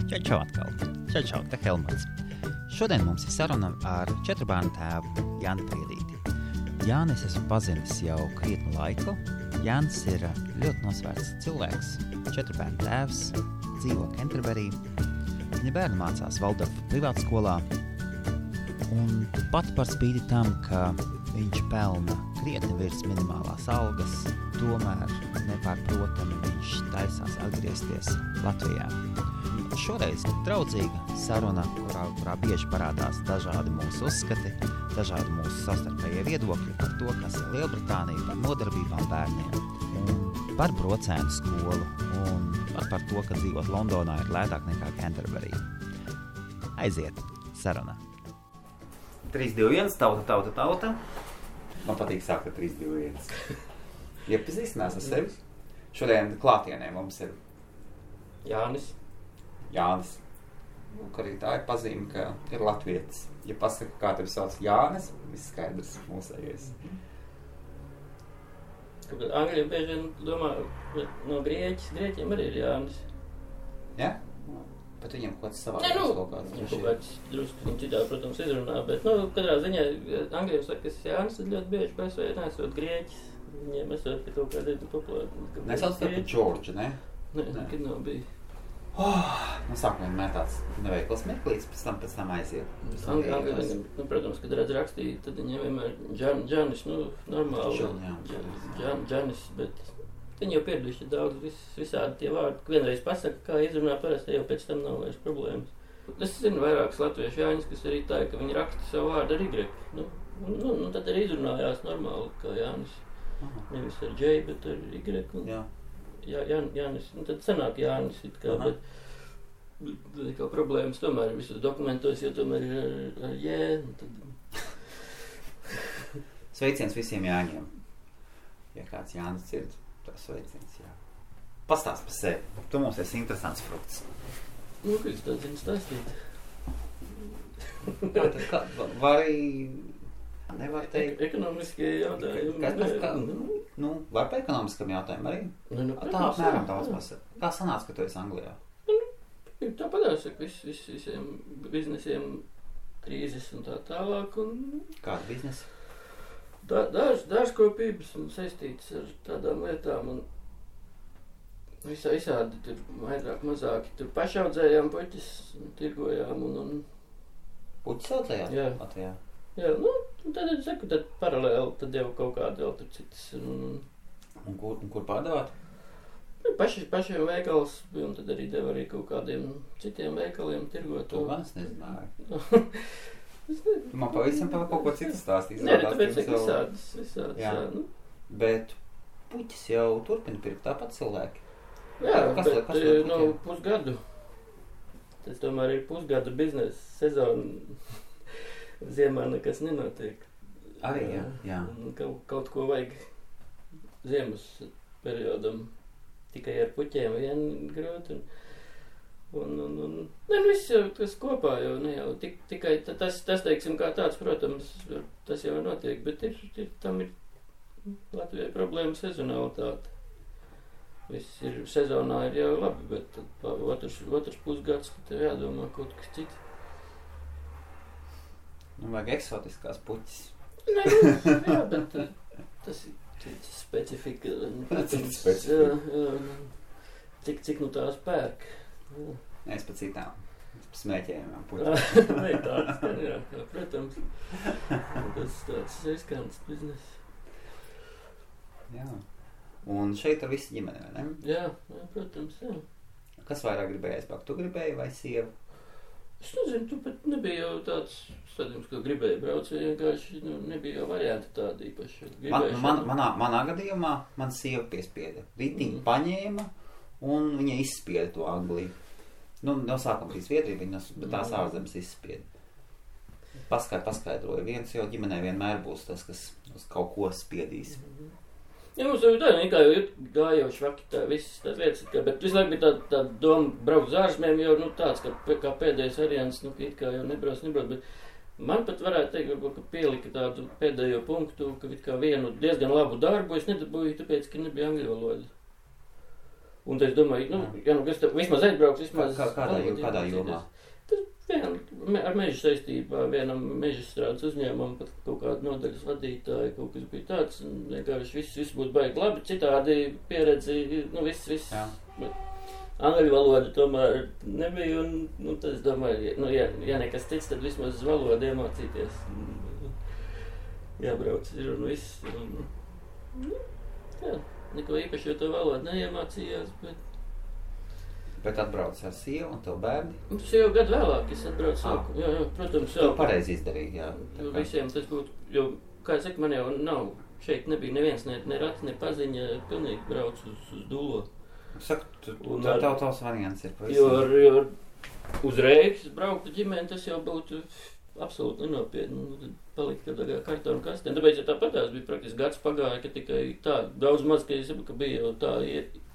Čau atkal. Čau, te Helmuts. Šodien mums ir saruna ar 4 bērnu tēvu Jāni Priedīti. Jānis esmu pazinis jau krietnu laiku. Jānis ir ļoti nosvērts cilvēks, 4 bērnu tēvs, dzīvo Canterbury. Viņa bērni mācās Valdorfa privātskolā. Un pat par spīti tam, ka viņš pelna krietni virs minimālās algas, tomēr nepārprotami viņš taisās atgriezties Latvijā. Šoreiz draudzīga saruna, kurā bieži parādās dažādi mūsu uzskati, dažādi mūsu savstarpējie viedokļi par to, kas ir Lielbritānija, par nodarbībām bērniem, un par brocēnu skolu, un par to, ka dzīvot Londonā ir lētāk nekā Canterbury. Aiziet, saruna. 3, 2, 1, tauta. Man patīk sākt ar 3, 2, 1. Iepazīstinās ar sevi. Šodien klātienē mums ir Jānis. Ka arī tā ir pazīme, ka ir latvietis. Ja pasaka, kā tevi sauc Jānis, viss skaidrs mūsējais. Angļiem bieži vien domā, no grieķiem arī ir Jānis. Ja? Bet viņam kaut kāds savādāks kaut kāds. Viņam kaut kāds drusku citādi, protams, izrunā, bet, katrā ziņā Angļiem saka, ka Jānis ir ļoti bieži pēc vai nesot grieķis. Viņiem esot pie kaut kādā populāri. Nesauc tev par Džordžu, ne? Nē, nekad nav bija. Sākumā vienmēr tāds neveikls meklīts, pēc tam aiziet. Angļiem, protams, kad redz rakstīt, tad viņiem vienmēr Džanis, normāli. Džanis, bet viņi jau pieraduši daudz visādi tie vārdi. Vienreiz pasaka, kā izrunā parasti, jau pēc tam nav vairs problēmas. Es zinu vairākus latviešu Jāņus, kas arī tā, ka viņi raksta savu vārdu ar Y. Tad arī izrunājās normāli, kā Jānis. Nevis ar J, bet ar Y. Jānis, tad sanāk Jānis it kā, bet kā problēmas tomēr ir visos dokumentos, jo tomēr ir ar J. Sveiciens visiem Jāņiem. Ja kāds Jānis dzird, tas sveiciens, jā. Pastāst par sevi. Tu mums esi interesants frukts. Ka es tā zinu stāstīt. Vai arī nevar teikt? Ekonomiskie jautājumi. Vai pa ekonomiskam jautājumu arī? Tā apmēram daudz pasaka. Kā sanāca, ka tu esi Anglijā? Tā padās, ka visiem biznesiem krīzes un tā tālāk. Kāda biznesa? Dārzkopības un saistītas ar tādām lietām. Un visādi tur vairāk mazāki. Tur pašaudzējām puķis, tirgojām un Puķis audzējāt? Jā. Latvijā? Jā, tad es saku, tad paralēli, tad jau kaut kādi vēl tur citas. Un kur pārdevāt? Pašiem veikals, un tad arī deva arī kaut kādiem citiem veikaliem tirgot. To gan es nezināju. Tu man pavisam par kaut ko citu stāstīs. Nē, tāpēc visādas. Jā. Bet puķis jau turpina pirkt tāpat cilvēki. Jā, bet pusgadu. Tas tomēr ir pusgada biznesa sezona. Ziemā nekas nenotiek. Arī, jā. Kaut ko vajag ziemas periodam. Tikai ar puķiem vien grūti. Viss jau tas kopā jau ne jau. Tikai tas teiksim kā tāds, protams, tas jau notiek. Bet tam ir Latvijai problēma sezonalitāte. Viss ir sezonā ir jau labi, bet otrs pusgads, ka tev jādomā kaut kas cits. Vajag eksotiskās puķis. Jā, bet tas ir cits specifika. Cits specifika. Jā. Cik tās pērk. Es pa citām. Es pa smēķējumām puķi. Nē, tāds, jā, protams. Tas tāds riskants biznes. Jā. Un šeit ar visu ģimeni, vai ne? Jā, protams, jā. Kas vairāk gribēja aizpākt? Tu gribēji vai sieva? Es nezinu, tu pat nebija jau tāds stādījums, ka gribēji braukt, vienkārši nebija jau varianti tādi īpaši. Manā gadījumā man sieva piespieda. Ritiņu paņēma un viņa izspieda to Angliju. No sākuma bija Zviedrija, bet tās ārzemes izspieda. Paskaidroja. Viens jau ģimenē vienmēr būs tas, kas uz kaut ko spiedīs. Jā, mums jau tā, kā jau gāja jau švaki tā visas tās lietas, bet visu laiku bija tā doma braukt uz ārzemēm jau tāds, kā pēdējais variants, kā jau nebrauc, bet man pat varētu teikt, ka pielika tādu pēdējo punktu, ka vienu diezgan labu darbu es nedabūju, tāpēc, ka nebija angļu valoda. Un es domāju, kas tev vismaz aizbrauks, vismaz... Kādā jomā? Ar mežu saistībā, vienam meža strādes uzņēmumam, pat kaut kādu nodaļas vadītāju, kaut kas bija tāds, un vienkārši viss būtu baigi labi, citādi pieredzi, viss. Angļu valoda tomēr nebija, un tad es domāju, ja nekas cits, tad vismaz valodu iemācīties. Jābrauc ir un viss. Neko īpaši, jo to valodu neiemācījās, Bet atbrauc ar sievu un tev bērni? Tas jau gadu vēlāk, es atbraucu. Jā, protams. To pareizi izdarīt, jā. Visiem tas būtu, jo, kā es saku, man jau nav, šeit nebija neviens, ne rats, ne paziņa, pilnīgi brauc uz Dulo. Saku, tavs variants ir pavisam. Jo uzreiz braukt ģimeni, tas jau būtu absolūti nenopietni. Tad palikt kādā kartonu kastē. Tāpēc, ja tāpatās bija praktiski gads pagāja, ka tikai tā, daudz maz, ka es saprotu, ka bija jau tā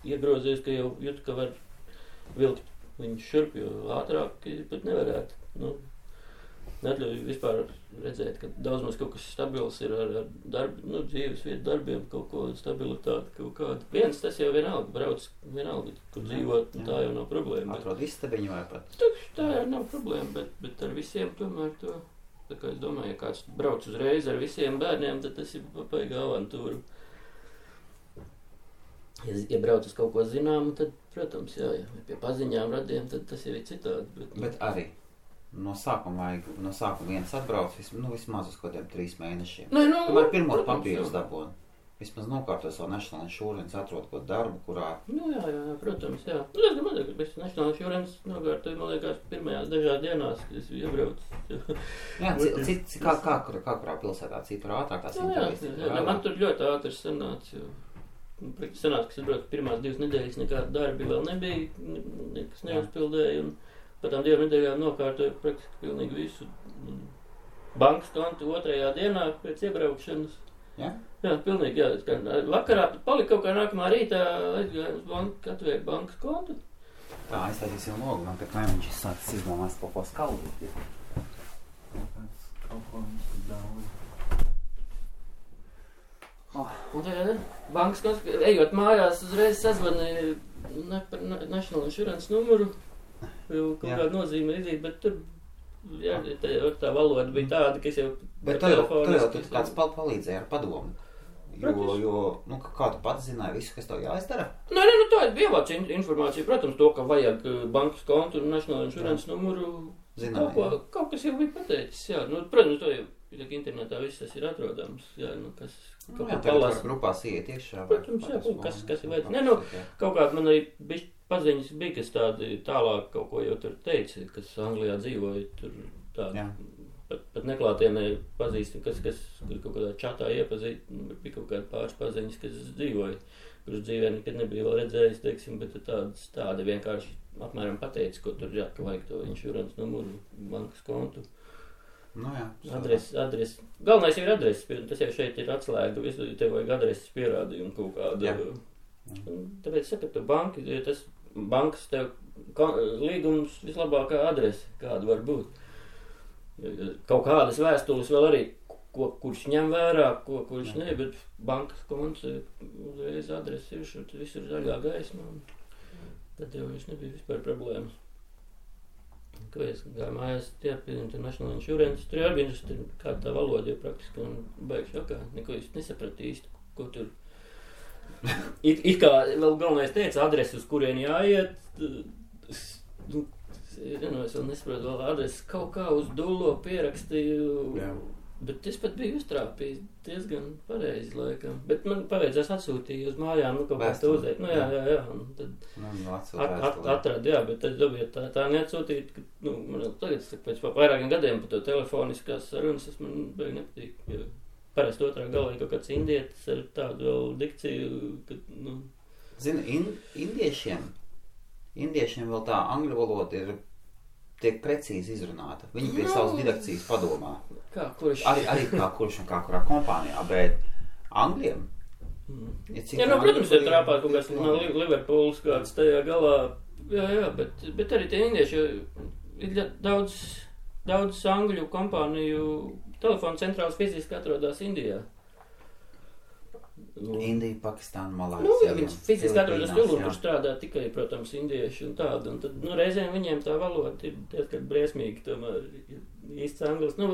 iegrozies, ka jau jūt, ka var vilkt viņu šurp, jo ātrāk pat nevarētu. Neatļauj vispār redzēt, ka daudz maz kaut kas stabils ir ar darbu, dzīves vietu darbiem, kaut ko stabilitāti, kaut kādu. Viens tas jau vienalga, brauc vienalga, kur dzīvot, tā jau nav problēma. Atrod istabiņu vai pat? Tā jau nav problēma, bet ar visiem tomēr to, tā kā es domāju, ja kāds brauc uzreiz ar visiem bērniem, tad tas ir papaigā avantūru. Ja brauc uz kaut ko zināmu, tad, protams, ja pie paziņām radiem, tad tas jau ir citādi. Bet arī no sākuma viens atbrauc vismaz uz kādiem 3 mēnešiem. Tomēr pirmo papīrus dabūna. Vismaz nokārto savu National Insurance, atrod kaut darbu, kurā... Jā, protams, jā. Es domāju, ka bez National Insurance nokārtoju, man liekas, pirmajās dažās dienās, kad es iebraucu. Jā, kā kurā pilsētā citur ātrāk tās intervijas? Jā, man tur ļoti ātri sanāca, jo... Sanāca, ka es braucu pirmās 2 nedēļas, nekāda darbi vēl nebija, nekas neuzpildēja, un pēc tām 2 nedēļām nokārtoju praktiski pilnīgi visu. Bankas kontu 2. dienā pēc iebraukšanas. Jā? Jā, pilnīgi, jā. Vakarā palika kaut kā nākamā rītā, aizgāju uz banku, atvēru bankas kontu. Tā, aiztaisīsim logu, man pēc mēneši sācis izdomās kaut ko skaldīt. Kaut ko mums tur daudz. Un tagad bankas konts, ejot mājās, uzreiz sazvanīja par National Insurance numuru, jau kaut kāda nozīme izīt, bet tur, tā valoda bija tāda, ka es jau... Bet tu jau kāds palīdzēja ar padomu, jo kā tu pats zināji visu, kas tev jāizdara? Nē, tā ir ievāc informācija, protams, to, ka vajag bankas kontu un National Insurance numuru, kaut kas jau bija pateicis, jā, protams, to jau... Internetā viss tas ir atrodams, jā, kas kaut kā palasa. Grupās iet iekšā. Protams, jā, kas ir vajadz. Kaut kāds man arī paziņas bija, kas tādi tālāk kaut ko jau tur teica, kas Anglijā dzīvoja, tur tādi, pat neklātienē pazīstam, kas kaut kādā čatā iepazīt, bija kaut kādi pāris paziņas, kas dzīvoja, kurus dzīvē nekad nebija vēl redzējis, teiksim, bet tādi vienkārši apmēram pateica, ko tur jā, ka vajag to insurance numuru, bankas kontu. Adresi. Galvenais ir adreses, tas jau šeit ir atslēga, tev vajag adreses pierādījumu kaut kādu. Tāpēc saka, ka tas bankas tev līgums vislabākā adrese, kāda var būt. Kaut kādas vēstules vēl arī, kurš ņem vērā, kurš ne, bet bankas konts uzreiz adresi ir, tad viss ir zaļā gaisma, tad jau viņš nebija vispār problēmas. Ko es gāju mājās, pie National Insurance, tur arī bija kāda tā valoda, jo praktiski un baigi šokā, neko es nesapratu īsti, ko tur. It kā vēl galvenais teica, adresi, uz kurien jāiet, es vēl nesaprotu vēl adresi, kaut kā uz Dulo pierakstīju, bet es pat biju uztrāpījis diezgan pareizi laikam, bet man paveidzās atsūtīja uz mājām, kaut kā tā uzēt, jā, un tad atradu, jā, bet es dabīju tā neatsūtīt, ka, man tagad, pēc vairākiem gadiem par to telefoniskās sarunas, tas man beig nepatīk, jo parasti otrā galā kaut kāds indietis ar tādu vēl dikciju, ka, Zini, indiešiem vēl tā angļu valoda tiek precīzi izrunāta. Viņi pie savas didakcijas padomā. Kurš? Arī kā kurš un kā kurā kompānijā, bet Angļiem? Protams, ir trāpāt kaut kāds Liverpools kāds tajā galā. Jā, bet arī tie indieši ir daudz angļu kompāniju telefonu centrāls fiziski atrodas Indijā. Indija, Pakistāna, Malāzija. Nu, ja viņas fiziski atrodas tur un tur strādā tikai, protams, indieši un tādu, un tad, nu, reizēm viņiem tā valoda ir diezgan briesmīgi, tomēr īsts anglis, nu,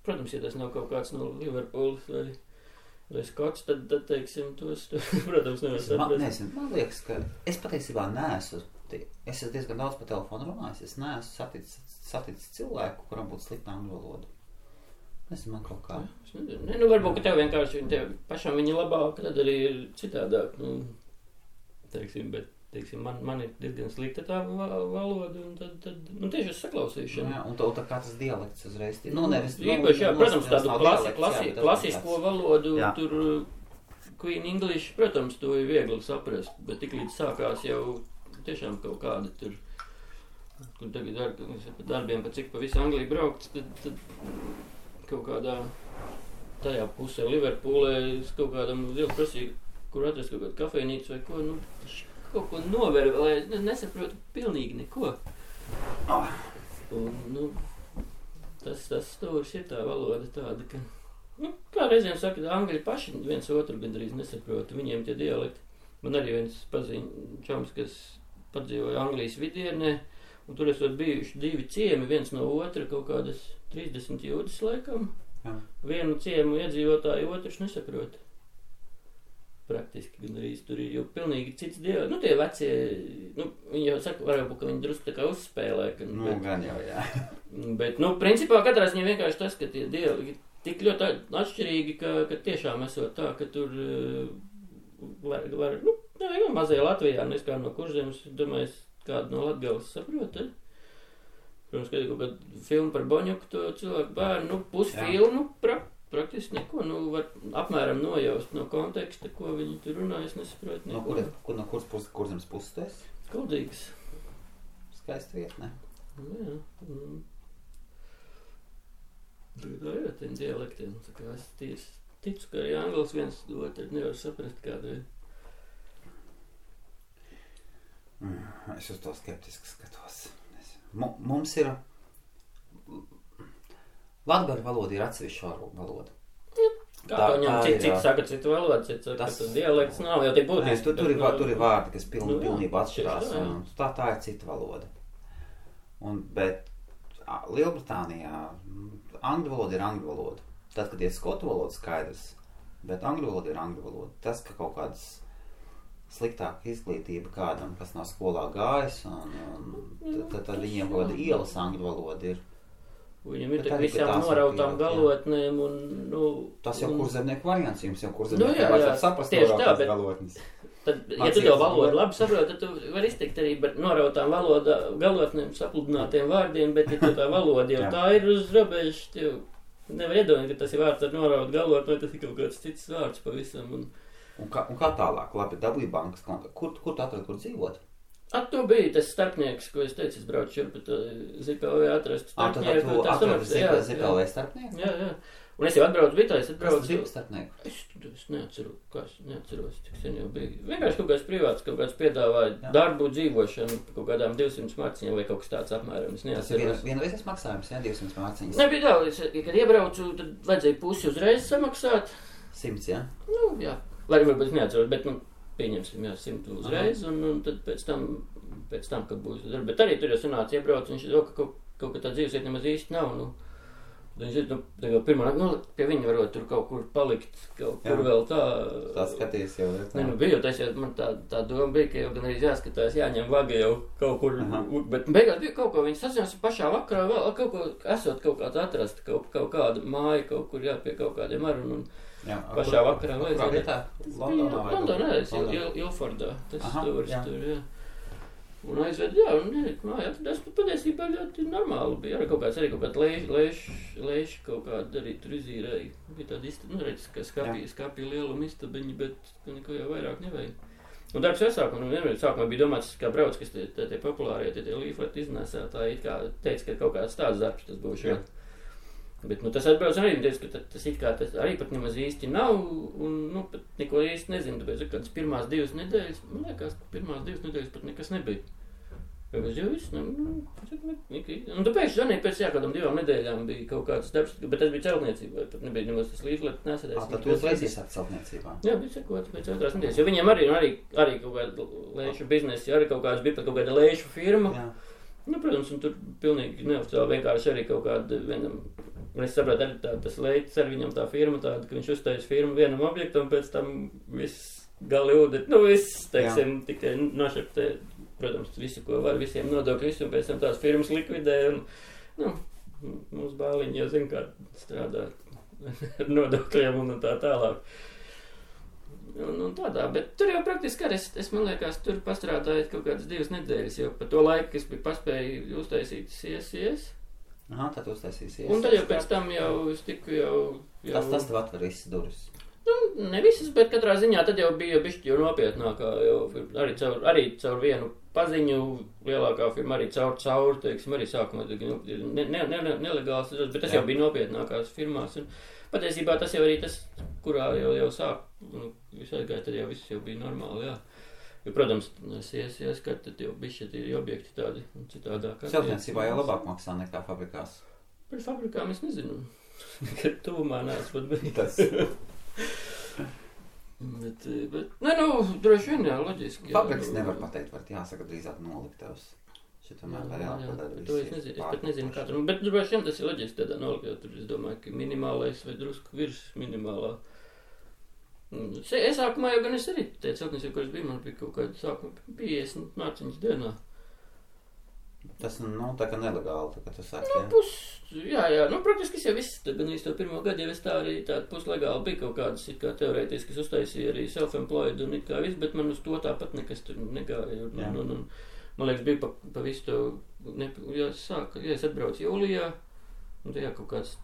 protams, ja tas nav kaut kāds no Liverpools vai Skots, tad teiksim, tos, protams, nevar saprast. Man liekas, ka es patiesībā neesmu, es esmu diezgan daudz pa telefonu runājis, es neesmu saticis cilvēku, kuram būtu slikta angļu valoda. Man kaut kā. Nu, varbūt, ka tev vienkārši pašam viņi labāk, tad arī ir citādāk. Nu, teiksim, bet, teiksim, man ir diezgan slikta tā valoda, un tad nu, tieši uz saklausīšanu. Jā, un tā kā tas dialekts uzreiz. Nu, nevis. Īpaši, jā, protams, tādu klasisko valodu, jā. Tur Queen English, protams, to ir viegli saprast, bet tik līdz sākās jau tiešām kaut kāda tur, kur tagad darbiem, pa cik pa visu Angliju braukts, tad kaut kādā tajā pusē Liverpoolē es kaut kādam lielu prasīju, kur atrast kaut kādu kafejnīcu vai ko, nu, kaut ko nover, lai nesaprotu pilnīgi neko. Un, nu, tas stūris ir tā valoda tāda, ka, nu, kā reizēm saka, angļi paši viens otru gandrīz nesaprota, viņiem tie dialekti. Man arī viens paziņ čoms, kas padzīvoja Anglijas vidienē, un tur esot bijuši 2 ciemi, viens no otra, kaut kādas 30 jūdzes laikam. Jā. Vienu ciemu iedzīvotāju otrs nesaprot. Praktiski gan arī tur ir jau pilnīgi cits dialekts. Nu, tie vecie, nu, viņi jau saka, varbūt, ka viņi drusku tā kā uzspēlē. Nu, gan jau, jā. Bet, nu, principā katrā ziņā vienkārši tas, ka tie dialekti tik ļoti atšķirīgi, ka tiešām esot tā, ka tur var nu, mazajā Latvijā, nes kā no Kurzemes, domāju, kādu no Latgales saprot, Protams, ka ir kaut kāda filma par Boņuku, to cilvēku bērnu, nu, pusfilmu, praktiski neko, nu, var apmēram nojaust no konteksta, ko viņi tur runā, es nesaprotu neko. No Kurzemes puses tu esi? Kuldīgs. Skaista vieta, ne? Jā. Tā ir tiem dialektiem, tā kā es ticu, ka arī anglis viens otru nevar saprast kādu. Es uz to skeptiski skatos. Mums ir latgaļu valoda ir atsevišķa valoda. Kā viņam citi saka citu valodu, citi saka, ka dialekts nav jau tik būtiski. Tur ir vārdi, kas pilnībā atšķirās, un tā ir cita valoda. Bet Lielbritānijā angļu valoda ir angļu valoda. Tad, kad ir skotu valoda, skaidrs, bet angļu valoda ir angļu valoda. Tas, ka kaut kādas sliktāka izglītība kādam, kas nav skolā gājis, un tad viņiem kaut kāda ielas angļu valoda ir. Viņam ir tā visām norautām galotnēm, un, nu... Tas jau kurzemnieku variants, jums jau kurzemnieku vajadzētu saprast norautās galotnes. Tad, ja tu tev valodu labi saproti, tad tu vari izteikt arī par norautām galotnēm, sapludinātiem vārdiem, bet ja tu tā valoda jau tā ir uz robežas, tev nevar iedomāt, ka tas ir vārds ar norautu galotni, vai tas ir kaut kāds cits vārds pavisam. Un kā tālāk? Labi, dabūja bankas konta. Kur tu atradi, kur dzīvot? Tu biji tas starpnieks, ko es teicu, es braucu šur, bet Zipelvē atrast starpnieku. Tu atradi Zipelvē starpnieku? Jā. Un es jau atbraucu bitā, es atbraucu... Kas tu bija starpnieku? Es neatceros, cik sen jau bija. Vienkārši kaut kāds privāts, kaut kāds piedāvāja darbu, dzīvošanu, kaut kādām 200 marciņiem vai kaut kas tāds apmēram. Es neatceros. Tas ir vienreizes maksājums, jā, 200 marciņas? Nebija daudz, kad iebraucu, tad vajadzēja pusi uzreiz samaksāt. 100, jā? Nu, jā. Lai varbūt es neatceros, bet, nu, pieņemsim, jā, 100 uzreiz, un tad pēc tam, kad būs darba. Bet arī tur jau sanāca iebrauc, un viņš ir, ka kaut kā tā dzīvesiet nemaz īsti nav, nu. Viņš ir, nu, pirmā, nu, pie viņa varot tur kaut kur palikt, kaut kur vēl tā. Tā skaties jau, jā. Ne, nu, bija jau tas, ja man tā doma bija, ka jau gan arī jāskatās, jāņem vaga jau kaut kur, bet beigās bija kaut ko, viņi sazinās pašā vakarā vēl, kaut ko, esot kaut kāds atrast, kaut kāda māja, kaut kur jā, pie kaut kādiem arun, un jā, pašā vakarā vajadzēja. Kurā vietā? Londonā, Ilfordā, tas stūris tur, jā. Un aizved, jā, un māja atradās, patiesībā ļoti normāli bija. Arī kaut kāds leiši kaut kāda arī tur izīrēja. Bija tāda nu, redz, ka skapja lieluma istabiņi, bet neko jau vairāk nevajag. Un darbs jau sākumā, un vienmēr sākumā bija domāts, kā brauc, kas tie populārie, tie līfleti iznēsētāji, kā teica, ka kaut kāds tāds darbs tas būs. Jā. Bet, nu, tas atbrauc arī, teica, ka tas it kā tas arī pat nemaz īsti nav, un, nu, pat neko īsti nezinu, tāpēc, ka kādas pirmās 2 nedēļas, man liekas, ka pirmās 2 nedēļas pat nekas nebija. Jau viss, un tu pēkšņi zvanīji pēc kādām 2 nedēļām bija kaut kāds darbs, bet tas bija celtniecībā, pat nebija nemaz tas līdz nesēdēs. Tad tu uzreiz iesākt celtniecībā? Jā, bija sekots pēc 2 nedēļas, jo viņiem arī kaut kāda lēšu biznesi, arī kaut kāds bija pat kaut kāda lēšu firma. Jā. Nu, protams, un tur pilnīgi neoficiāli vienkārši arī kaut kāda vienam, un es saprotu, arī tas leids ar viņam tā firma tāda, ka viņš uztais firmu vienam objektam, pēc tam viss gali ūdeni, viss, teiksim, tikai nošeptē. Protams, visu, ko var, visiem nodokļu, visu, un pēc tam tās firmas likvidē, un, mums bāliņi jau zina, kā strādā ar nodokļiem un tā tālāk. Un tādā, bet tur jau praktiski arī, es man liekas, tur pastrādāju kaut kādas 2 nedēļas, jo pa to laiku, es biju paspēju uztaisīt CSCS. Aha, tad uztaisīja CSCS. Un tad jau pēc tam jau es tiku jau... Tas tev atver visas durvis. Ne visas, bet katrā ziņā tad jau bija bišķi jau nopietnākā, jo arī caur vienu paziņu lielākā firma, arī caur, teiksim, arī sākumā nelegāls, bet tas jau bija nopietnākās firmās. Un patiesībā tas jau arī tas, kurā jau sāk, visai gāja, tad jau viss jau bija normāli, jā. Jo, protams, es kad tad jau bišķi tie objekti tādi citādāk. Celtniecībā jau labāk maksā nekā fabrikās. Par fabrikām es nezinu, kad tuvumā neesmu bijis. Bet droši vien, jā, loģiski. Fabriks nevar pateikt, var jāsaka drīzāk noliktavs. Šitamēr var jāpadara to es pat nezinu, kā tur. Bet droši vien tas ir loģiski tādā noliktavā. Tur es domāju, ka minimālais vai drusku virs minimālā. Es sākumā jau gan es arī teicu, celtniecību, kuras bija, man bija kaut kāda sākuma 50 mārciņas dienā. Tas, tā kā nelegāli, tā kā tu saki, jā? Jā, praktiski es jau viss, gan īsti to pirmo gadu jau es tā arī tāda puslegāli bija kaut kādas, it kā teorētiski, es uztaisīju arī self-employed un it kā viss, bet man uz to tāpat nekas tur negāja. Man liekas, bija pa visu to, es atbraucu jūlijā, un tajā kaut kāds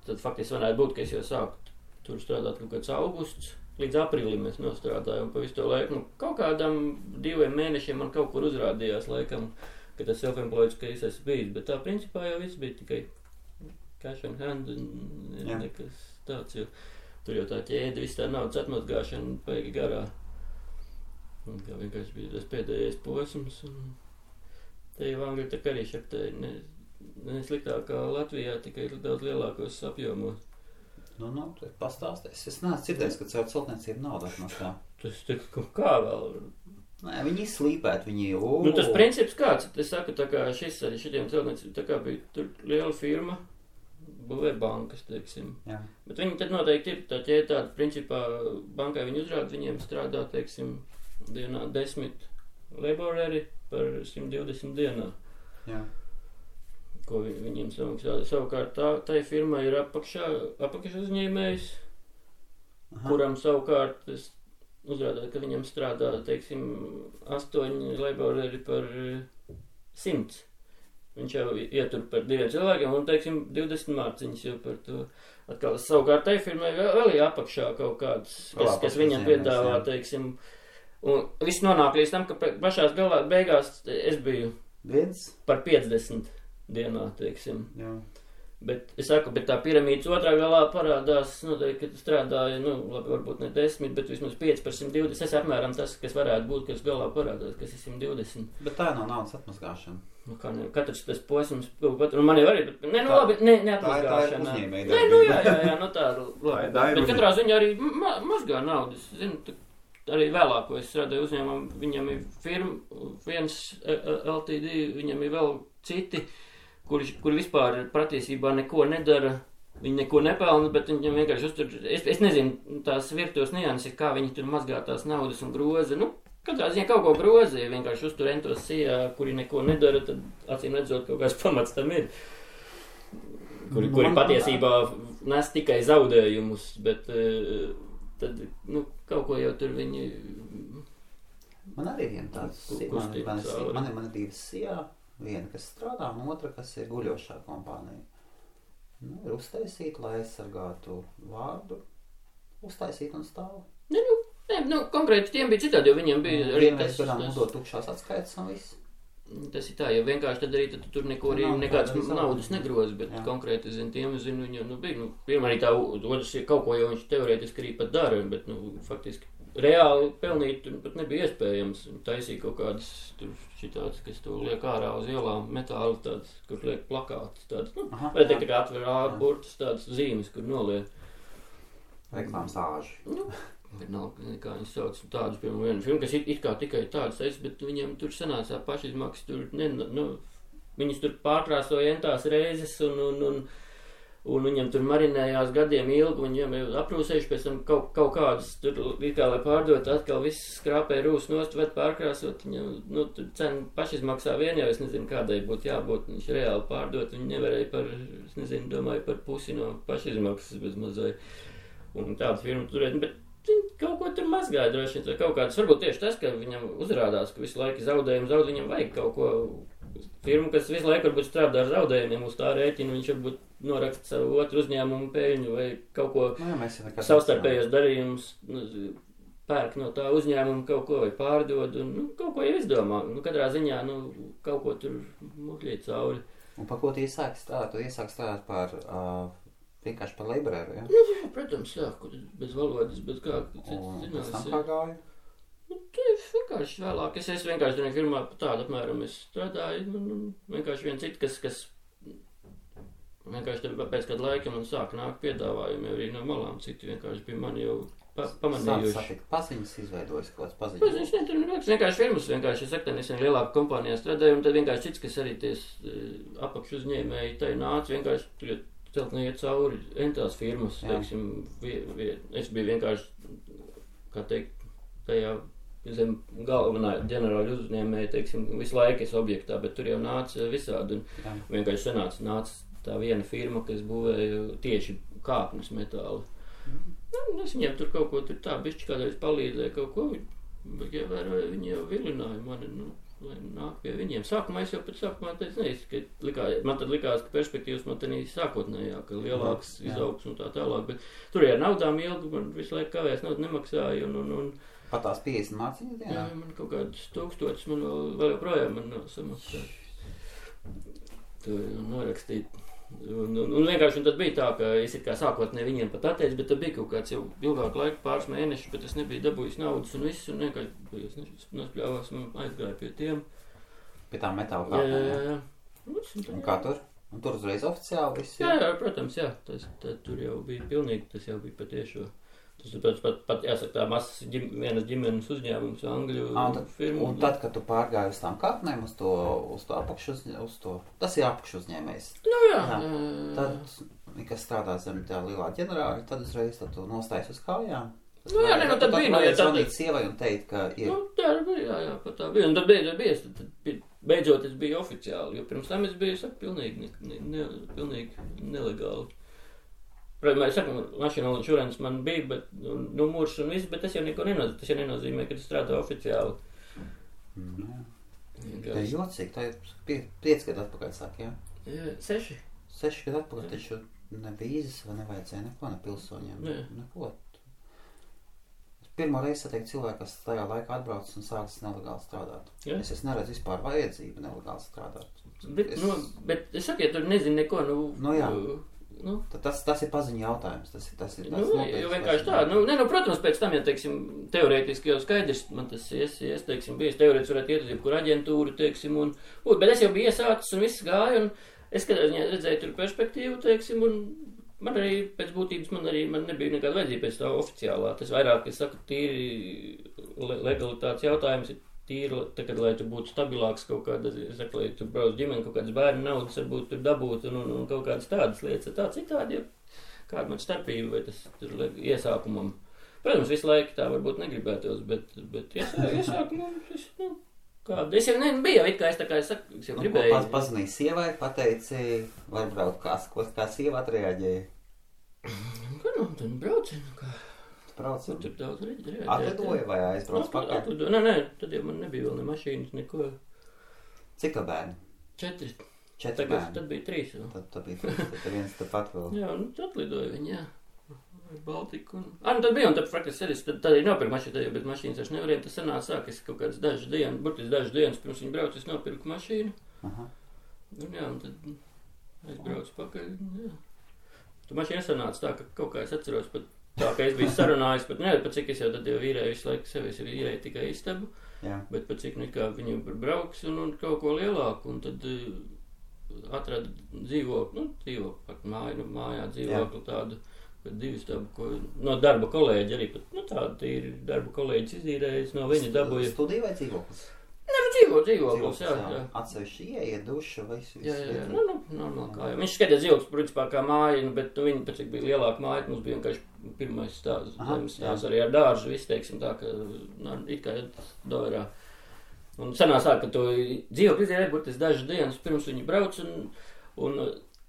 tad faktiski varētu būt, ka es jau sāku tur strādāt kaut kāds augusts, līdz aprīlim mēs nostrādājām pa visu to laiku. Kaut kādam 2 mēnešiem man kaut kur uzrādījās laikam, ka tas self-employed, ka es esmu bijis, bet tā principā jau viss bija tikai cash on hand un nekas tāds, jo tur jau tā ķēde, viss tā naudas atmazgāšana paigi garā. Un kā vienkārši bija tas pēdējais posms, un te jau angļu tā arī šaptēja ne sliktāk kā Latvijā, tikai daudz lielākos apjomos. Pastāsties. Es neesmu dzirdējis, ka caur celtniecību naudu atmaksā. Tas kā vēl? Nē, viņi slīpēt, viņi tas princips kāds? Es saku, tā kā šitiem celtniecību, tā kā bija tur liela firma, būvē bankas, teiksim. Jā. Bet viņi tad noteikti ir tā ķēde tāda, principā bankai viņi uzrāda, viņiem strādā, teiksim, dienā 10 laboreri par 120 dienā. Jā. Ko viņiem samaksā. Savukārt tai firmai ir apakš uzņēmējs, kuram savukārt es uzrādāju, ka viņam strādā, teiksim, 8 laboreri par 100. Viņš jau ietur par 2 cilvēkiem un, teiksim, 20 mārciņas jau par to. Atkal savukārt tai firmai vēl ir apakšā kaut kāds, kas viņam piedāvā, teiksim. Un viss nonāk līdz tam, ka pašās beigās es biju par 50 dienā, teiksim. Jā. Bet es saku, bet tā piramīdas otrā galā parādās, noteikti, ka strādāja, labi, varbūt ne 10, bet vismaz 5 par 120. Tas apmēram tas, kas varētu būt, kas galā parādās, kas ir 120. Bet tā nav naudas atmazgāšana. Katrs tas posms, man jau arī, labi, neatmazgāšana. Tā ir uzņēmēja. Jā, tā labi. Bet katrā ziņā arī mazgā naudas, zinu, arī vēlāk, ko es strādāju uzņēmumu, viņam ir firma, viens LTD, viņam ir vēl citi, kuri vispār patiesībā neko nedara, viņi neko nepelna, bet viņam vienkārši uztur, es nezinu tās virtuves nianses, kā viņi tur mazgā tās naudas un groza, katrā ziņā kaut ko groza, ja vienkārši uztur entos sijā, kuri neko nedara, tad acīm redzot kaut kāds pamats tam ir, kuri patiesībā nes tikai zaudējumus, bet tad, kaut ko jau tur viņi... Man arī viena tāds, man ir 2 sijā, viena, kas strādā, un otra, kas ir guļošā kompānija. Ir uztaisīt, lai aizsargātu vārdu, uztaisīt un stāvu. Konkrēti tiem bija citādi, jo viņiem bija arī tas... Vienreiz nodot tukšās atskaitas un viss. Tas ir tā, jo vienkārši tad arī tur neko arī nekādas naudas negroza, bet konkrēti, tiem viņam, bija, pirmā arī tā, otrs ir kaut ko, jo viņš teorētiski arī pat dara, bet, faktiski reāli pelnīt pat nebija iespējams. Taisīja kaut kādas tur šitādas, kas to liek ārā uz ielām, metāli tādas, kur liek plakātas tādas, vai tā kā atver burtas tādas zīmes, kur noliek. Reklāmas āži. Vienalga, kā viņi sauc tādus, piemēram, vienu filmu, kas it kā tikai tādas es, bet viņiem tur sanācā pašizmaksas, tur, viņas tur pārkrāsoja entās reizes un viņam tur marinējās gadiem ilgi, viņam jau aprūsējuši pēc tam kaut kādas, tur kā lai pārdot, atkal viss skrāpēja rūs nost, bet pārkrāsot, viņam, tur cena pašizmaksā vien jau, es nezinu, kādai būtu jābūt, viņš reāli pārdot, viņi nevarēja par, es nezinu, domāju par pusi no pašizmaksas bez mazai, un tādu firmu turēt, bet viņi kaut ko tur mazgāja droši vien, kaut kādas, varbūt tieši tas, ka viņam uzrādās, ka visu laiku zaudējumu viņam vajag kaut ko, firmu, kas visu laiku varbūt strādā ar zaudējumiem uz tā rēķina, viņš varbūt noraksta savu otru uzņēmumu peļņu vai kaut ko savstarpējos darījumus, pērk no tā uzņēmuma kaut ko vai pārdod un kaut ko jau izdomā. Katrā ziņā kaut ko tur muļķīt cauri. Un par ko tu iesāki strādāt? Tu iesāki strādāt par vienkārši par laborēru, ja? Jā, protams, jā, bez valodas, bez kā cits zinās. Un pēc tam kā gāja? Vienkārši vēlāk. Es vienkārši tur firmā tādu apmēram es strādāju. Vienkārši viens cits, kas vienkārši pēc kāda laika man sāka nākt piedāvājumi arī no malām. Citi vienkārši bija mani jau pamanījuši. Paziņas izveidojas kaut kāds paziņas? Paziņas netur vienkārši firmas. Vienkārši es saku, nesen lielāku kompānijā strādāju, un tad vienkārši cits, kas arī ties apakš uzņēmēji, tai nāca vienkārši celtnē iet cauri entās firmas. Teiksim, es biju vienkārši, kā teikt, tajā zem galvenā ģenerāļa uzņēmēja, teiksim, visu laiku es objektā, bet tur jau nāca visādi, un vienkārši nāca tā viena firma, kas būvēja tieši kāpnes metāli. Es viņiem tur kaut ko tur tā bišķi kādreiz palīdzēju kaut ko, bet ievēroju, viņi jau vilināja mani, lai nāk pie viņiem. Sākumā es jau pēc sākumā teicu, man tad likās, ka perspektīvas man tenī sākotnējā, ka lielāks izaugs un tā tālāk, bet tur jau naudām ilgi, man visu laiku kavēs naudu nemaksāja un pat tās 50 mācīņas dienā? Jā, man kaut kādas 1000 man vēl joprojām man nav samaksāt. To norakstīt. Un vienkārši tad bija tā, ka es kā sākotnē viņiem pat atteicu, bet tad bija kaut kāds jau ilgāk laika, pāris mēnešus, bet es nebiju dabūjis naudas un viss, un vienkārši nospļāvās un aizgāju pie tiem. Pie tām metāla kāpnēm? Jā. Un kā tur? Un tur uzreiz oficiāli viss? Jā, protams, jā. Tur jau bija pilnīgi, tas jau bija patiešo. Tas pat jāsaka tā mazas vienas ģimenes uzņēmums, Angļu firmu. Un tad, kad tu pārgāji uz tām kāpnēm, uz to apakšu tas ir apakšu uzņēmējs. Jā. Tad, kas strādā zem tā lielā ģenerāļa, tad uzreiz tu nostājies uz kājām. Tad bija. Tad zvanīt sievai un teikt, ka ir. Tā bija, jā, pat tā bija. Un tad beidzot es biju oficiāli, jo pirms tam es biju, pilnīgi nelegāli. Protams, es saku, mašīna insurance man bija, bet numurs un viss, bet tas jau neko nenozīmē. Tas jau nenozīmē, ka tu strādā oficiāli. Tā ir jocīgi, tā ir 5 gadu atpakaļ sāk, jā? 6. 6 gadu atpakaļ, taču ne vīzes vai nevajadzēja neko, ne pilsoņiem, neko. Pirmo reizi satieku cilvēku, kas tajā laikā atbraucis un sācis nelegāli strādāt. Es neredzu vispār vajadzību nelegāli strādāt. Bet es saku, ja tur nezinu neko, jā. Tas ir paziņu jautājums. Tas ir jo vienkārši tā. Protams, pēc tam, ja, teiksim, teorētiski jau skaidrs, man tas teiksim, bijis teorētiski varētu iet uz jebkuru aģentūru, teiksim, bet es jau biju iesācis un viss gāja, un es redzēju tur perspektīvu, teiksim, un man arī pēc būtības man nebija nekāda vajadzība pēc tā oficiālā. Tas vairāk, es saku, tīri legalitātes jautājums ir tīri, tagad, lai tu būtu stabilāks kaut kāda, es saku, lai tu brauc ģimeni, kaut kādas bērnu naudas varbūt tur dabūt un kaut kādas tādas lietas. Tā citādi, kāda man starpība vai tas tur iesākumam. Protams, visu laiku tā varbūt negribētos, bet iesākumam kāda. Es jau nebiju, it kā es saku, es jau gribēju. Ko pazvanīja sievai, pateici, var braukt, kā sieva atreaģēja? Tad brauci, kā. Braucam. Tur daudz reģistrēt. Atlidoja vai aizbrauc pakaļ? Nē, tad jau man nebija vēl ne mašīnas, neko. Cik tā bērni? 4. 4 bērni? Tad bija 3. Tad bija 3, tad viens tepat vēl. Jā, atlidoja viņi, jā. Baltiku. Tad bija, un tad praktiski tad arī nopirku mašīnu, tad jau bez mašīnas vairs nevarēja. Tas sanāca sāk, es kaut kādas dažas dienas pirms viņi brauc, es nopirku mašīnu. Un jā, un tad aizbraucu pakaļ, jā. Tu mašīna sanāca tā, ka kaut kā es atceros pat Tā kā es biju sarunājis, pat cik es jau tad jau īrēju visu laiku sevi, es īrēju tikai istabu, bet pat cik kā viņi brauks un kaut ko lielāku, un tad atrada dzīvokli, mājā dzīvokli tādu, bet 2 stabu, no darba kolēģi arī pat, tāda ir darba kolēģis izīrējis, no viņa dabūja. Studija vai dzīvoklis? Dzīvoklis, jā. Atsevišķi ieeja, duša, visu. Jā, normāli kā jau. Viņš skatījās dzīvoklis, principā, kā māja, bet viņi, pēc cik bija lielāka māja, mums bija vienkārši pirmais stāvs, zemes stāvs arī ar dārzu, visu, teiksim, tā, ka, it kā Doverā. Un sanās tā, ka to dzīvokli izdēja, burtiski dažas dienas pirms viņi brauc, un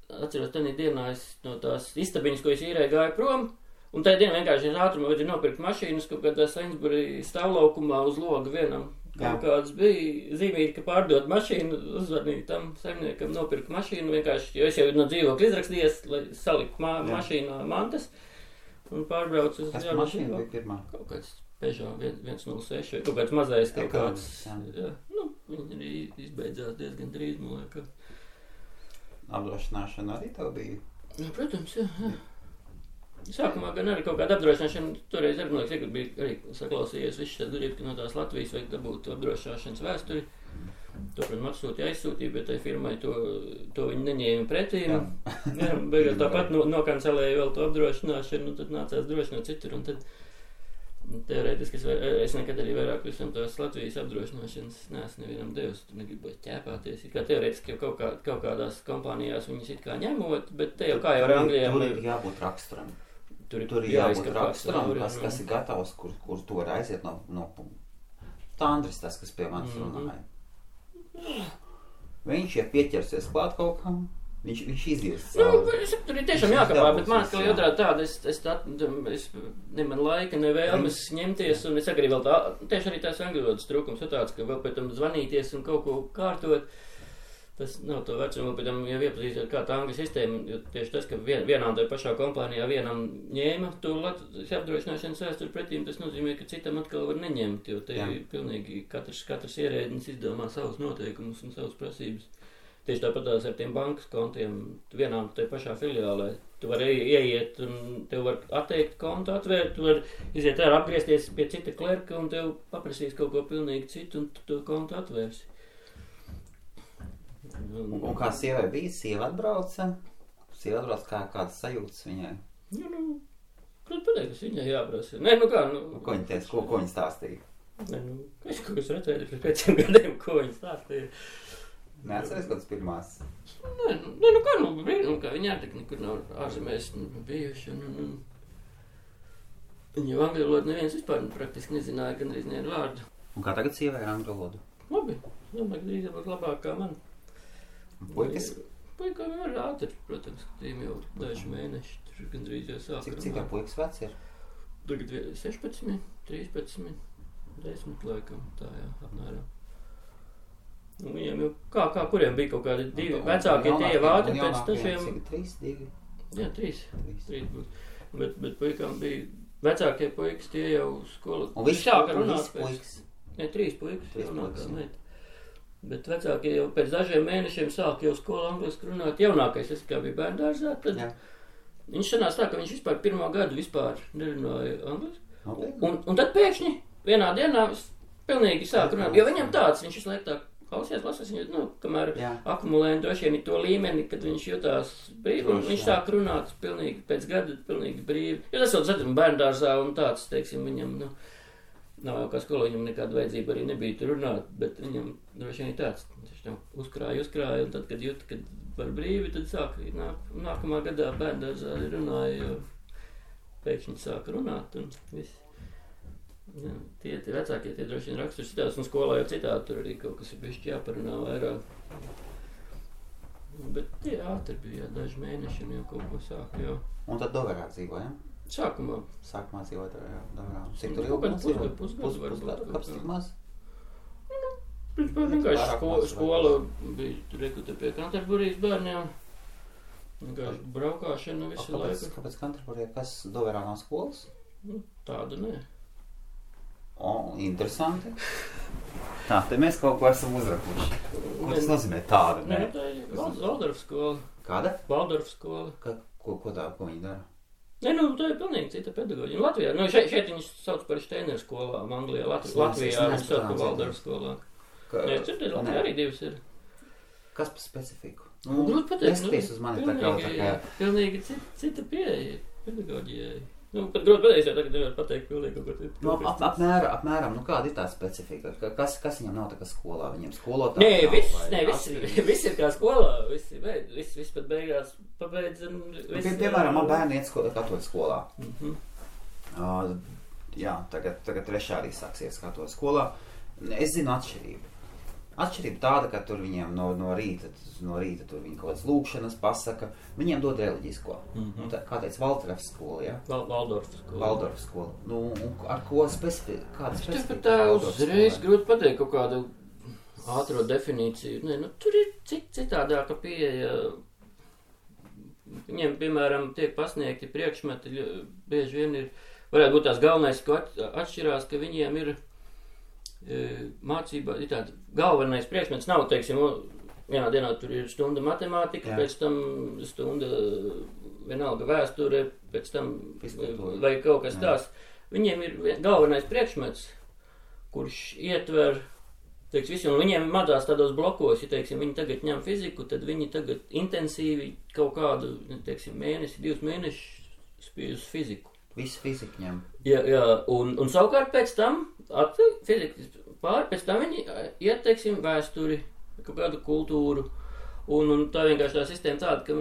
atceros, tenī dienā es no tās istabiņas, ko es īrēju, gāju prom, un tajā dienā vienkārši es ātrumā vajadzēja nopirkt mašīnas, kaut kādā Sainsbury stāvlaukumā uz loga vienam. Kaut kāds bija zīmīgi, ka pārdot mašīnu, uzvanīju tam saimniekam, nopirku mašīnu vienkārši, jo es jau no dzīvokļa izrakstījies, lai saliku mašīnā mantas un pārbraucu uz Kas mašīna bija pirmā? Kaut kāds Peugeot 106 vai kaut kāds mazais kaut kāds. Jā, viņi arī izbeidzās diezgan drīz, man liekas. Apdrošināšana arī tev bija? Jā, protams, jā. Sākumā gan arī kaut kāda apdrošināšana, toreiz arī, man liekas, bija arī saklausījies viss šeit grib, ka no tās Latvijas vajag dabūt apdrošināšanas vēsturi. To, protams, aizsūtīja, bet tai firmai to viņi neņēma pretī. Jā, beigās tāpat nokancelēja vēl to apdrošināšanu, un tad nācās drošināt citur, un tad teorētiski es nekad arī vairāk visam tās Latvijas apdrošināšanas neesmu nevienam devis, tur negribot ķēpāties. Kā teorētiski jau kaut kādās kompānijās viņas it kā ņemot, bet te jau kā jau ar Anglijā. Tur ir jābūt raksturam. Tur ir jābūt raksturam, kas ir gatavs, kur to var aiziet no Tandris, tas, kas pie manis runāja. Viņš, ja pieķersies klāt kaut kam, viņš izies. Tur ir tiešām jākapā, bet man atkal otrādi tāda, es ne man laika, ne vēlmes ņemties, un es arī vēl tieši arī tās angļu valodas trūkums ir tāds, ka vēl pēc tam zvanīties un kaut ko kārtot. Tas nav to vecumu, pēc tam jau iepazīstot kā tā angļu sistēma, jo tieši tas, ka vienā un tajā pašā kompānijā vienam ņēma to apdrošināšanas vēsturi pretīm, tas nozīmē, ka citam atkal var neņemt, jo te ir pilnīgi katrs ierēdnis izdomā savus noteikumus un savus prasības. Tieši tāpatās ar tiem bankas kontiem, vienā un tajā pašā filiālē. Tu vari ieiet un tev var atteikt kontu, atvērt, tu vari iziet ārā, apgriezties pie cita klerka un tev paprasīs kaut ko pilnīgi citu un tu to kontu atvērsi. Un kā sievai bija? Sieva atbrauca? Kādas sajūtas viņai? Protams, pateikt, kas viņai jāprasa. Nē, kā, Ko viņa teica? Ko viņa stāstīja? Nē, es kaut kas redzēju pēc 5 gadiem, ko viņa stāstīja. Neatceries kādas pirmās? Nē, kā viņa ārtek nekur nav ārzemēs bijuši. Viņa jau angļu valodu neviens vispār praktiski nezināja, gan arī nevienu vārdu. Un kā tagad sievai ar angļu valodu? Labi, domāju, ka drīz būs labāk kā man. Puikas? Puikām jau ir ātri, protams, ka tiem jau daži mēneši, tur gandrīz jau sāk runāt. Cik puikas veci ir? Tagad 16, 13, 10 laikam, tā jā, apmēram. Un viņiem jau, kā kuriem bija kaut kādi 2 vecākie, tie jau ātri pēc tašiem. Cik 3, 2? Jā, 3 būs. Bet puikām bija vecākie puikas, tie jau skola. Un visi puikas? Nē, 3 puikas jaunākā meita. Bet vecākie jau pēc dažiem mēnešiem sāk jau skolu angliski runāt. Jaunākais, es kā bija bērndārzā, tad viņš sanās tā, ka viņš vispār 1. gadu vispār nerunāja angliski. Un tad pēkšņi vienā dienā pilnīgi sāk runāt, jo viņam tāds, viņš visu laiku tā klausies, lasās, viņu, kamēr akumulē droši vien to līmeni, kad viņš jutās brīvi, un viņš sāk runāt pilnīgi pēc gada, pilnīgi brīvi. Jo tas vēl zatam bērndārzā un tāds, teiksim, viņam, nav jau kā skolā, viņam nekāda vajadzība arī nebija tur runāt, bet viņam droši vien ir tāds, viņš jau uzkrāja, un tad, kad jūt, kad var brīvi, tad sāk, nākamā gadā bērndārzā runāja, jo pēkšņi sāk runāt, un viss. Jā, tie vecākie, tie droši vien raksturs citāds, un skolā jau citādi, tur arī kaut kas ir bišķi jāparunā vairāk. Bet tie ātri bija, daži mēneši, un jau kaut ko sāk, jau. Un tad Doverā dzīvoja, ja? Sākumā dzīvot Doverā. Cik tur ilgi dzīvot? Pusgadu, kāpēc tik maz? Vienkārši skola bija tur pie Canterburijas bērniem. Vienkārši braukāšana visu laiku. Kāpēc Canterburija? Kas Doverā nav skolas? Tāda nē. Interesanti. Tā, te mēs kaut ko esam uzrakuši. Ko tas nozīmē tāda? Nē, tā ir Valdorfa skola. Kāda? Valdorfa skola. Ko viņi dara? Ne, tā ir pilnīgi cita pedagoģija. Latvijā, šeit viņus sauc par Steineru skolām, Anglijā, Latvijā viņus sauc par Valdorfu skolām. Nē, citur Latvijā arī divas ir. Kas par specifiku? Grūti pateikt. Neskaties uz mani tā kā. Pilnīgi cita pieeja pedagoģijai. Pat grūti pateikt, jo tagad nevar pateikt pilnīgi kaut ko citu. Apmēram, kāda ir tā specifika? Kas viņam nav tā kā skolā? Viņam skolotāji viss ir kā skolā. Viss pat beigās pabeidz. Piemēram, man bērni iet katoļu skolā. Jā, tagad trešā arī sāksies katoļu skolā. Es zinu atšķirību. Atšķirība tāda, ka tur viņiem no rīta tur viņi kaut kādas lūkšanas pasaka, viņiem dod reliģisko. Kā teica, Valdorfu skola, ja? Valdorfu skola. Ar ko kāda specifika? Tā uzreiz grūti pateikt kaut kādu ātro definīciju. Tur ir citādāka pieeja. Viņiem, piemēram, tiek pasniegti priekšmeti, bieži vien varētu būt tās galvenais, ko atšķirās, ka viņiem ir mācībā, ir tāda galvenais priekšmets nav, teiksim, vienā dienā tur ir stunda matemātika, pēc tam stunda vienalga vēsture, pēc tam vai kaut kas tās. Viņiem ir galvenais priekšmets, kurš ietver, teiksim, visu, un viņiem madās tādos blokos, ja, teiksim, viņi tagad ņem fiziku, tad viņi tagad intensīvi kaut kādu, teiksim, mēnesi, 2 mēnešus spīd uz fiziku. Visu fiziku ņem. Jā, un savukārt pēc tam, fizikas pāri, pēc tam viņi iet, teiksim, vēsturi, kaut kādu kultūru, un tā vienkārši tā sistēma tāda, ka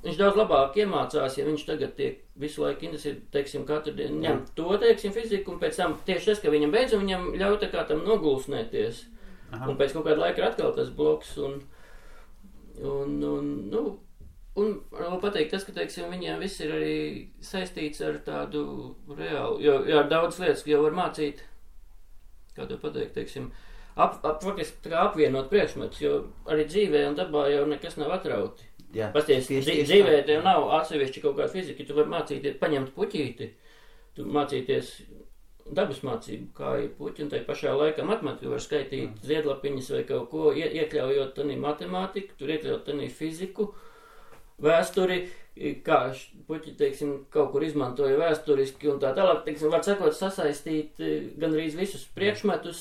viņš daudz labāk iemācās, ja viņš tagad tiek visu laiku intensīvi, teiksim, katru dienu ņem to, teiksim, fiziku, un pēc tam tieši tas, ka viņam beidz, un viņam ļauj tā kā tam nogulsnēties. Un pēc kaut kāda laika ir atkal tas bloks, un vēl pateikt tas, ka, teiksim, viņiem viss ir arī saistīts ar tādu reālu, jo ar daudz lietas, jo var mācīt, kā to pateikt, teiksim, faktiski kā apvienot priekšmetus, jo arī dzīvē un dabā jau nekas nav atrauti. Pasties, dzīvē tev nav atsevišķi kaut kāda fizika, tu vari mācīties, paņemt puķīti, tu mācīties dabas mācību, kā ir puķi, un tai pašā laikā matemātika var skaitīt ziedlapiņas vai kaut ko, iekļaujot tanī matemātiku, tur iekļaujot tanī fiziku, vēsturi, kā puķi, teiksim, kaut kur izmantoja vēsturiski un tā tālāk, teiksim, var sakot, sasaistīt gandrīz visus priekšmetus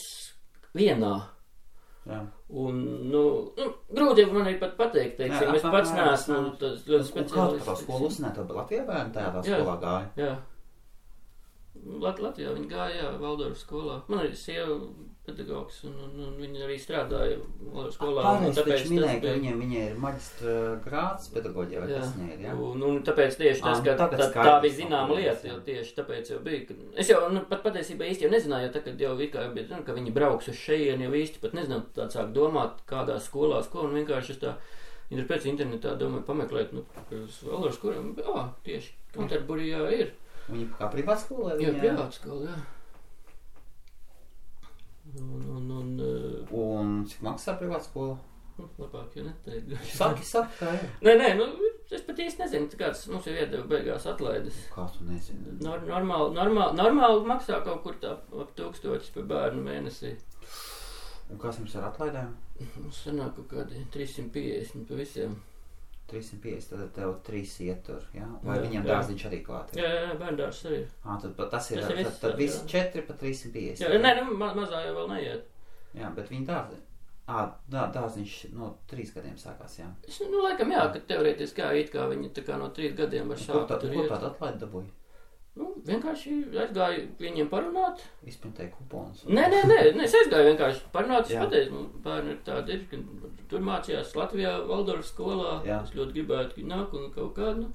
vienā. Jā. Un, grūti man arī pat pateikt, teiksim, es pats neesmu tas ļoti speciālists. Un kā tā skolu uzsnēt, Latvijā bērni tādā skolā gāja? Jā. Latvijā viņi gāja, Valdorfu skolā. Man arī sieva pedagogs, un viņi arī strādāja Valdorfu skolā. Pārējais taču minēja, ka viņiem ir maģistra grāds pedagoģija, vai kas viņai ir, jā? Un tāpēc tieši tas, ka tā bija zināma lieta, jo tieši tāpēc jau bija. Es jau pat patiesībā īsti jau nezināju, jo tagad jau bija, ka viņi brauks uz šejieni, jau īsti pat nezināju, tā sāk domāt, kādās skolās, ko, un vienkārši es tā, viņi pēc internetā domāju pameklēt, uz Valdorfu skolām, tieši Kanterburijā ir. Viņi kā privātskola? Jā, privātskola, jā. Un cik maksā privātskola? Labāk jau neteikt. Saki, kā ir? Nē, es pat īsti nezinu, kāds mums jau iedeva beigās atlaides. Kā tu nezini? Normāli maksā kaut kur tā ap 1000 par bērnu mēnesī. Un kas jums ar atlaidēm? Mums sanāk kaut kādi 350 pa visiem. 350, tad tev 3 ietur, jā? Vai viņam dārziņš arī klāt ir? Jā, bērndārs arī. Tad tas ir, tad visi 4 pa 350. Jā, nē, mazā jau vēl neiet. Jā, bet viņi dārziņš. Dārziņš no 3 gadiem sākās, jā? Laikam jā, ka teorētiski it kā viņi tā kā no 3 gadiem var sākt tur iet. Ko tādu atlaidi dabūja? Vienkārši aizgāju viņiem parunāt. Izpintēju kuponus. Nē, es aizgāju vienkārši parunāt. Es pateicu, bērni ir tādi, ka tur mācījās Latvijā Valdorfu skolā. Es ļoti gribētu, ka viņi nāk un kaut kādu.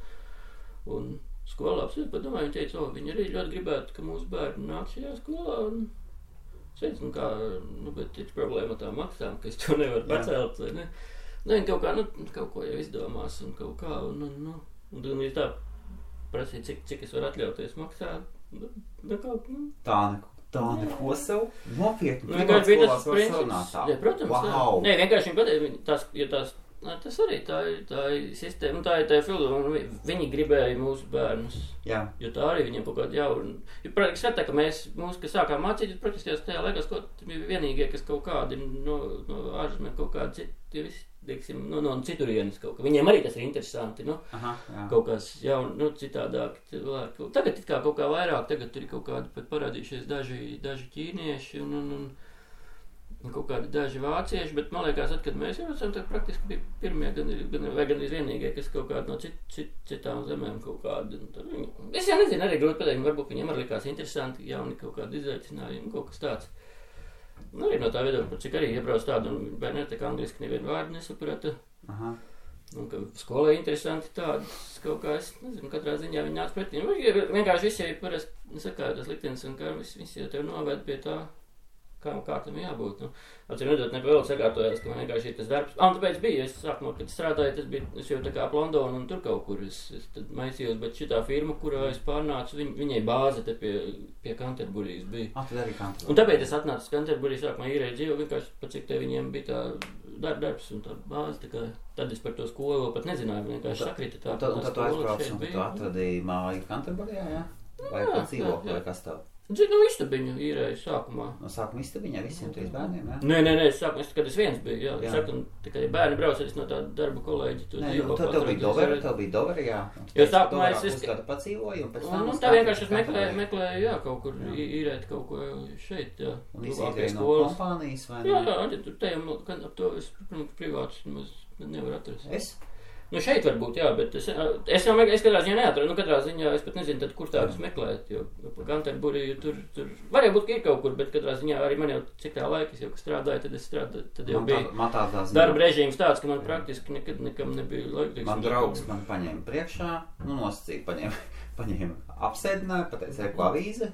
Un skolā absolūti padomāju, viņi teica, viņi arī ļoti gribētu, ka mūsu bērni nāk šajā skolā. Un es teicu, bet ir problēma tā maksām, ka es to nevaru pacelt. Ne? Viņi kaut kā, kaut ko jau izdomās un kaut kā. Un ir tā. Prasīt, cik es varu atļauties maksāt. Tā neko sev nopietni. Vienkārši bija tas princips. Jā, protams. Wow. Nē, vienkārši viņi pateica, ja tās Tas arī tā ir sistēma, tā ir filozofija. Viņi gribēja mūsu bērnus. Jā. Jo tā arī viņiem kaut kāda jauna. Jo, protams, skatā, ka kas sākām mācīt, praktiski tajā laikā bija vienīgie, kas kaut kādi no ārzemēm kaut kādi citi, visi, teiksim, no citurienes kaut kā. Viņiem arī tas ir interesanti, kaut kas jauni, citādāk. Tagad it kā kaut kā vairāk, tagad ir kaut kādi pat parādījušies daži ķīnieši un kaut kādi daži vācieši, bet man liekas, kad mēs jau esam, tad praktiski bija pirmie, gan vienīgie, kas kaut kādi no citām zemēm kaut kādi. Es jau nezinu, arī grūti pateikt, varbūt viņiem arī likās interesanti, jauni kaut kādi izaicinājumi, kaut kas tāds. Arī no tā viedokļa, cik arī iebrauc tādu, un bērni tā kā angliski nevienu vārdu nesaprata. Un ka skolai interesanti tādas kaut kā, es nezinu, katrā ziņā viņi nāc pretī. Vienkārši visi jau parasti sakāja tas liktenis, un kā visi jau tev noved pie tā, kā tam jābūt. Atcīm redzot, vēl sakārtojās, ka man vienkārši ir tas darbs. Tāpēc bija, es sākumā, kad strādāju, es jau tā kā ap Londonu un tur kaut kur es tad maisījos, bet šitā firma, kurā es pārnācu, viņai bāze te pie Canterburijas bija. Tad arī Canterburija. Un tāpēc es atnācu uz Canterburiju, sākumā īrēju dzīvu, vienkārši pat cik te viņiem bija tā darbs un tā bāze, tā kā tad es par to skolu vēl pat nezināju, vienkārši sakrita tā. Un tad tu aizbrauc un tu atradīji māju Canterburijā, jā? Vai pat dzīvokli, vai kas tev? Istabiņu īrēju sākumā. No sākuma istabiņā visiem 3 bērniem, jā? Nē, sākumā, kad es viens biju, jā. Saku, tikai bērni brauc no tāda darba kolēģi. Tev bija Doveri, jā. Jo sākumā es kādu padzīvoju, un pēc tam... Un tā vienkārši es meklēju, jā, kaut kur īrēt kaut ko šeit, jā. Un izīrēju no kompānijas, vai ne? Jā, te jau ap to es, protams, privātus nevaru atrast. Es? Šeit varbūt, jā, bet es katrā ziņā neatradu. Katrā ziņā es pat nezinu, tad, kur tādus meklēt, jo Canterburiju tur varēja būt, ka ir kaut kur, bet katrā ziņā arī man jau cik tā laika, es jau strādāju, tad jau bija darba režīms tāds, ka man praktiski nekam nebija laika. Man draugs man paņēma priekšā, nosacīja, paņēma apsēdināja, pateica, ko avīze.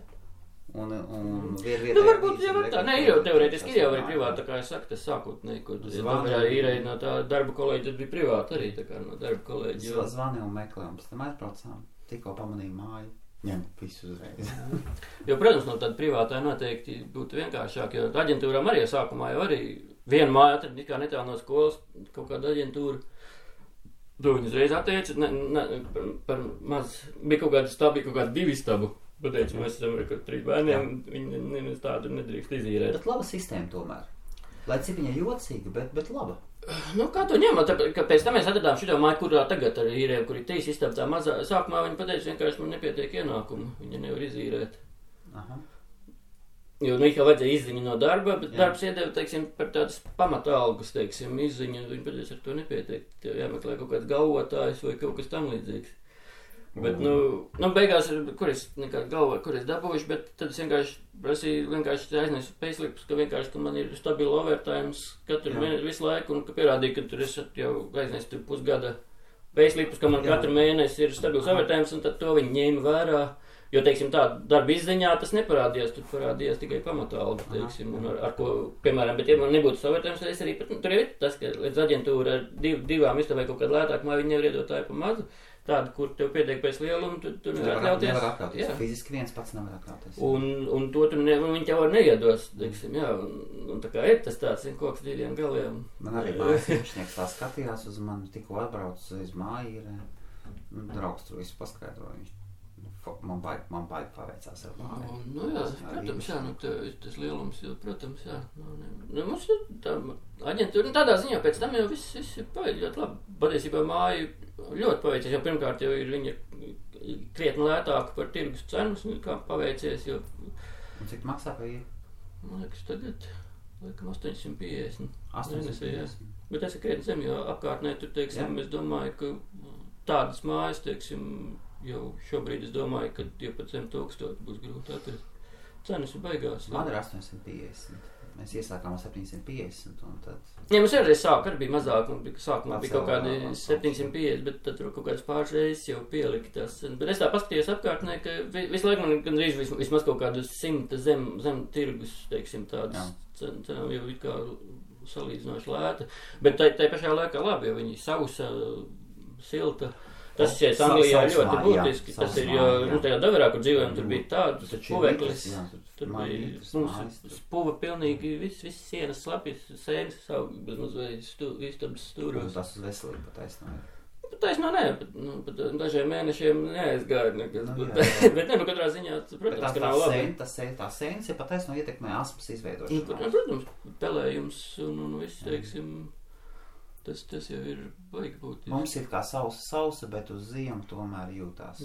Un varbūt jau var tā. Nē, ir jau teorētiski, ir jau arī privāti, tā kā es saku, tas sākotnēji, ko Doverā īrēja no tā darba kolēģi, tad bija privāti arī, tā kā no darba kolēģi. Zvani un meklē, un pēc tam aizbraucām, tikko pamanīju māju, ņem visu uzreiz. Jo, protams, no tāda privātā noteikti būtu vienkāršāk, jo aģentūrām arī sākumā jau arī vienu māju atrad, kā netālu no skolas, kaut kāda aģentūra. To viņi uzreiz atteica, par maz, bija kaut kāda stabi, kaut kāda 2 stabu. Pateicu, mēs esam ar 3 bērniem, viņi tādu nedrīkst izīrēt. Bet laba sistēma tomēr. Lai cik viņa jocīga, bet laba. Kā to ņemot? Pēc tam mēs atradām šito māju, kurā tagad arī īrējam, kur ir 3 istabas tā mazā. Sākumā viņi pateica, vienkārši man nepietiek ienākumu, viņa nevar izīrēt. Jo kā vajadzēja izziņu no darba, bet darbs iedeva, teiksim, par tādas pamatalgas, teiksim, izziņu, viņi pateica, ar to nepietiek. Tev jāmeklē kaut kāds galvotājs vai kaut kas tam līdzīgs. Bet, beigās, kur es dabūjuši, bet tad es vienkārši aiznesu payslipus, ka man ir stabila overtimes katru mēnesi visu laiku, un ka pierādīju, ka tur es jau aiznesu pusgada payslipus, ka man katru mēnesi ir stabils overtimes, un tad to viņi ņēma vērā. Jo, teiksim, tā darba izziņā tas neparādījās, tur parādījās tikai pamatalga, teiksim, un ar ko, piemēram, bet ja man nebūtu overtimes, tad es arī, tur ir tas, ka līdz aģentūra ar 2 istabai kaut kādu lētāku māju, viņi nevar iedot tā pa mazu. Tādu, kur tev pietiek pēc lielumu, tu nevar atļauties. Nevar atļauties. Fiziski viens pats nevar atļauties. Un to viņi tev var neiedos, teiksim, jā. Un tā kā ir tas tāds, koks 2 galiem. Man arī mājas iepšnieks tā skatījās uz mani, tikko atbrauc uz māju, draugs tur visu paskaidroja. Man baigi paveicās ar māju. Jā, protams, jā, tas lielums, jo, protams, jā. Mums tā aģentūra, tādā ziņā pēc tam jau viss ir paveicis ļoti labi. Patiesībā māju ļoti paveicies, jo pirmkārt jau ir viņa krietni lētāka par tirgus cenas, kā paveicies, jo... Un cik maksā pa ir? Man liekas, tagad, 850. 850. Bet tas ir krietni zem, jo apkārtnē tur, teiksim, es domāju, ka tādas mājas, teiksim, jau šobrīd es domāju, ka 12,000 būs grūti atrast. Cenas ir beigās. Man ir 850. Mēs iesākām ar 750 un tad... Jā, mums arī bija mazāk, un sākumā bija kaut kādi 750, bet tad tur kaut kādas pāris reizes jau pielika tās cenas. Bet es tā paskatījos apkārtnē, ka visu laiku man gandrīz vismaz kaut kādus 100 zem tirgus, teiksim, tādas cenas jau ir kā salīdzinoši lēta. Bet tai pašā laikā labi, jo viņi sausa, silta. Tas šeit Anglijā ļoti būtiski. Tas ir, jo, tajā Daverā, kur dzīvojam, tur bija tāds puveklis. Tur bija mums puva pilnīgi, viss sienas slapjas, sēnes savu, bezmaz istabas stūros. Tas uz veselību pataisnāja. Taisnā nē, pat dažiem mēnešiem neaizgāja nekas, bet katrā ziņā, protams, ka nav labi. Tā sēnes ir pataisno ietekmē asmas izveidošanu. Protams, pelējums un viss, teiksim, tas jau ir baigi būt. Mums ir kā sausa, bet uz ziemu tomēr jūtās.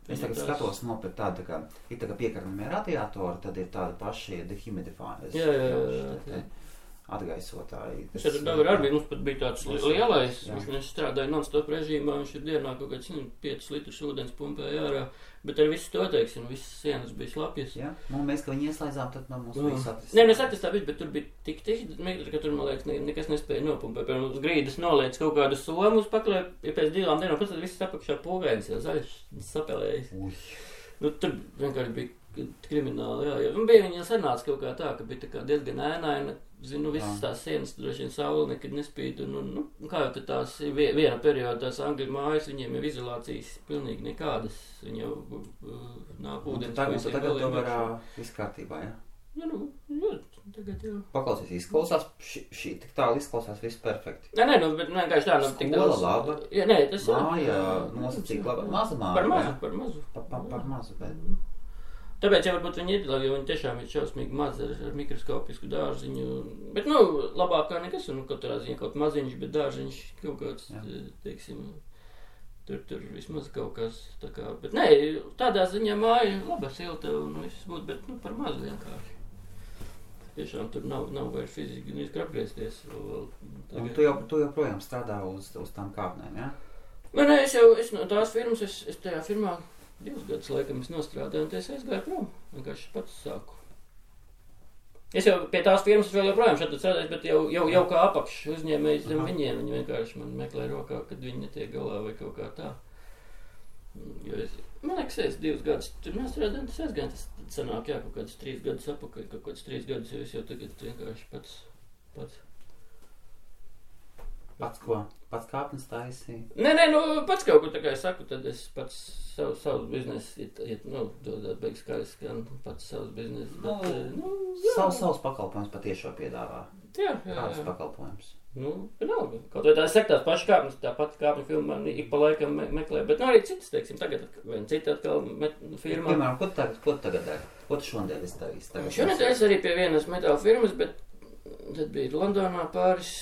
Es tagad skatos nopēc tādu, ir tā kā piekarnamie radiatori, tad ir tādi paši dehumidifāri. Jā. Atgaisotāji. Tad arī mums pat bija tāds lielais, viņš strādāja non-stop režīmā, viņš ir dienā kaut kāds 5 litrus ūdens pumpēja ārā, bet ar visu to, teiksim, visas sienas bija slapjas. Jā, mēs, ka viņi ieslēdzām, tad mums bija satistā. Nē, satistā bija, bet tur bija tik metri, ka tur, man liekas, nekas nespēja nopumpēt. Piemēram, uz grīdas noliec kaut kādu somu uz paklē, ja pēc 2 dienām, pēc tad viss apakšā pūgainis, jau zaļš sapelējis. Tur vienkārši bija krimināli, jā. Un bija viņa sanāca kaut kā tā, ka bija tā kā diezgan ēnaina. Zinu, visas tās sienas, droši vien saule nekad nespīd, un kā jau tās viena perioda, tās Angļu mājas, viņiem jau izolācijas pilnīgi nekādas, viņi jau nāk ūdens. Tagad to var viss kārtībā, jā? Jā, tagad jau. Paklausies, izklausās, šī tik tālu izklausās viss perfekti. Nē, bet vienkārši tā, tik daudz. Skola laba. Jā, nē, tas jā. Māja nosacīga laba. Maza māja. Par mazu, bet. Tāpēc jau varbūt viņi ir, jo viņi tiešām ir šausmīgi mazi ar mikroskopisku dārziņu. Bet, labāk kā nekas, un katrā ziņā kaut maziņš, bet dārziņš kaut kāds, teiksim, tur vismaz kaut kas tā kā. Bet nē, tādā ziņā māja laba, silta un viss būtu, bet, par mazu vienkārši. Tiešām tur nav vairs fiziski apgriezties. Un tu joprojām strādā uz tām kāpnēm, jā? Nē, es no tās firmas, es tajā firmā 2 gadus laikam es nostrādāju, un es aizgāju prom. Vienkārši pats sāku. Es jau pie tās firmas vēl joprojām šeit strādāju, bet jau kā apakš uzņēmējs zem viņiem. Viņi vienkārši man meklē rokā, kad viņi netiek galā vai kaut kā tā. Jo man liekas, es 2 gadus tur nostrādāju, un tas aizgāju. Tas sanāk, jā, kaut kādus 3 gadus apakaļ, kaut kādus 3 gadus, jo es jau tagad vienkārši pats. Pats ko? Pats kāpnes taisīja? Nē, pats kaut ko tā kā es saku, tad es pats savus biznesu, dodāt beigas kājas, gan pats savus biznesu. Savus pakalpojums patiešo piedāvā. Jā. Kādus pakalpojums? Vienalga. Kaut vai tā saka tās pašas kāpnes, tā pati kāpņu filma man ik pa laikam meklē, bet arī citas, teiksim, tagad vien cita atkal firmā. Piemēram, ko tagad dari? Ko tu šodien esi darījis? Šodien es arī pie vienas metāla firmas, bet tad bija Londonā pāris.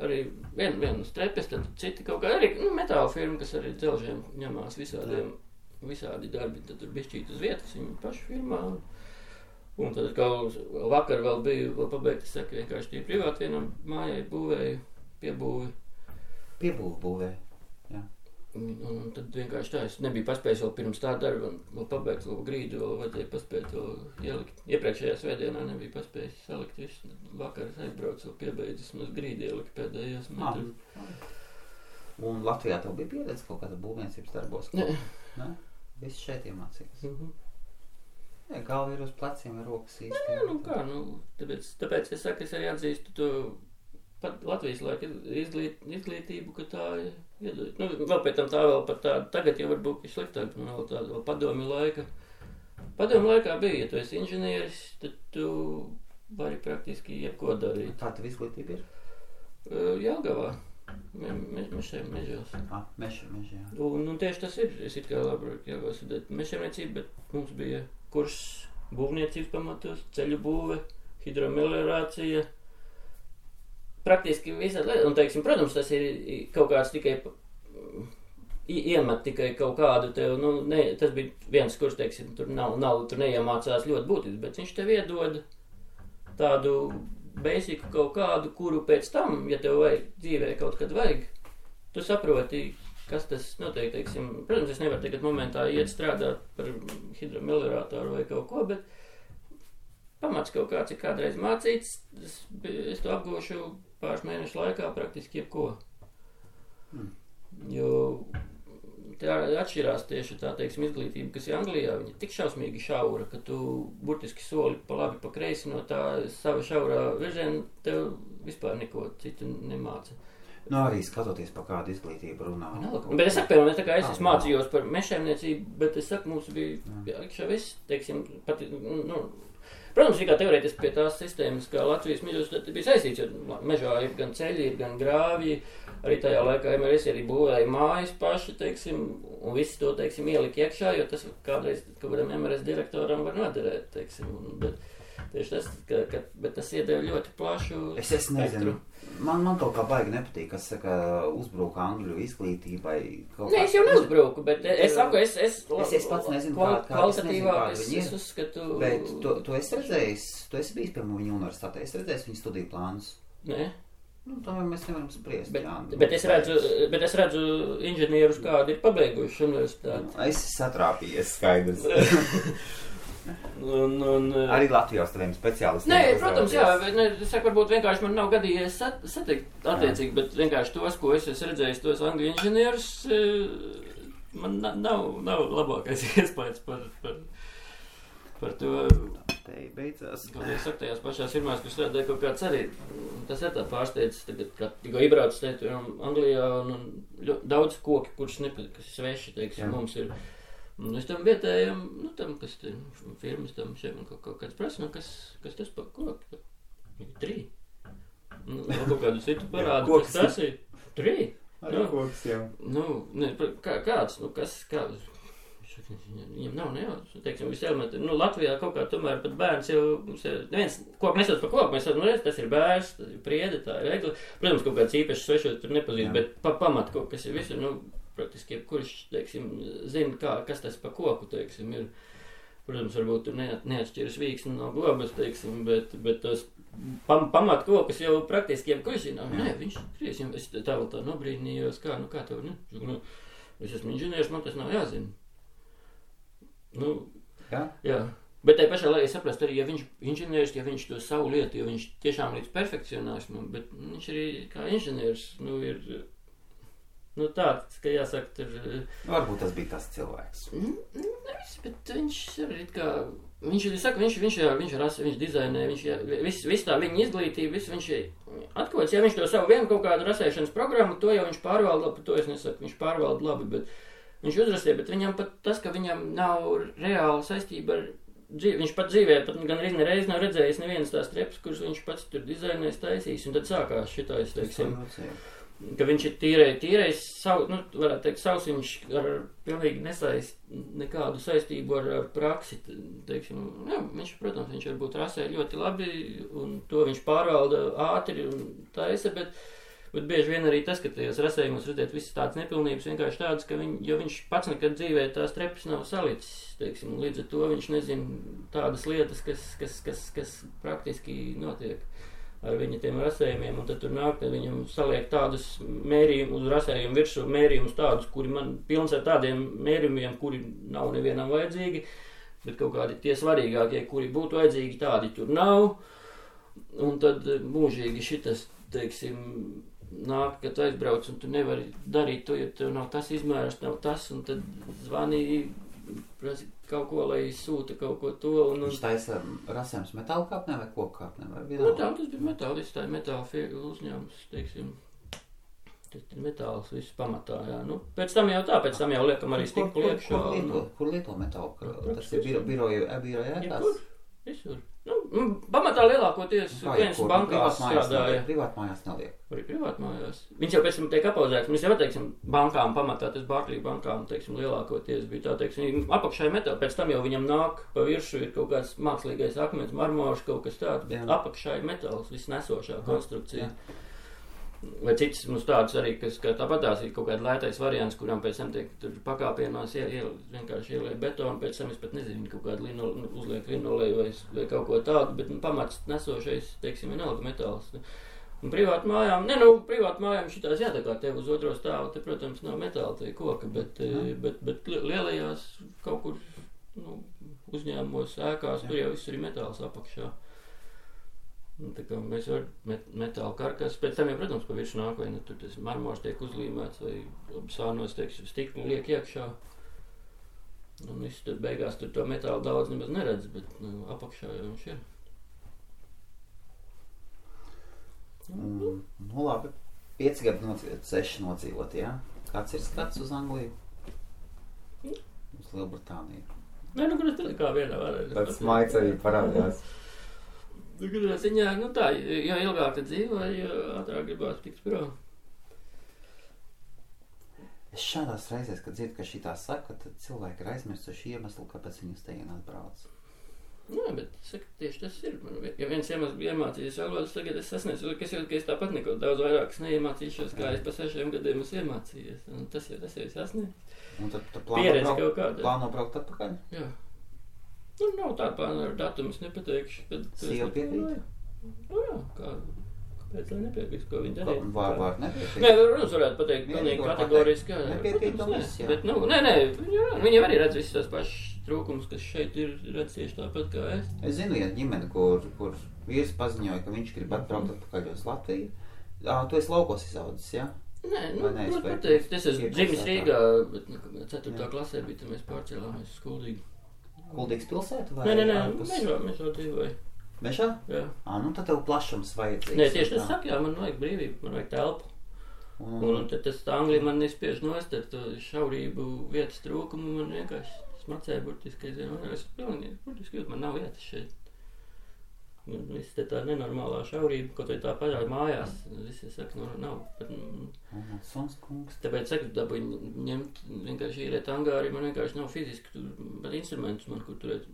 Arī viena strepes, tad citi kaut kā arī metāla firma, kas arī dzelžiem ņemās visādi darbi, tad tur bišķīt uz vietas viņa pašu firmā. Un tad kaut vakar vēl bija pabeigta, es saku, vienkārši tie privāti vienam mājai būvēju, būvēju, jā. Un tad vienkārši tā, es nebiju paspējis vēl pirms tā darba, vēl pabeigt vēl grīdu, vēl vajadzēja paspēt vēl ielikt. Iepriekšējā svētdienā nebija paspējis salikt visu. Vakar aizbraucu vēl piebeidzis, mums grīdi ielikt pēdējos metrus. Un Latvijā tev bija pieredze kaut kāda būvniecības darbos? Nē. Viss šeit iemācījies? Jā, galva ir uz pleciem vai rokas īsti? Nē, tāpēc es saku, es arī atzīstu to pat Latvijas laika izglītību, ka tā iedod. Vēl pēc tam tā vēl pat tā, tagad jau varbūt ir sliktāk, vēl tāda vēl padomju laika. Padomju laikā bija, ja tu esi inženieris, tad tu vari praktiski jebko darīt. Kā tev izglītība ir? Jelgavā, mežos. Meži, jā. Un tieši tas ir, es it kā labāk Jelgavā studēt mežsaimniecību, bet mums bija kurs būvniecības pamatos, ceļu būve, hidromeliorācija, praktiski visādi lietas, un, teiksim, protams, tas ir kaut kāds tikai iemet tikai kaut kādu tev, tas bija viens kurs, teiksim, tur tur neiemācās ļoti būtisks, bet viņš tev iedod tādu basiku kaut kādu, kuru pēc tam, ja tev dzīvē kaut kad vajag, tu saproti, kas tas notiek, teiksim, protams, es nevaru tagad momentā iet strādāt par hidromeliorātoru vai kaut ko, bet pamats kaut kāds ir kādreiz mācīts, es to apgūšu pāris mēnešu laikā praktiski jebko. Jo tā atšķirās tieši tā, teiksim, izglītība, kas ir Anglijā, viņa tik šausmīgi šaura, ka tu burtiski soli pa labi, pa kreisi no tā sava šaurā virziena tev vispār neko citu nemāca. Nu, arī skatoties par kādu izglītību runā. Bet es saku, piemēram, tā kā es mācījos par mežsaimniecību, bet es saku, mums bija iekšā viss, teiksim, pat, protams, kā teorētiski pie tās sistēmas, kā Latvijas mežos bija saistīts, jo mežā ir gan ceļi, ir gan grāvji, arī tajā laikā MRS arī būvēja mājas paši, teiksim, un visi to, teiksim, ielika iekšā, jo tas kādreiz kādam MRS direktoram var noderēt, teiksim, bet tieši tas, bet tas iedeva ļoti plašu Es nezinu. Man kaut kā baigi nepatīk, kas saka, uzbruka angļu izglītībai. Nē, es jau neuzbruku, bet es saku, es pats nezinu, kvalitatīvāk, es uzskatu... Bet tu esi redzējis, tu esi bijis pie viņu universitātē, es redzēju viņu studiju plānus. Nē. Nu, tomēr mēs nevaram spriest. Bet es redzu inženierus, kādi ir pabeiguši universitāti. Es satrāpījies, skaidrs. Arī Latvijā tādiem speciālistiem. Nē, protams, jā, es saku, varbūt vienkārši man nav gadījies satikt attiecīgi, bet vienkārši tos, ko es esmu redzējis, tos angļu inženierus, man nav labākais iespējas par to. Te beidzās. Kaut es saku, tajās pašās firmās, kur strādāja kaut kāds arī, tas ir tā pārsteidzis, tagad, kad tikko iebrauc teikt, Anglijā un daudz koki, kurš kas sveši, teiksim, mums ir. Es tam vietējam, tam, kas te firmas tam šeit man kaut kāds prasa, kas tas par koku? 3. Kaut kādu citu parādu, kas tas ir? 3? Arī koks, jā. Kāds, kāds? Viņam nav nejauc, teiksim, visi elementi. Latvijā kaut kā tomēr pat bērns jau, neviens koku nesauc par koku, mēs tas ir bērs, tas ir priede, tā ir egli. Protams, kaut kāds īpašs svešot tur nepazīst, bet pamat kaut kas ir visur, praktiski, kurš, teiksim, zina, kas tas pa koku, teiksim, ir. Protams, varbūt tur neatšķiras vīksni no globas, teiksim, bet tos pamat kokus jau praktiski jebkurš zina. Nē, viņš kriesiem, es tā vēl tā nobrīnījos, kā tev, es esmu inženieris, man tas nav jāzina. Jā. Bet tai pašā laikā saprast arī, ja viņš inženieris, ja viņš to savu lietu, jo viņš tiešām līdz perfekcionāsmam, bet viņš arī kā inženieris, ir... tāds, ka jāsaka, tur... Varbūt tas bija tas cilvēks. Nevis, bet viņš arī kā... Viņš dizainē, viss tā viņa izglītība, viņš atkots, ja viņš to savu vienu kaut kādu rasēšanas programmu, to jau viņš pārvalda labi, to es nesaku, viņš pārvalda labi, bet viņš uzrastīja, bet viņam pat tas, ka viņam nav reāla saistība ar dzīvi, viņš pat dzīvē, pat gan reiz nav redzējis nevienas tās trepas, kuras viņš pats tur dizainēs, taisīs, un tad sākās šitais, teiksim, ka viņš ir tīrais, varētu teikt, savs, viņš ar pilnīgi nesaist nekādu saistību ar praksi, teiksim, viņš, protams, viņš varbūt rasē ļoti labi, un to viņš pārvalda ātri un taisa, bet bieži vien arī tas, ka tajos rasējumos redzēt visas tādas nepilnības, vienkārši tādas, ka jo viņš pats nekad dzīvē tās trepas nav salicis, teiksim, līdz ar to viņš nezina tādas lietas, kas praktiski notiek ar viņa tiem rasējumiem, un tad tur nāk, tad viņam saliek tādus mērījumus uz rasējumu virsū, mērījumus tādus, kuri man pilns ar tādiem mērījumiem, kuri nav nevienam vajadzīgi, bet kaut kādi tie svarīgākie, kuri būtu vajadzīgi, tādi tur nav, un tad mūžīgi šitas, teiksim, nāk, kad tu aizbrauc, un tu nevari darīt to, ja tev nav tas izmērs, nav tas, un tad zvanīja, prasa kaut ko, lai sūta kaut ko to. Viņš taisa rasējums metāla kāpnē vai koku kāpnē? Tas bija metālis, tā ir metāla uzņēmums, teiksim. Tas ir metāls viss pamatā, jā. Pēc tam jau liekam arī stiklu iekšā. Kur lieto metālu? Tas ir biroju ēkās? Visur. Pamatā lielākoties viens bankās strādāja. Privātmājās neliek. Arī privātmājās. Viņš jau pēc tam tiek apauzēts. Mēs jau, teiksim, bankām pamatā, tas Barclays bankām, teiksim, lielākoties bija tā, teiksim, apakšā metāli. Pēc tam jau viņam nāk pa viršu ir kaut kāds mākslīgais akmens, marmors, kaut kas tāds, bet apakšā ir metāls, viss nesošā konstrukcija. Jā. Vai citas mums tādas arī, kas tāpatās ir kaut kāda lētais variants, kurām pēc tam tiek tur pakāpienās vienkārši ielēja betonu, pēc tam es pat nezinu, kaut kādu uzliek linolēju vai kaut ko tādu, bet pamats nesošais, teiksim, vienalga metāls. Un privātu mājām šitās jātakā tev uz otro stāvu, te, protams, nav metāla, te koka, bet lielajās kaut kur uzņēmumos, ēkās, tur jau viss ir metāls apakšā. Tā kā mēs varam metāla karkas, pēc tam jau, protams, pa viršu nāk, vai tur tas marmors tiek uzlīmēts, vai sānos, teiksim, stikli liek iekšā. Un viss tad beigās tur to metālu daudz nemaz neredz, bet apakšā jau viņš ir. Labi. 5 gadi nodzīvot, 6 nodzīvot, jā? Kāds ir skats uz Angliju? Uz Lielbritāniju? Nē, nu, kur tad kā vienā varētu. Tāds maids arī parādījās. Kurā ziņā, nu tā, jo ilgāk dzīvo, jo ātrāk gribās tikt prom. Es šādās reizēs, kad dzirdu, ka šitā saka, tad cilvēki ir aizmirsuši iemeslu, kāpēc viņi uz tejienu atbrauc. Nē, bet saka, tieši tas ir. Ja viens iemesls bija iemācījies valodas, tagad es sasniedzu, ka es tāpat neko daudz vairāk neiemācīšos, kā es pa 6 gadiem esmu iemācījies. Un tas jau sasniedz. Un tad plāno braukt atpakaļ? Jā. Nu, nav tā plāna ar datumu, es nepateikšu. Sieva piekrīt? Nu jā, kāpēc lai nepiekrīt, ko viņi darīja? Var nepiekrīt? Nē, runas varētu pateikt pilnīgi kategoriski. Nepiekrīt to viss, jā. Bet, nu, nē, viņi arī redz visus tās pašas trūkums, kas šeit ir redz tieši tāpat kā es. Es zinu vienu ģimeni, kur vīrs paziņoja, ka viņš grib atbraukt atpakaļ uz Latviju. Tu esi laukos izaudzis, jā? Nē, nu, pateikt, es esmu dzimis Rīgā, bet 4. klasē bija, tad mēs pārcēlāmies uz Kuldīgu. Kuldīgas pilsētu vai? Nē, mežā dzīvoju. Mežā? Jā. Nu tad tev plašums vajadzīgs. Nē, tieši tas saka, jā, man vajag brīvību, man vajag telpu. Un tad tas Anglija man nespiež nost ar to šaurību vietas trūkumu, man vienkārši smacēja burtiski, es pilnīgi burtiski jūtu, man nav vietas šeit. Un viss te tā nenormālā šaurība, kaut vai tā pašā mājās, visi saka, nav. Suns kungs. Tāpēc saka, dabūju ņemt, vienkārši īrēt angāri, man vienkārši nav fiziski, bet instrumentus man, kur turēt.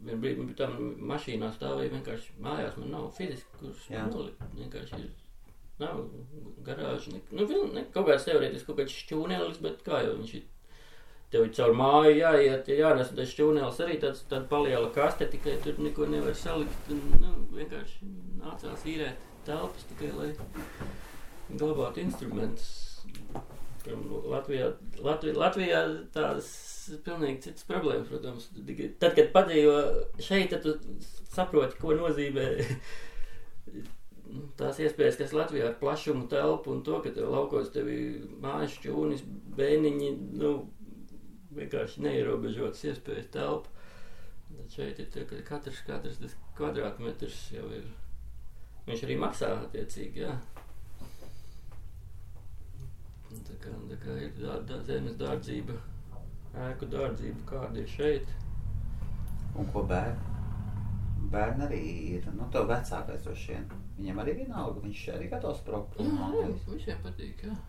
Vien brīdi, bet tā mašīnā stāvēja vienkārši mājās, man nav fiziski, kurš nolikt, vienkārši ir. Nav garāža, kaut kāds teorētiski, kaut kāds šķūnelis, bet kā jau viņš ir. Tev ir caur māju jāiet, jānes, un tas šķūnelis arī tāda paliela kaste, tikai tur neko nevar salikt, un vienkārši nācās īrēt telpas tikai, lai glabātu instrumentus. Latvijā tādas pilnīgi citas problēmas, protams. Tad, kad padzīvo šeit, tad tu saproti, ko nozīmē tās iespējas, kas Latvijā ar plašumu telpu un to, ka tev laukos tevi mājas šķūnis, bēniņi, vienkārši neierobežotas iespējas telpa. Tad šeit ir tā, ka katrs tas kvadrātmetrs jau ir. Viņš arī maksā attiecīgi, jā. Tā kā ir zemes dārdzība, ēku dārdzība, kāda ir šeit. Un ko bērni arī ir, tev vecākais droši vien. Viņam arī vienalga, viņš arī gatavs braukt. Jā, visiem patīk, jā.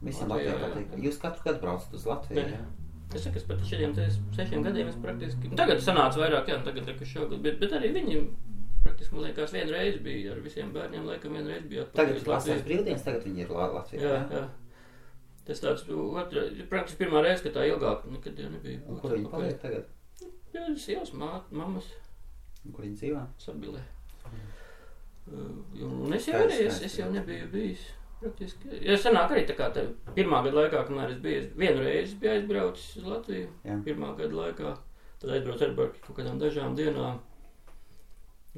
Visiem Latvijā patīk. Jūs katru gadu braucat uz Latviju, jā? Es saku, es pat šiem 6 gadiem es praktiski, tagad sanāca vairāk, jā, tagad šogad, bet arī viņi praktiski, man liekas, vienreiz bija ar visiem bērniem, laikam vienreiz bija atpakaļ. Tagad vasaras brīvdienas, tagad viņi ir Latvijā, jā. Tas tāds, praktiski pirmā reize, ka tā ilgāk nekad jau nebija. Un kur viņi paliek tagad? Jā, sievas, mammas. Un kur viņi dzīvā? Sabilē. Un es jau nebiju bijis. Praktiski. Ja sanāk arī tā kā tā pirmā gada laikā, kamēr es biju, vienu reizi biju aizbraucis uz Latviju, pirmā gada laikā, tad aizbraucu ar kaut kādām dažām dienām,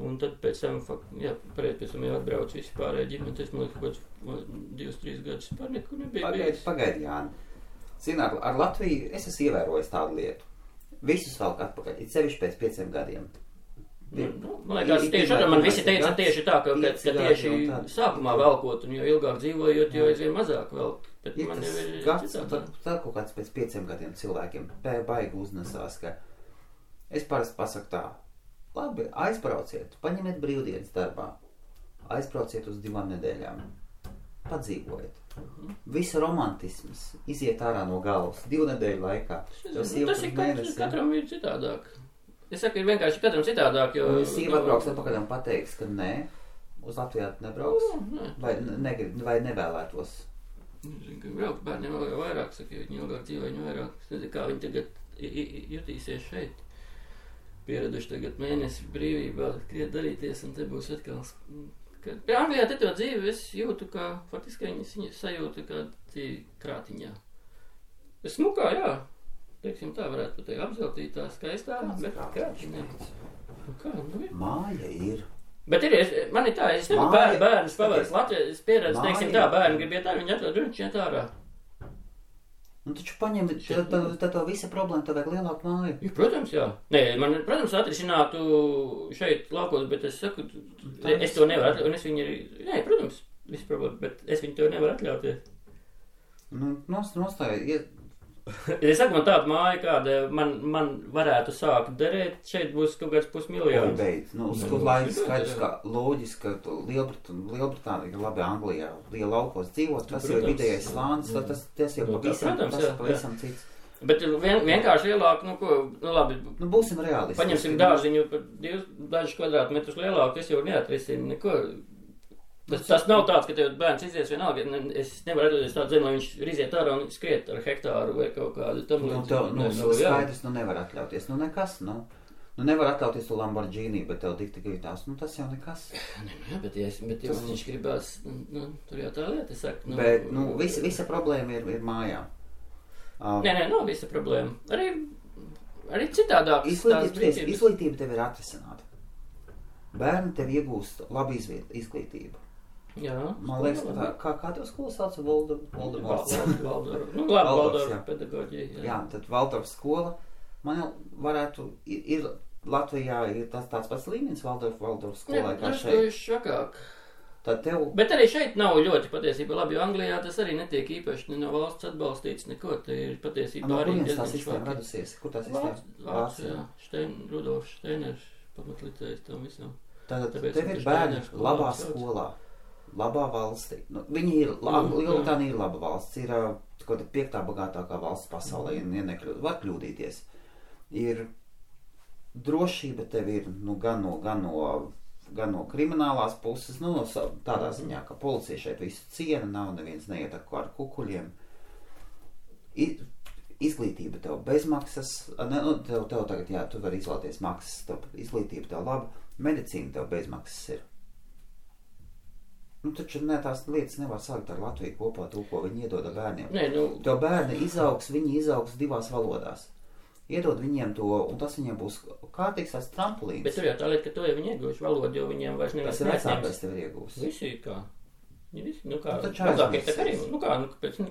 un tad pēc tam, pēc tam jau atbraucu visi pārējie ģimeni, tas man liekas, kaut kāds 2-3 gadus pār nekur nebija bijis. Pagaidi, Jāni. Zini, ar Latviju es esmu ievērojis tādu lietu. Visus velk atpakaļ, it sevišķi pēc 5 gadiem. Man liekas, tieši arī man visi teica tieši tā, ka tieši sākumā velkot, un jo ilgāk dzīvojot, jo aizvien mazāk velk. Bet man jau ir citādi. Tā kaut kāds pēc 5 gadiem cilvēkiem baigi uznesās, ka es parasti pasaku tā, labi, aizbrauciet, paņemiet brīvdienas darbā, aizbrauciet uz 2 nedēļām, padzīvojiet. Visa romantisms iziet ārā no galvas 2 nedēļu laikā. Tas ir katram ir citādāk. Es saku, ir vienkārši katram citādāk, jo... Sīva atbrauks atpakaļ un pateiks, ka nē, uz Latvijā nebrauks, vai nevēlētos. Zinu, ka braukt bērniem vēl vairāk, saka, jo viņi ilgāk dzīvo, viņi vairāk. Es nezinu, kā viņi tagad jutīsies šeit. Pieraduši tagad mēnesi brīvībā, kriet darīties, un te būs atkal... Anglijā te to dzīvi es jūtu, kā, faktiski viņi sajūtu kā dzīvi krātiņā. Es smukā, jā. Teiksim tā, varētu pateikt, apzeltītā, skaistā, bet krātiņā. Kā, ir? Māja ir. Bet man ir tā, es nevaru bērnus pavērst Latvijā, es pieredzu, teiksim tā, bērni grib iet ārā, viņi atrod un iet ārā. Taču paņem, tad visa problēma, tad vajag lielāku māju. Ja, protams, jā. Nē, man, protams, atrisinātu šeit laukos, bet es saku, es to nevaru, un es viņu arī, nē, protams, viss problēma, bet es viņu tev nevaru atļauties. Nu, nostāja, Es saku, man tāda māja, kāda man varētu sākt derēt, šeit būs kaut kāds pusmiljons. Beidz. Nu, skaidrs, ka loģiski, ka Lielbritānija, labi, Anglijā, liela laukos dzīvot, tas jau ir vidējais slānis, tas jau pavisam cits. Bet vienkārši lielāk, labi. Nu, būsim realisti. Paņemsim dārziņu par dažus kvadrātmetrus lielāku, tas jau neatrisina neko. Tas nav tāds, ka tev bērns izies vienalga. Es nevaru atļauties tādu zemi, lai viņš riziet ārā un skriet ar hektāru vai kaut kādu tam līdzi. Skaidrs, nevar atļauties. Nekas, nevar atļauties to Lamborghini, bet tev dikti gribās. Tas jau nekas. Bet viņš gribās, tur jau tā lieta, es saku. Bet, visa problēma ir mājā. Nē, nav visa problēma. Arī citādāk. Izglītība tev ir atrisināta. Bērni tev iegūst labu izglītību. Jā. Man liekas, kā tev skola sauc? Valdorfs. Valdorfs pedagoģija. Jā, tad Valdorfs skola. Man jau varētu, Latvijā ir tāds pats līmenis Valdorfs skolai kā šeit. Švakāk. Bet arī šeit nav ļoti patiesībā labi, jo Anglijā tas arī netiek īpaši no valsts atbalstīts neko. Te ir patiesībā arī diezgan švaki. Tā sistēma radusies? Kur tā sistēma? Vācijā. Rudolfs Steiners pamatlicējs tam visam. Tātad tev ir bērni labā skolā. Labā valstī. Viņi ir, Lielbritānija ir laba valsts, ir kaut 5. bagātākā valsts pasaulē, var kļūdīties. Ir drošība tev ir, gan no kriminālās puses, tādā ziņā, ka policija šeit visu ciena, nav neviens neietako ar kukuļiem. Izglītība tev bezmaksas, tev tagad, tu vari izvēlēties maksas, izglītība tev laba, medicīna tev bezmaksas ir. Taču tās lietas nevar sākt ar Latviju kopā to, ko viņi iedod bērniem. Tev bērni viņi izaugs 2 valodās. Iedod viņiem to, un tas viņiem būs kārtīgs tāds trampulīns. Bet tur jau tā lieta, ka to jau viņi iegūst valodu, jo viņiem vairs nevar tas ir vecākais tev ir iegūst. Visi kā.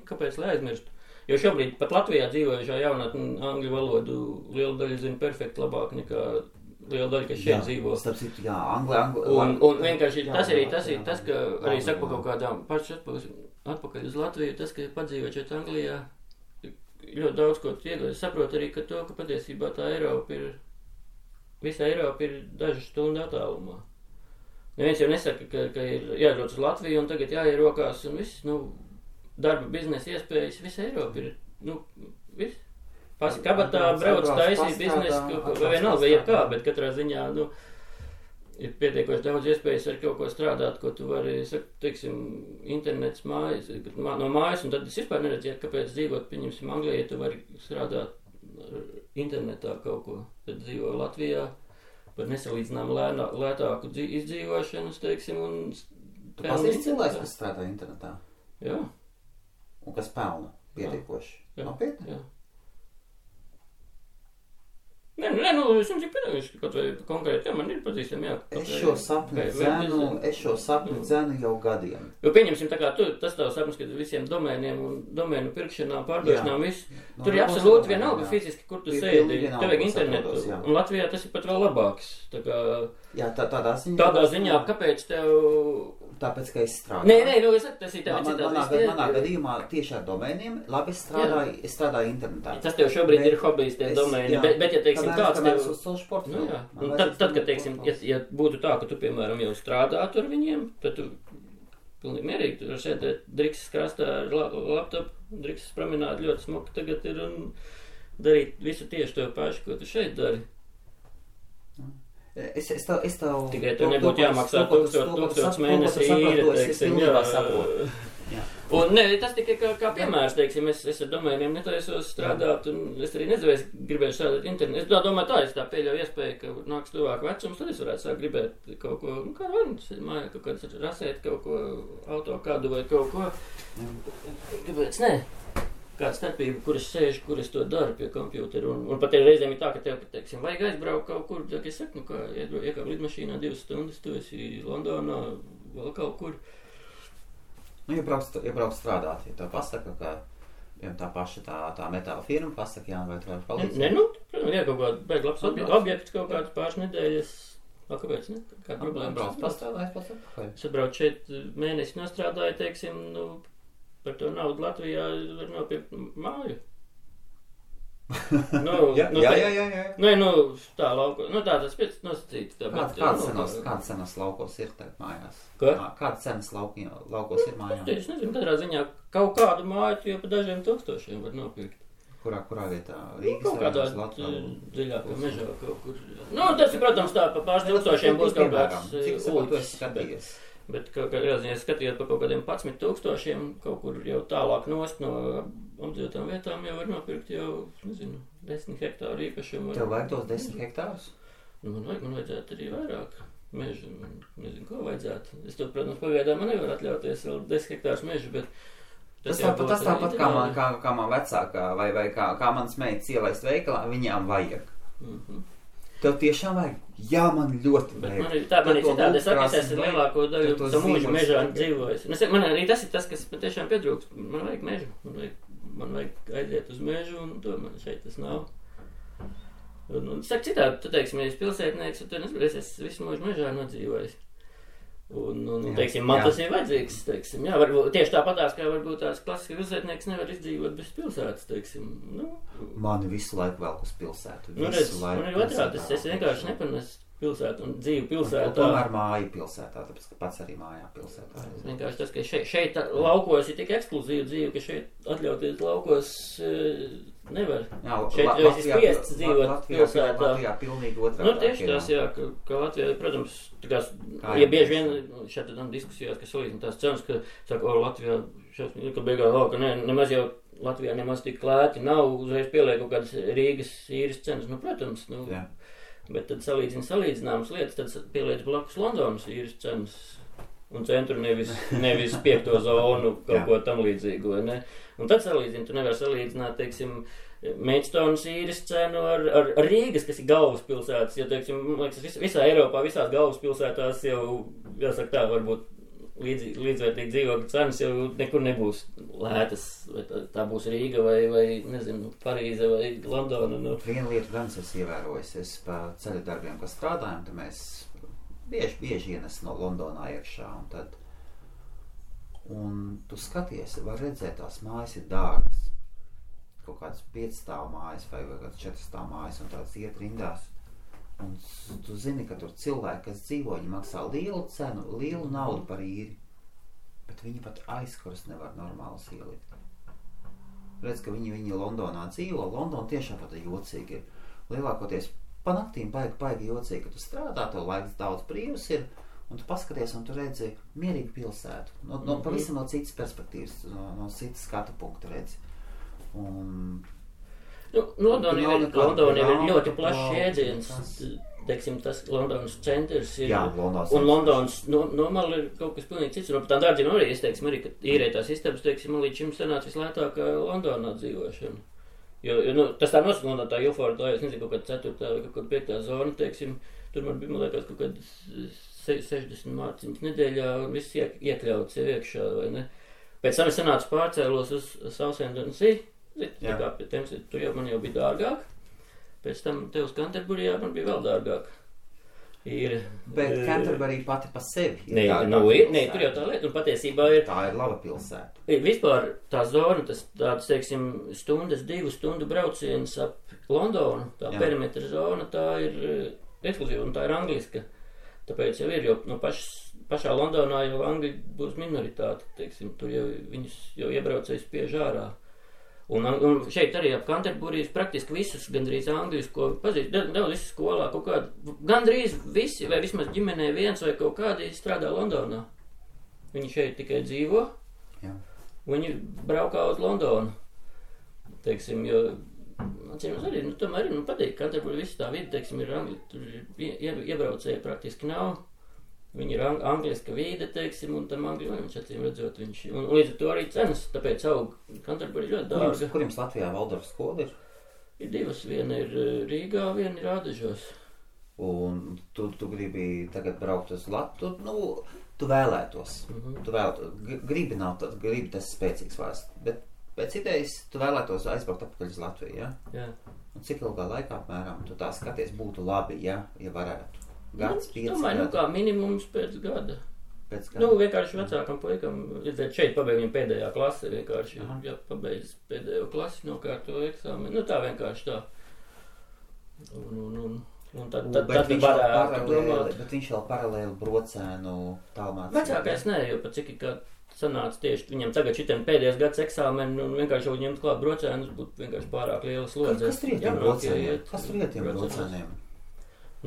Kāpēc lai aizmirstu? Jo šobrīd pat Latvijā dzīvojušā jaunatne angļu valodu liela daļa zina perfekti labāk nekā liela daļa, kas šeit dzīvo. Un vienkārši tas ir tas, ka arī saka par kaut kādām pašas atpakaļ uz Latviju, tas, ka padzīvot šeit Anglijā, ļoti daudz ko iegūst. Es saprotu arī, ka patiesībā tā visa Eiropa ir dažu stundu attālumā. Neviens jau nesaka, ka ir jādodas uz Latviju un tagad jāierokās un viss, darba biznesa iespējas, visa Eiropa ir, viss. Pasi kabatā brauc taisīt biznesu, vai vienalga, vai jebkā, bet katrā ziņā, ir pietiekoši daudz iespējas ar kaut ko strādāt, ko tu vari, teiksim, internets mājas, no mājas, un tad es vispār neredzētu, kāpēc dzīvot, pieņemsim, Anglijā, ja tu vari strādāt internetā kaut ko, tad dzīvo Latvijā par nesalīdzinām lētāku izdzīvošanu, teiksim, un... Tu pazīsti cilvēks, kas strādā internetā? Jā. Un kas pelna pietiekoši? Nopietni? Jā. Nē, es jums ir pedagoģiski, kaut vai konkrēti, man ir pazīstami, jā. Es šo sapni dzenu jau gadiem. Jo pieņemsim, tā kā tas tavs sapnis, ka visiem domēniem un domēnu pirkšanām, pārdošanām, viss, tur ir absolūti vienalga fiziski, kur tu sēdi, tev vajag internetu, un Latvijā tas ir pat vēl labāks. Tādā ziņā, kāpēc tev... Tāpēc, ka es strādāju. Nē, es saku, tas ir tev citās. Manā gadījumā tieši ar domēniem, labi, es strādāju internetā. Tas tev šobrīd ir hobijs, tie domēni, bet ja, teiksim, kāds tev... uz savu sportu. Tad, kad, teiksim, ja būtu tā, ka tu, piemēram, jau strādātu ar viņiem, tad tu pilnīgi mierīgi, tu sēdēt drikses krastā ar laptopu, drikses promenādi ļoti smuki tagad ir un darīt visu tieši to pašu, ko tu šeit dari. Es tev... Tikai tev nebūtu jāmaksā 1000 mēnesī īre, teiksim, jā. Un ne, tas tikai kā piemērs, teiksim, es ar domēniem netaisos strādāt, un es arī gribēju strādāt internetu. Es domāju es tā pieļauju iespēju, ka nāks tuvāk vecums, tad es varētu sākt gribēt kaut ko, kā varas, mājā kaut kāds rasēt kaut ko, auto kādu vai kaut ko. Kāpēc ne? Kāda starpība, kur es sēžu, kur es to daru pie kompjūtera. Un pat reizēm ir tā, ka tev, teiksim, vajag aizbraukt kaut kur, ja es saku, iekāp lidmašīnā 2 stundas, tu esi Londonā, vēl kaut kur. Iebrauc strādāt, ja tev pasaka, ka tā paša tā metāla firma pasaka, vai tu vari palīdzēt? Protams, jā, kaut kāda beig labs objekts, kaut kāds pāris nedēļas Kāpēc, ne? Kāda problēma? Brauc pastrādājis pats atpakaļ. Es atbraucu šeit mēnesi nostrādāju, teiksim, par to naudu Latvijā var nopirkt māju. Jā. Nē, tā lauko. Tā tas pēc nosacīt. Kāda cenas laukos ir tagad mājās? Ko? Kāda cenas laukos ir mājās? Es nezinu, katrā ziņā kaut kādu māju jau pa dažiem tūkstošiem var nopirkt. Kurā vietā? Rīgas kaut kādā dziļākā mežā kaut kur. Tas ir, protams, tā pa pāris tūkstošiem būs kaut kāds skatījies. Bet kādā ziņā skatījot pa kaut kādiem 11 000 kaut kur jau tālāk nost no apdzīvotām vietām jau var nopirkt jau, nezinu, 10 hektāru īpašumu. Tev vajag tos 10 hektārus? Man vajadzētu arī vairāk mežu. Nezinu, ko vajadzētu. Es to, protams, pagaidām man nevar atļauties vēl 10 hektārus mežu, bet tas tāpat kā man vecākā vai kā manas meitas ielaist veikalā, viņām vajag. Tev tiešām vajag? Jā, man ļoti vajag. Man ir citādi, es esmu lielāko daļu to mūžu mežā dzīvojis. Man arī tas ir tas, kas man tiešām pietrūkst. Man vajag mežu. Man vajag aiziet uz mežu, un to man šeit tas nav. Saka citādi, tu teiksim, ja es pilsētnieks, tu nezinu, es visu mūžu mežā nodzīvojis. Teiksim, man tas ir vajadzīgs, teiksim, jā, varbūt tieši tāpatās, kā varbūt tās klasiski pilsētnieks nevar izdzīvot bez pilsētas, teiksim, Mani visu laiku velk uz pilsētu. Man ir otrādi, es vienkārši nepanesu pilsētu un dzīvu pilsētā. Tomēr māju pilsētā, tāpēc, ka pats arī mājā pilsētā. Vienkārši tas, ka šeit laukos ir tik ekskluzīva dzīve, ka šeit atļauties laukos nevar. Jā, šeit jau esi spiests dzīvot pilsētā. Latvijā pilnīgi otrādi. Tieši tās, jā, ka Latvijā, protams, ja bieži vien šeit tam diskusijās, ka salīdzina tās cenas, ka saka, Latvijā, ka beigā, ka nemaz jau Latvijā nemaz tik lēti nav, uzreiz pieliek kaut kādas Rīgas īres cenas, protams, bet tad salīdzināmas lietas, tad pieliec blakus Londonas īres cenas un centru nevis 5. zonu kaut ko tam līdzīgu, vai ne? Un tad salīdzina, tu nevar salīdzināt, teiksim, Maidstones īres cenu ar Rīgas, kas ir galvaspilsētas, jo, teiksim, liekas, visā Eiropā, visās galvaspilsētās jau, jāsaka tā, varbūt līdzvērtīgi dzīvokļu cenas jau nekur nebūs lētas, vai tā būs Rīga vai nezinu, Parīze vai Londona. Viena lieta gan es ievērojis, es pa ceļu darbiem, kas strādājam, tad mēs bieži ienes no Londonā iekšā, un tu skaties, var redzēt, tās mājas ir dārgas, kaut kāds 5 stāvu mājas vai kāds 4 stāvu mājas, un tāds iet rindās. Un tu zini, ka tur cilvēki, kas dzīvo, viņi maksā lielu cenu, lielu naudu par īri, bet viņi pat aizkurs nevar normāli ielikt. Redz, ka viņi Londonā dzīvo, Londona tiešām pat jocīgi ir. Lielākoties pa naktīm baigi jocīgi, ka tu strādā, tev laiks daudz brīvs ir, un tu paskaties, un tu redzi mierīgu pilsētu. Pavisam no citas perspektīvas, no citas skatu punkta redzi. Londona ir ļoti plašs jēdziens, teiksim, tas Londonas centrs ir, un Londonas normāli ir kaut kas pilnīgi cits, un par tām dārdziem arī, es teiksim, arī, ka īrētās istabas, teiksim, man līdz šim sanāca vislētākā Londonā dzīvošana. Jo tas tā nosaka, tā Ilforda, es nezinu, kaut kāda 4. vai kaut kāda 5. zona, teiksim, tur man bija, man liekas, kaut kāda 60 mārciņas nedēļā, un viss iekļauts jau iekšā, vai ne? Pēc tam es sanācu pārcēlos uz Southend-on-Sea, tur jau man jau bija dārgāk, pēc tam te uz Canterburyjā man bija vēl dārgāk. Bet Canterbury pati pa sevi ir Nē, tur jau tā lieta, un patiesībā ir... Tā ir laba pilsēta. Vispār tā zona, tāds, teiksim, 2 stundu brauciens ap Londonu, tā perimetra zona, tā ir ekskluzīva, un tā ir angliska. Tāpēc jau ir, jo no pašā Londonā jau angļi būs minoritāte, teiksim, tur jau viņus jau iebraucējs spiež ārā. Un šeit arī ap Canterburijas praktiski visus gandrīz angļus, ko pazīst, daudz visi skolā, kaut kādi, gandrīz visi, vai vismaz ģimenē viens vai kaut kādi strādā Londonā. Viņi šeit tikai dzīvo, viņi braukā uz Londonu, teiksim, jo, atcīmēs arī, tomēr arī, patīk, Canterburija visi tā vidi, teiksim, ir angļi, tur iebraucēji praktiski nav. Viņi ir angliska vīde, teiksim, un tam angļu viņš acīm redzot viņš. Un līdz ar to arī cenas, tāpēc aug Canterbury ļoti dārga. Kur jums Latvijā Valdorfa skola ir? Ir 2, viena ir Rīgā, viena ir Ādažos. Un tu gribi tagad braukt uz Latviju, tu vēlētos. Tu vēlētos. Gribi tas spēcīgs vārds, bet pēc idejas tu vēlētos aizbraukt atpakaļ uz Latviju, ja? Jā. Un cik ilgā laikā, apmēram, tu tā skaties, būtu labi, ja varētu? gads, 5 domāju, gadi? Kā minimums pēc gada. Pēc gada? Vienkārši vecākam puikam, šeit pabeidz viņa pēdējā klase, vienkārši, ja pabeidz pēdējo klasi, nokārto eksāmenu. Tā vienkārši tā. Un tad varētu domāt. Bet viņš vēl paralēli brocēnu tālmācību. Vecākais nē, jo pat cik kā sanāca tieši viņam tagad šitiem pēdējais gads eksāmeni un vienkārši jau ņemt klāt brocēnus būtu vienkārši pārāk liela slodze. Kas tur iet tiem brocēniem?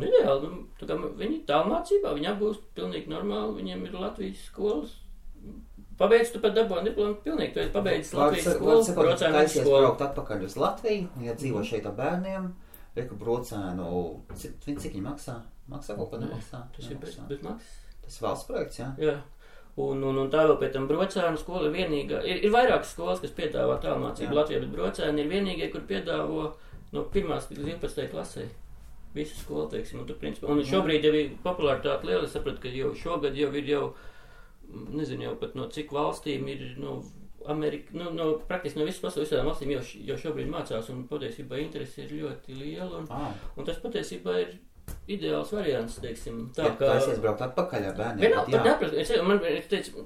Ideāli, tā kā viņi tālmācībā, viņi apgūst pilnīgi normāli, viņiem ir Latvijas skolas. Pabeidz tu pat dabūni diplomu pilnīgi, tu esi pabeidzis Latvijas skolu, brocēnu skolu. Braukt atpakaļ uz Latviju, ja dzīvo šeit ar bērniem. Reku brocēnu, cik viņi maksā? Maksā kaut kādā maksā? Tas ir bez maksas. Tas valsts projekts, jā? Jā. Un tā vēl pēc tam brocēnu skola ir vienīgā. Ir vairākas skolas, kas piedāvā tālmācību Latvijā, bet brocēni ir vienīgie, kur piedāvo no 1. līdz 12. klasē. Visu skolu, teiksim, un šobrīd jau ir popularitāte liela. Es sapratu, ka jau šogad jau ir nezinu jau pat no cik valstīm ir, Amerika, praktiski no visas pasaules visādām valstīm jau šobrīd mācās, un patiesībā interesi ir ļoti liela, un tas patiesībā ir ideāls variants, teiksim. Tā es iesbraukt atpakaļ ar bērniem.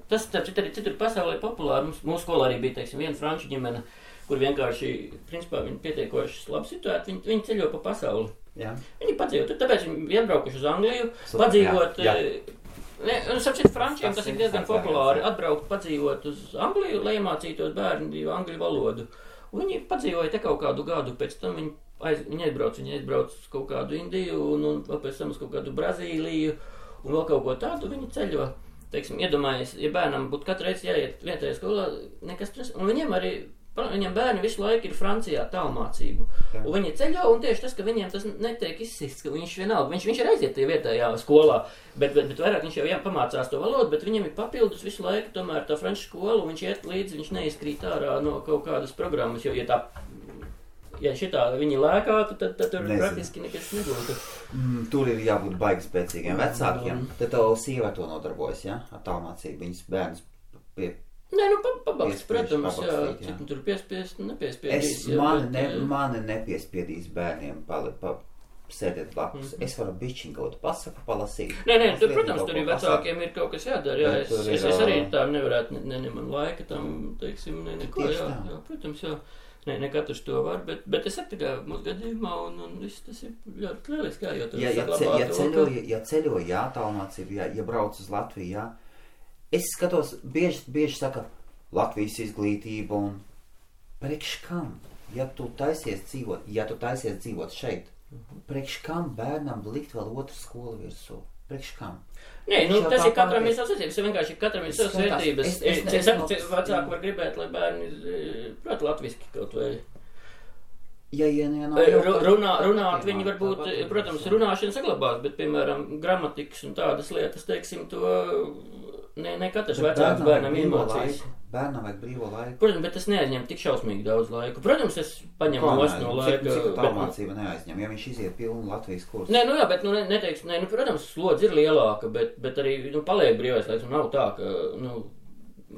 Tas arī citur pasaulē populāri. Mūsu skolā arī bija, teiksim, viena franču ģimene, kur vienkārši, principā, viņi pietiekoši labi situēti, viņi ceļo pa pasauli. Jā. Viņi padzīvo, tāpēc viņi iebraukuši uz Angliju, padzīvot. Sapcīt, frančiem tas ir diezgan populāri atbraukt, padzīvot uz Angliju, lai iemācītos bērni angļu valodu. Un viņi padzīvoja te kaut kādu gadu, pēc tam viņi aizbrauc uz kaut kādu Indiju un pēc tam uz kaut kādu Brazīliju un vēl kaut ko tādu viņi ceļo. Teiksim, iedomājies, ja bērnam būtu katru reizi jāiet vietējā skolā, nekas tas, un viņiem bērni visu laiku ir Francijā tālmācību. Un viņi ceļo, un tieši tas, ka viņiem tas netiek izsists, ka viņš vienalga, viņš ir aiziet vietējā skolā, bet vairāk viņš jau pamācās to valodu, bet viņam ir papildus visu laiku tomēr tā franču skola, un viņš iet līdzi, viņš neizkrīt ārā no kaut kādas programmas, jo, ja šitā viņi lēkātu, tad tur praktiski nekas nebūtu. Tur ir jābūt baigi spēcīgiem vecākiem. Tad tev sieva to nodarbojas, ja? Ar tālmācību, viņas bērnus Nē, pabalsts, protams, jā. Cik tur piespiest, nepiespiedīs. Mani nepiespiedīs bērniem sēdēt blakus. Es varu bišķiņ kaut pasaku palasīt. Nē, tur, protams, tur ir vecākiem ir kaut kas jādara, jā. Es arī tā nevarētu, man laika tam, teiksim, neko, jā, protams, jā. Ne katrs to var, bet es saku, ka mūsu gadījumā un viss tas ir ļoti lieliski, jā, jo tur saglabāt. Ja ceļo, jā, tālmācību, ja brauc uz Latviju, jā. Es skatos, bieži saka, Latvijas izglītība un priekš kam, ja tu taisies dzīvot šeit, priekš kam bērnam likt vēl otru skolu virsū? Priekš kam? Nē, tas ir katram ir savas vērtības, vienkārši katram ir savas vērtības. Es saku, vecāki var gribēt, lai bērni prot latviski kaut vai. Runāt viņi varbūt, protams, runāšana saglabās, bet, piemēram, gramatikas un tādas lietas, teiksim, to ne katrs vecāks bērnam iemācīs. Bērnam vajag brīvo laiku. Protams, bet tas neaizņem tik šausmīgi daudz laiku. Protams, es paņemu nost no laika. Cik tālmācība neaizņem, ja viņš iziet pilnu Latvijas kursu? Nē, jā, bet, neteiksim, protams, slodze ir lielāka, bet arī, paliek brīvais laiks, un nav tā, ka,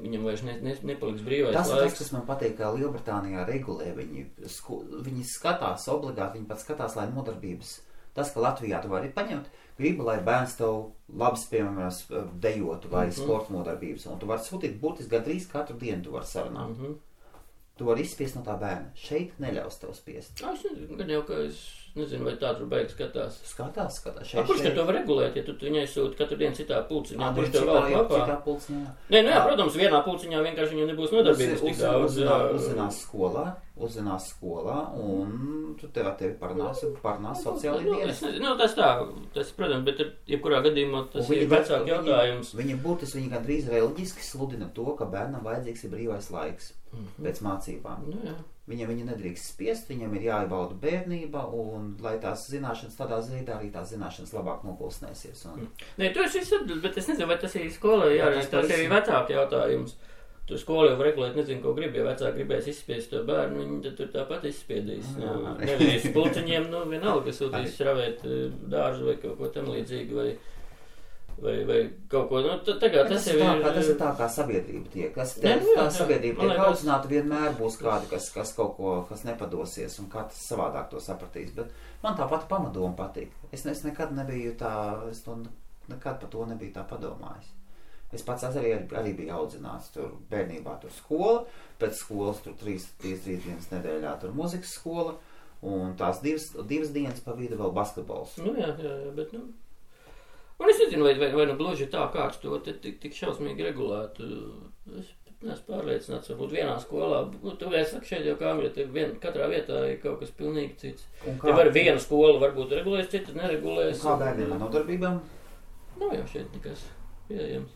viņam vairs nepaliks brīvais laiks. Tas, kas man patīk, kā Lielbritānijā regulē, viņi skatās obligāti, viņi pat skatās, lai nodarbības. Tas, ka Latvijā tu vari paņemt, gribu, lai bērns tev labs, piemēram, dejotu vai sporta nodarbības, un tu vari sūtīt būtiski gandrīz katru dienu tu vari sarunāt. Tu vari izspiest no tā bērna. Šeit neļaus tev spiest. Es nezinu, ka es nezinu, vai tā tur beigas skatās. Skatās. Kurš te to var regulēt, ja tu viņai sūti katru dienu citā pulciņā? Citā pulciņā. Nē, protams, vienā pulciņā vienkārši viņam nebūs nodarbības tik daudz. Uzzinās skolā, un tu tevi parunās sociāli dienas. Tas, protams, bet jebkurā gadījumā tas ir vecāku jautājums. Viņi gandrīz reliģiski sludina to, ka bērnam vajadzīgs ir brīvais laiks pēc mācībām. Viņam nedrīkst spiest, viņam ir jāiebauda bērnība, un lai tās zināšanas tādā veidā arī tās zināšanas labāk nopulsnēsies. Nē, tu esi atbild, bet es nezinu, vai tas ir skolai jārīst, tas ir vecāku jautājums. Tu skolu jau regulēt, nezinu, ko grib, ja vecāki gribēs izspiest to bērnu, viņi tad tur tāpat izspiedīs. Nevis pulciņiem, vienalga, sūtīs šravēt dārzu vai kaut ko tam līdzīgi, vai vai kaut ko, tagad tas jau ir... Tas ir tā, kā sabiedrība tiek. Tā sabiedrība tiek audzināta, vienmēr būs kādi, kas kaut ko, kas nepadosies, un katrs savādāk to sapratīs. Bet man tā pati pamatdoma patīk. Es nekad nebiju nekad par to nebiju tā padomājis. Es pats arī biju audzināts tur bērnībā, tur skola, pēc skolas tur 3 dienas nedēļā tur muzikas skola, un tās divas dienas pa vidu vēl basketbols. Jā, bet, Un es nezinu, vai gluži tā kāds to tik šausmīgi regulētu. Es neesmu pārliecināts, varbūt vienā skolā, tu vēl saki šeit jau kā Angļa, katrā vietā ir kaut kas pilnīgi cits. Te var viena skola varbūt regulēs, citas neregulēs. Kā bērniem ar nodarbībām? Nav jau šeit nekas pieejams.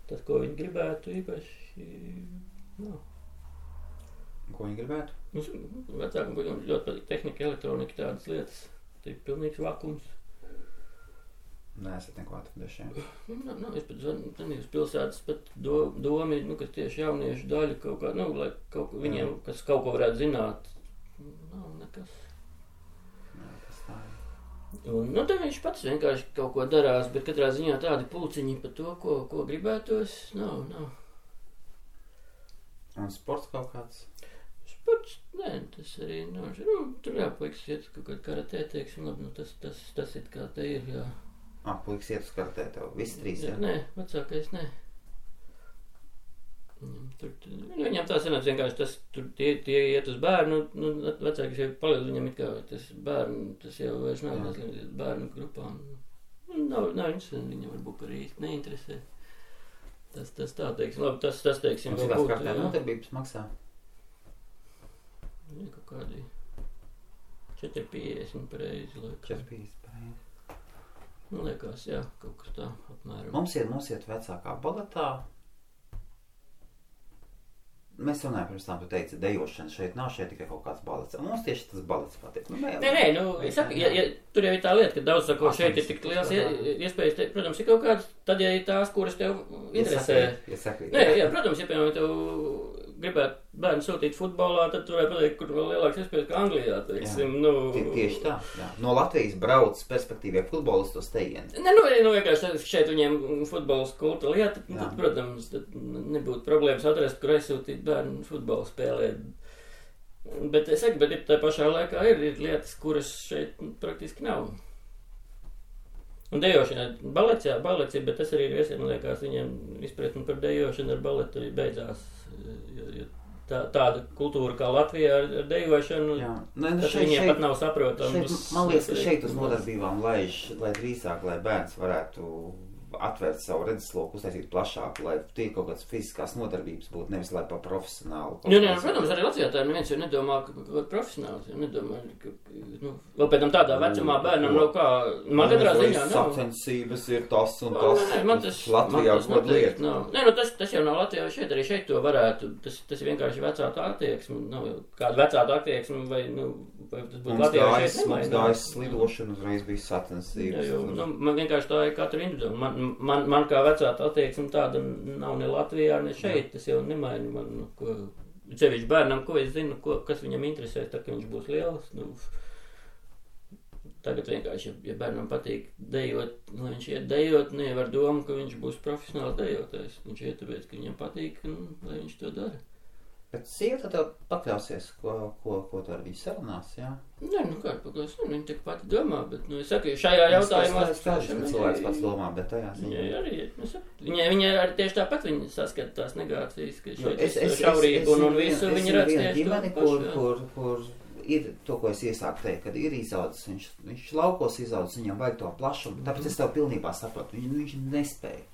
Tas, ko viņi gribētu, īpaši nav. Ko viņi gribētu? Vecākam ļoti patīk tehnika, elektronika, tādas lietas. Tā ir pilnīgs vakums. Nē, es neko atradīšu. Es pat zvanīju uz pilsētas, pat domi, ka tieši jauniešu daļa kaut kā, lai kaut ko viņiem, kas kaut ko varētu zināt, nav nekas. Un, tad viņš pats vienkārši kaut ko darās, bet katrā ziņā tādi pulciņi par to, ko gribētos, nav. Un sports kaut kāds? Sports, nē, tas arī nav. Tur puikas iet kaut kādā karatē, teiksim, labi, tas ir kā te ir, jā. Puikas iet uz karatē tev, visi 3, jā? Nē, vecākais, nē. Viņam tā sanāca vienkārši tie iet uz bērnu, vecākais jau paliek viņam it kā tas bērnu, tas jau vairs nav bērnu grupām. Nav interesanti, viņam varbūt arī neinteresē. Tas tā, teiksim, labi, tas teiksim, vēl būtu. Kādā nodarbības maksā? Jā, kaut kādi 4,50 pareizi. 4,50 pareizi. Liekas, jā, kaut kas tā apmēram. Mums iet vecākā baletā. Mēs runājam pirms tam, tu teici, dejošana šeit nav, šeit tikai kaut kāds balets. Un mums tieši tas balets patīk. Nē, es saku, tur jau ir tā lieta, ka daudz sako, šeit ir tik liels iespējas, protams, ir kaut kāds, tad, ja ir tās, kuras tev interesē. Nē, protams, ja piemēram tev gribētu bērnu sūtīt futbolā, tad tu varētu pateikt, kur vēl lielāks iespējas kā Anglijā, teiksim. Tieši tā, jā. No Latvijas brauc perspektīvie futbolisti uz tejieni. Vienkārši šeit viņiem futbols kulta lieta, tad, protams, nebūtu problēmas atrast, kur aizsūtīt bērnu futbolu spēlēt. Bet es saku, bet tā pašā laikā ir lietas, kuras šeit praktiski nav. Un dejošana, balets, ir, bet tas arī ir viesiem, man liekas, viņiem izpratni par dejošanu ar baletu beigās. Jo tāda kultūra kā Latvijā ar dejošanu, tas viņiem pat nav saprotams. Man liekas, ka šeit uz nodarbībām lai drīzāk, lai bērns varētu atvērt savu redzesloku, uztaisīt plašāku, lai tie kaut kādas fiziskās nodarbības būtu, nevis lai pa profesionālu. Protams, arī Latvijā tā neviens jau nedomā, ka profesionāls, jau nedomā, vēl pēc tam tādā vecumā bērnam nav kā, man katrā ziņā nav. Sacensības ir tas un tas. Man tas lieta. Tas jau nav Latvijā, arī šeit to varētu, tas ir vienkārši vecāta attieksme, nav kāda vecāta attieksme, vai tas būtu Latvijā šeit nemainās. Mums gājas slidošana, uzreiz bija sacensības. Man vienkārši tā ir katru individuāli. Man kā vecāta attieksme tāda nav ne Latvijā, ne šeit, tas jau nemaina man, cevišķi bērnam, ko es zinu, kas viņam interesē, tad, ka viņš būs liels. Tagad vienkārši, ja bērnam patīk dejot, lai viņš iet dejot, nevar domu, ka viņš būs profesionāls dejotājs. Viņš iet tāpēc, ka viņam patīk, lai viņš to dara. Bet sieva tad pakļausies, ko tu ar viņu sarunās, jā? Nē, kāda pakļaus, viņa tik pati domā, bet, es saku, šajā jautājumā... Es skaidrs, ka cilvēks pats domā, bet tajā ziņā... Viņa arī tieši tāpat viņa saskata tās negācijas, ka šeit šaurību un visu viņa redz tieši to pašu. Kur ir to, ko es iesāku teikt, kad ir izaudzis, viņš laukos izaudzis, viņam vajag to plašumu, tāpēc es tev pilnībā saprotu, viņš nespēja,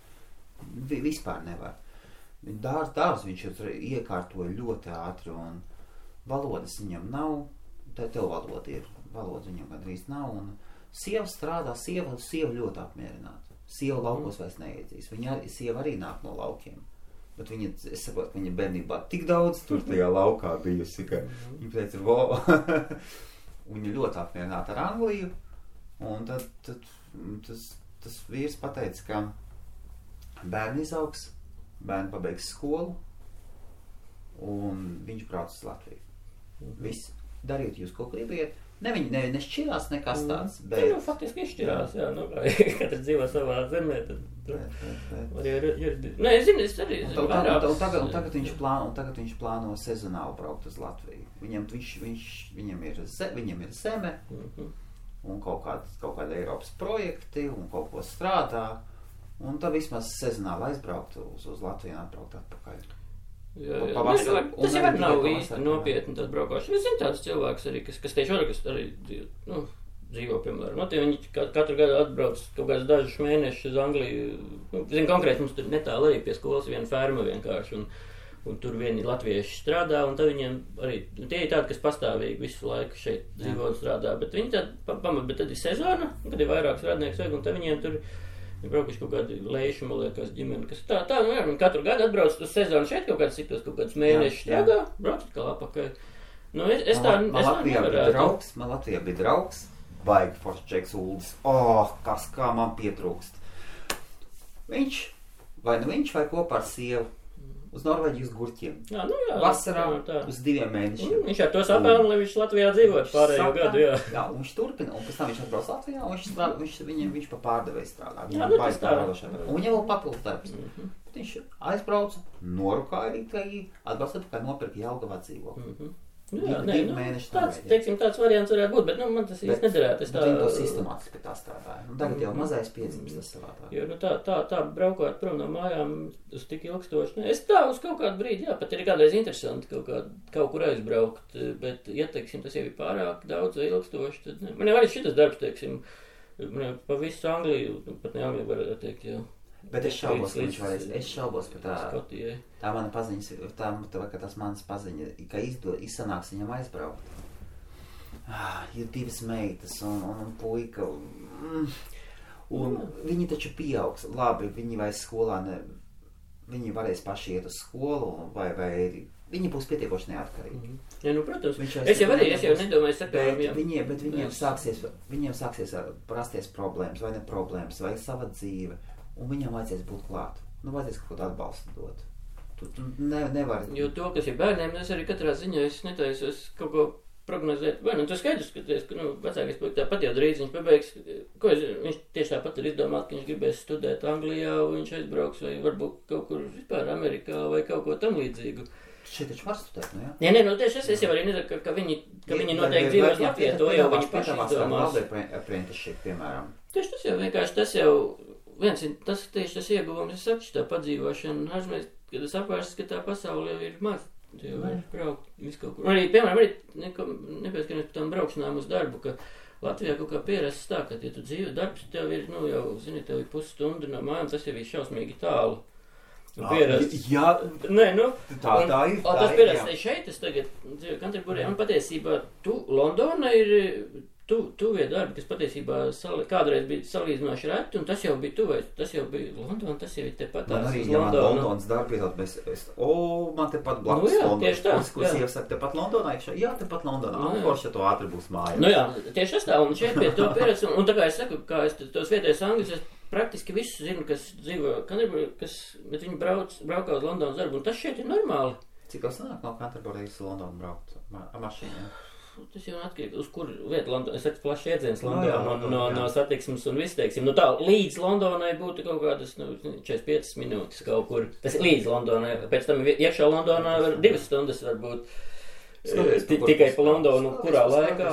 vispār nevar. Dārz viņš iekārtoja ļoti ātri, un valodas viņam nav, tev valoda viņam gandrīz nav, un sieva strādā, sieva ļoti apmierināta. Sieva laukos vairs neiedzīs, sieva arī nāk no laukiem, bet es saprotu, ka viņa bērnībā tik daudz tur tajā laukā bijusi, ka viņa teica, viņa ļoti apmierināta ar Angliju, un tad tas vīrs pateica, ka bērni izaugs, bērni pabeigs skolu, un viņš brauc uz Latviju. Viss, dariet jūs, ko gribiet, Ne, viņi nešķirās nekas tāds, bet... Nu, faktiski izšķirās, jā, nu, katrs dzīvo savā zemē, tad... Nē, es zinu, es arī zinu vairāk. Un tagad viņš plāno sezonāli braukt uz Latviju. Viņam ir zeme, un kaut kāda Eiropas projekti, un kaut ko strādā, un tad vismaz sezonāli aizbraukt uz Latviju un atbraukt atpakaļ. Jā. Tas jau nav īsti nopietni tad braukāšana. Es zinu tādus cilvēkus arī, kas tieši arī dzīvo, piemēram. Viņi katru gadu atbrauc kaut kāds dažus mēnešus uz Angliju. Zinu, konkrēti mums tur netālu arī pie skolas viena ferma vienkārši, un tur vieni latvieši strādā, un tad viņiem arī, tie ir tādi, kas pastāvīgi visu laiku šeit dzīvo un strādā, bet viņi bet tad ir sezona, kad ir vairāks radnieks vajag, un tad viņiem tur ir braukuši kaut kādi leiši, man liekas, ģimeni, kas tā, viņi katru gadu atbrauc uz sezonu šeit kaut kādus mēnešus strādā, brauc atkal apakaļ. Nu, Man Latvijā bija draugs, baigi foršs Džeks Uldis. Kā man pietrūkst. Viņš vai kopā ar sievu uz Norvēģiju uz gurķiem. Jā, vasarā uz 2 mēnešiem. Viņš ar to sapēl, lai viņš Latvijā dzīvot pārējo gadu, jā. Jā, un viņš turpina, un pēc tam viņš atbrauc Latvijā, un viņš pa pārdevēju strādā. Jā, tas tā. Un viņam vēl papildus darbs. Viņš aizbrauca, norukāja Rīgai, atbrauc atpakaļ nopirka Jelgavā dzīvokli. Tāds variants varētu būt, bet man tas īsti nederētu. Viņi to sistemātiski pie tā strādāja. Tagad jau mazais piedzimst tas savādā. Jo tā braukāt prom no mājām uz tik ilgstoši. Es tā uz kaut kādu brīdi, pat ir kādreiz interesanti kaut kur aizbraukt, bet, ja, teiksim, tas jau ir pārāk daudz ilgstoši, tad ne. Man jau arī šitas darbs, teiksim, pa visu Angliju, pat ne Angliju varētu teikt, jau. Bet es šaubos, ka viņš varēs. Es šaubos, ka tā mana paziņas, ka tas manas paziņa, ka izsanāks viņam aizbraukt. Ir 2 meitas un puika. Un viņi taču pieaugs. Labi, viņi vairs skolā viņi varēs paši iet uz skolu, vai viņi būs pietiekoši neatkarīgi. Ja, protams. Es jau nedomāju sakām. Bet viņiem sāksies rasties problēmas, vai ne problēmas, vai sava dzīve. Un viņam vajadzēs būt klāt. Vajadzēs kaut kādu atbalstu dot. Tu nevari... Jo to, kas ir bērniem, es arī katrā ziņā netaisos kaut ko prognozēt. Vai, tu skaidrs, ka vecākais puika tāpat jau drīz viņš pabeigs. Viņš tieši tāpat ir izdomāt, ka viņš gribēs studēt Anglijā, viņš aizbrauks vai varbūt kaut kur vispār Amerikā vai kaut ko tam līdzīgu. Šeit taču var studēt, nu jā? Nē, tieši es jau arī nedaru, ka viņi noteikti dzīvos Latvijā, to jau viņi paši izdomās. Apprenticeship, piemēram. Tieši tas jau vienkārši, tas tieši tas ieguvums, es saku, tā padzīvošana, ārzemēs, kad es apvērsts, ka tā pasaule jau ir maz, jau var braukt visu kaut kur. Arī, piemēram, nepieskamies par tām braukšanām uz darbu, ka Latvijā kaut kā pierasts tā, ka, ja tu dzīvo darbs, tev ir, jau, zini, tev ir pusstunda no mājām, tas jau ir šausmīgi tālu. Jā, nē, tā ir. Tas pierasts šeit, es tagad dzīvoju Kanterburijā, un patiesībā Londona ir tuvie darbi, kas patiesībā kādreiz bija salīdzinoši reti, un tas jau bija tuvais, tas jau bija Londona, tas jau ir tepat tās uz Londonu. Man arī, Londonas darbi, man tepat blakus Londona. Ko sieva saka, tepat Londonā? Jā, tepat Londonā. Forši, ja to ātri būs māja. Jā, tieši tas tā, un šeit pie to pieredz, un tā kā es saku, kā es tos vietējos angļus, es praktiski visu zinu, kas dzīvo Canterbury, bet viņi braukā uz Londonas darbu, un tas šeit ir normāli. Cik jau sanāk no Canterbury's Londonu braukt ar mašīnām? Tas jau atkarīgi, uz kur vietu Londonā. Es saku, plašs iedziens Londonā no satiksmes un viss, teiksim. Tā, līdz Londonai būtu kaut kādas 45 minūtes kaut kur. Tas ir līdz Londonai. Pēc tam iekšā Londonā 2 stundas varbūt. Tikai pa Londonu, kurā laikā.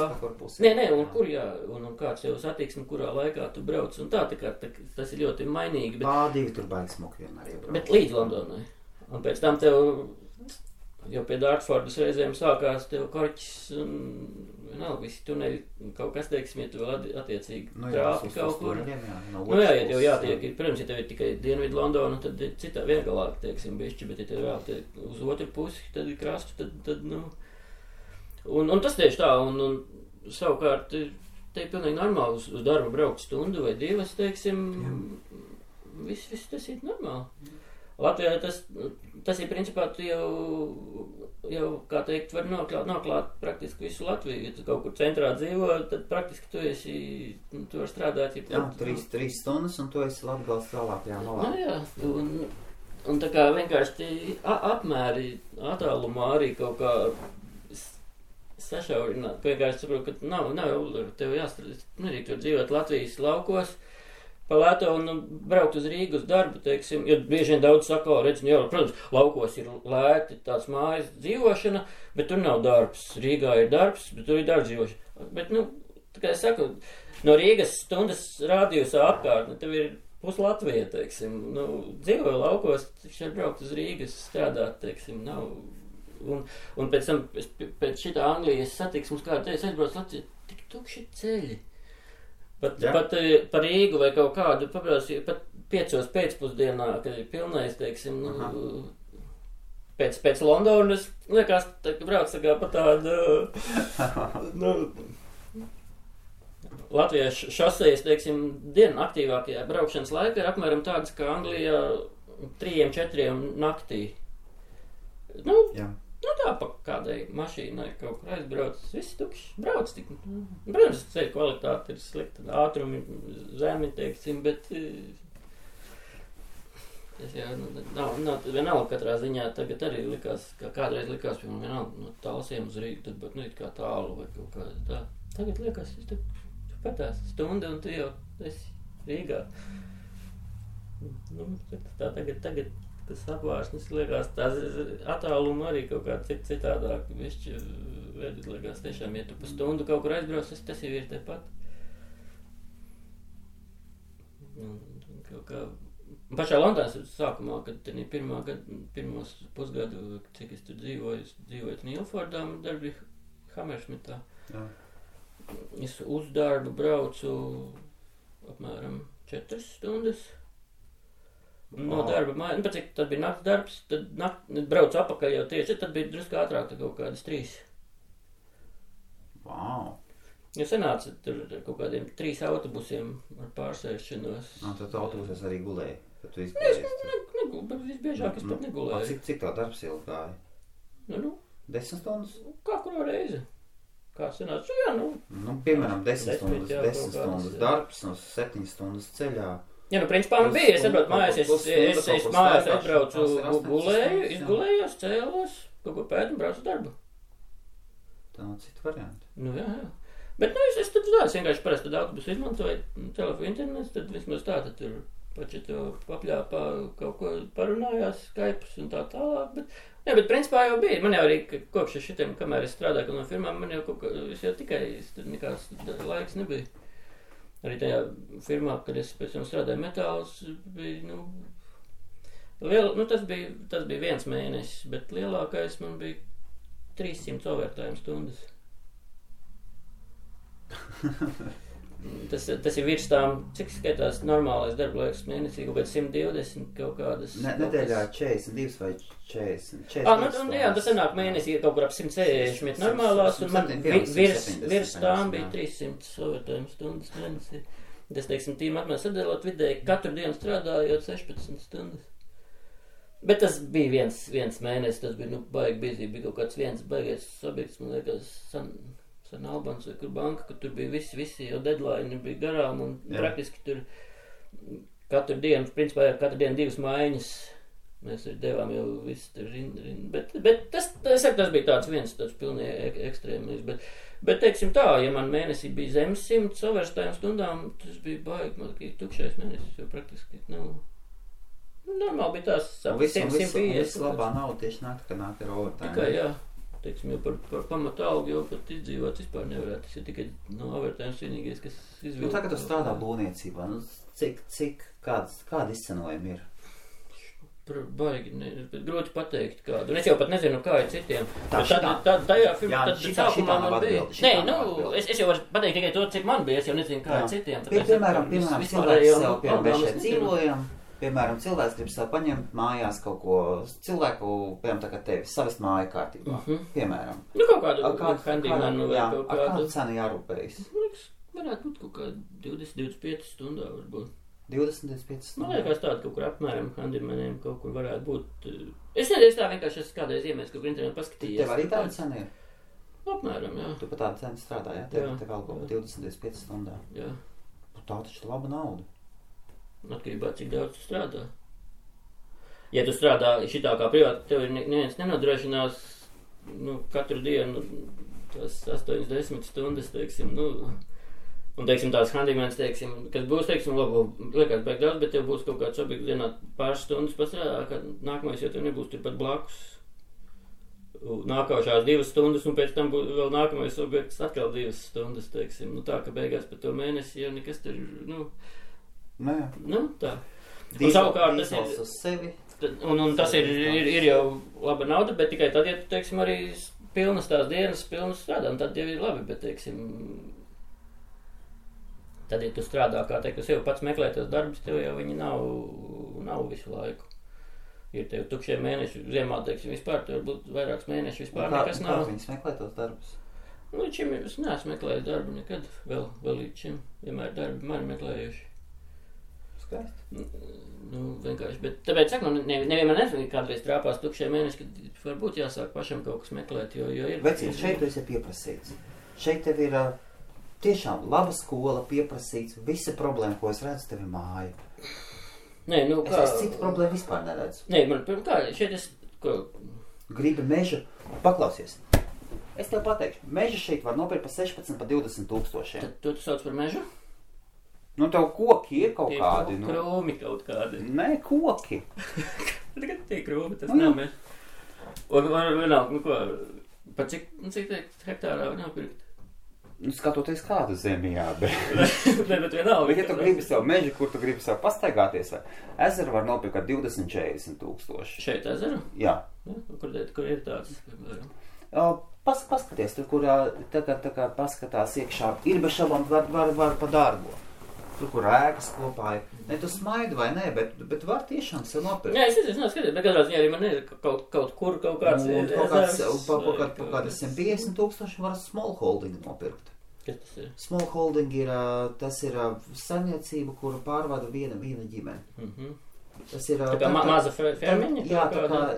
Nē, un kur, jā, un kāds jau satiksme, kurā laikā tu brauc. Un tā kā tas ir ļoti mainīgi. Pār-2 tur baigi smuki vienmēr iebrauc. Bet līdz Londonai. Un pēc tam tev... Jo pie Dartfordas reizēm sākās tev korķis un vienalga visi tuneļi, kaut kas, teiksim, ja tu vēl attiecīgi trāpi kaut kur. Ja tev jātiek, protams, ja tev ir tikai Dienvidu Londona, tad ir citā viengalāk, teiksim, bišķi, bet ja tev vēl tiek uz otru pusi, tad ir krastu, tad Un tas tieši tā, un savukārt, te ir pilnīgi normāli uz darbu braukt stundu vai 2, teiksim, viss tas ir normāli. Latvijā tas ir principā tu jau kā teikt, var noklāt praktiski visu Latviju. Ja tu kaut kur centrā dzīvo, tad praktiski tu vari strādāt. Jā, 3 stundas un tu esi Latgales tālākajā malā. Jā, un tā kā vienkārši apmēri attālumā arī kaut kā sašaurināt. Vienkārši saprotu, ka nav tev jāstrādāt. Nedrīkst tur dzīvot Latvijas laukos, pa lēto un braukt uz Rīgu uz darbu, teiksim. Jo bieži vien daudz saka, protams, laukos ir lēti tāds mājas dzīvošana, bet tur nav darbs. Rīgā ir darbs, bet tur ir darbs dzīvošana. Bet, tā kā es saku, no Rīgas stundas rādījusā apkārtne, tev ir pus Latvija, teiksim. Dzīvoju laukos, šeit braukt uz Rīgas strādāt, teiksim, nav. Un pēc tam, pēc šitā Anglijas satiksmes, kā teicu, aizbrauc Latviju, tik tukši ceļi. Pat par Rīgu vai kaut kādu, paprās, pat 5 pēcpusdienā, kad ir pilnais, teiksim, pēc Londonas, liekas, brauc tā kā pa tādu, Latvijas šosejas, teiksim, dienu aktīvākajā braukšanas laikā ir apmēram tādas, kā Anglijā 3-4 naktī. Tā pa kādai mašīnai kaut kur aizbrauc, viss tukšs, brauc tik. Protams, ceļu kvalitāte ir slikta, ātrumi zemi, teiksim, bet tas jau nav vienalga katrā ziņā. Tagad arī likās, kā kādreiz likās, piemēram, vienalga no Talsiem uz Rīgu, tad bet kā tālu vai kaut kā tā. Tagad liekas, tu patās stundu un tu jau esi Rīgā. Tā tagad tas apvārsnes liekas, tās attāluma arī kaut kā citādāk. Višķi liekas tiešām, ja tu pa stundu kaut kur aizbrauc, tas jau ir tepat. Kaut kā pašā Londonas sākumā, kad tenī pirmos pusgadu, cik es tur dzīvoju Nīlfordā, darbi Hammersmitā. Es uz darbu braucu apmēram 4 stundas. No darba mājas, pat cik tad bija nakts darbs, tad braucu apakaļ jau tieši, tad bija drusku ātrāk, tad kaut kādas 3. Wow! Jo sanāca tur kaut kādiem 3 autobusiem ar pārsēšanos. Tad autobusos arī gulēji, kad tu izgulēji? Bet visbiežāk es pat negulēju. Cik tā darbs ilgi gāja? 10 stundas? Kā kuro reizi? Kā sanāca? Piemēram, 10 stundas darbs, 7 stundas ceļā. Principā man bija, es atbraucu mājās, es mājās atbraucu, gulēju, izgulējos, cēlos, kaut ko pētu un braucu darbu. Tā nav cita varianta. Jā. Bet, es tad vienkārši parasti tad autobusu izmantoju, telefonu internets, tad vismaz tā, tad tur pači to papļāpā kaut ko parunājās, Skypes un tā tālāk, bet principā jau bija. Man jau arī kopš šitiem, kamēr es strādāju no firmām, man jau kaut kā, es jau tikai, tur nekās laiks nebija. Arī tajā firmā, kad es pēc tam strādāju metālus, bija, tas bija 1 mēnesis, bet lielākais man bija 300 overtime stundas. Tas ir virs tām, cik skaitās normālais darba laiks mēnesī, kaut kāds 120 kaut kādas. Nedēļā 42 vai 40. Tas sanāk mēnesī kaut kur ap 160 normālās, un man virs tām bija 300 overtime stundas mēnesī. Tas, teiksim, tīm apmēram sadēlot vidēji, katru dienu strādājot 16 stundas. Bet tas bija viens mēnesis, tas bija, baigi bizī, bija kaut kāds viens baigies sabiedrs, man liekas, San Albans vai kur banka, ka tur bija visi jau deadline bija garām un praktiski tur katru dienu, principā katru dienu 2 maiņas mēs arī devām jau visu tur bet tas bija tāds tāds pilnīgi ekstrēmais, bet teiksim tā, ja man mēnesī bija zemes 100 overtime stundām, tas bija baigi, tukšais mēnesis, jo praktiski normāli bija tās 150. Viss labā nav tieši nāk ar overtime. Tikai, jā. Teiksim, jau par pamatu algu jau pat izdzīvot vispār nevarētu. Tas ir tikai no overtime vienīgais, kas izvilk. Tagad tu strādā būvniecībā. Kāda izcenojuma ir? Baigi, grūti pateikt kādu. Un es jau pat nezinu, kā ir citiem. Tajā firmā, tad sākumā man bija. Es jau varu pateikt tikai to, cik man bija. Es jau nezinu, kā ir citiem. Piemēram, cilvēks sev šeit dzīvojam. Piemēram, cilvēks grib sev paņemt mājās kaut ko, cilvēku, piemēram, tā kā tevi, savest māju kārtībā, piemēram. Kaut kādu handimanu vai kaut kādu. Ar kādu cenu jārūpējas? Varētu būt kaut kā 20-25 stundā varbūt. 20-25 stundā? Man liekas tāda kaut kur apmēram handimaniem kaut kur varētu būt. Es nedēļ tā vienkārši esmu kādreiz iemēs, kaut kur internetā paskatījies. Tev arī tāda cena ir? Apmēram, jā. Tu pa tādu cenu strādā, jā? Tev algo pa 20-25 stundā. Jā. Tā taču laba nauda. Atkarībā, cik daudz tu strādā. Ja tu strādā šitā kā privāti, tev neviens nenodrošinās katru dienu tos 8-10 stundas, teiksim, nu, un, teiksim, tās handymanis, teiksim, kas būs, teiksim, labi, liekas beig daudz, bet tev būs kaut kāds objekts dienā pāris stundas pastrādā, kad nākamais, jo tev nebūs turpat blakus nākošās 2 stundas, un pēc tam būs vēl nākamais objekts atkal 2 stundas, teiksim, nu tā, ka beigās par to mēnesi jau nekas tur, nu, tā. Un savukārt tas ir, uz sevi. Un tas ir jau laba nauda, bet tikai tad, ja tu, teiksim, arī pilnas tās dienas, pilnas strādā, un tad jau ir labi, bet, teiksim, tad, ja tu strādā, kā teikt, tu sev pats meklē tos darbus, tev jau viņi nav visu laiku. Ir tev tukšie mēneši, ziemā, teiksim, vispār, tev varbūt vairāks mēneši vispār nekas nav. Kā viņas meklē tos darbus? Nu, līdz šim es neesmu meklējis darbu nekad, vēl līdz šim, vienmēr darbi mani meklējuši. Skaisti. Nu, vienkārši, bet tāpēc, saku, nevienmēr nezinu, kādreiz trāpās tukšie mēneši, kad varbūt jāsāk pašam kaut kas meklēt, jo ir... Vecīt, šeit tu esi pieprasīts. Šeit tev ir tiešām laba skola, pieprasīts, visa problēma, ko es redzu, tev ir māja. Nē, nu kā... Es citu problēmu vispār neredzu. Nē, man, kā, šeit es... Ko... Gribi mežu, paklausies. Es tev pateikšu, mežu šeit var nopirkt pa 16, pa 20 tūkstošiem. Tad tu sauc par mežu? Nu, tev koki ir kaut kādi. Nu. Krūmi kaut kādi. Nē, koki. Tagad tie krūmi, tas nav mežu. Un vienalga, nu ko, pa cik hektārā var nopirkt? Nu, skatoties kādu zemi, jā, bet... Ne, bet vienalga. Bet ja tu gribi sev mežu, kur tu gribi sev pastaigāties, vai ezeru var nopirkt ar 20-40 tūkstoši. Šeit ezeru? Jā. Kur ir tāds? Paskaties, tur, kur tā kā paskatās iekšā, ir bez šabām var pa dārgo. Tur, kur ēkas kopā ir. Ne, tu smaidi vai ne, bet var tiešām sev nopirkt. Jā, es skaties, bet katrā ziņā arī man ir kaut kur kaut kāds... Kaut kādi 150 tūkstoši var small holding nopirkt. Kas tas ir? Small holding ir, tas ir saimniecība, kuru pārvada viena ģimene. Tas ir... Tā kā maza fermiņa?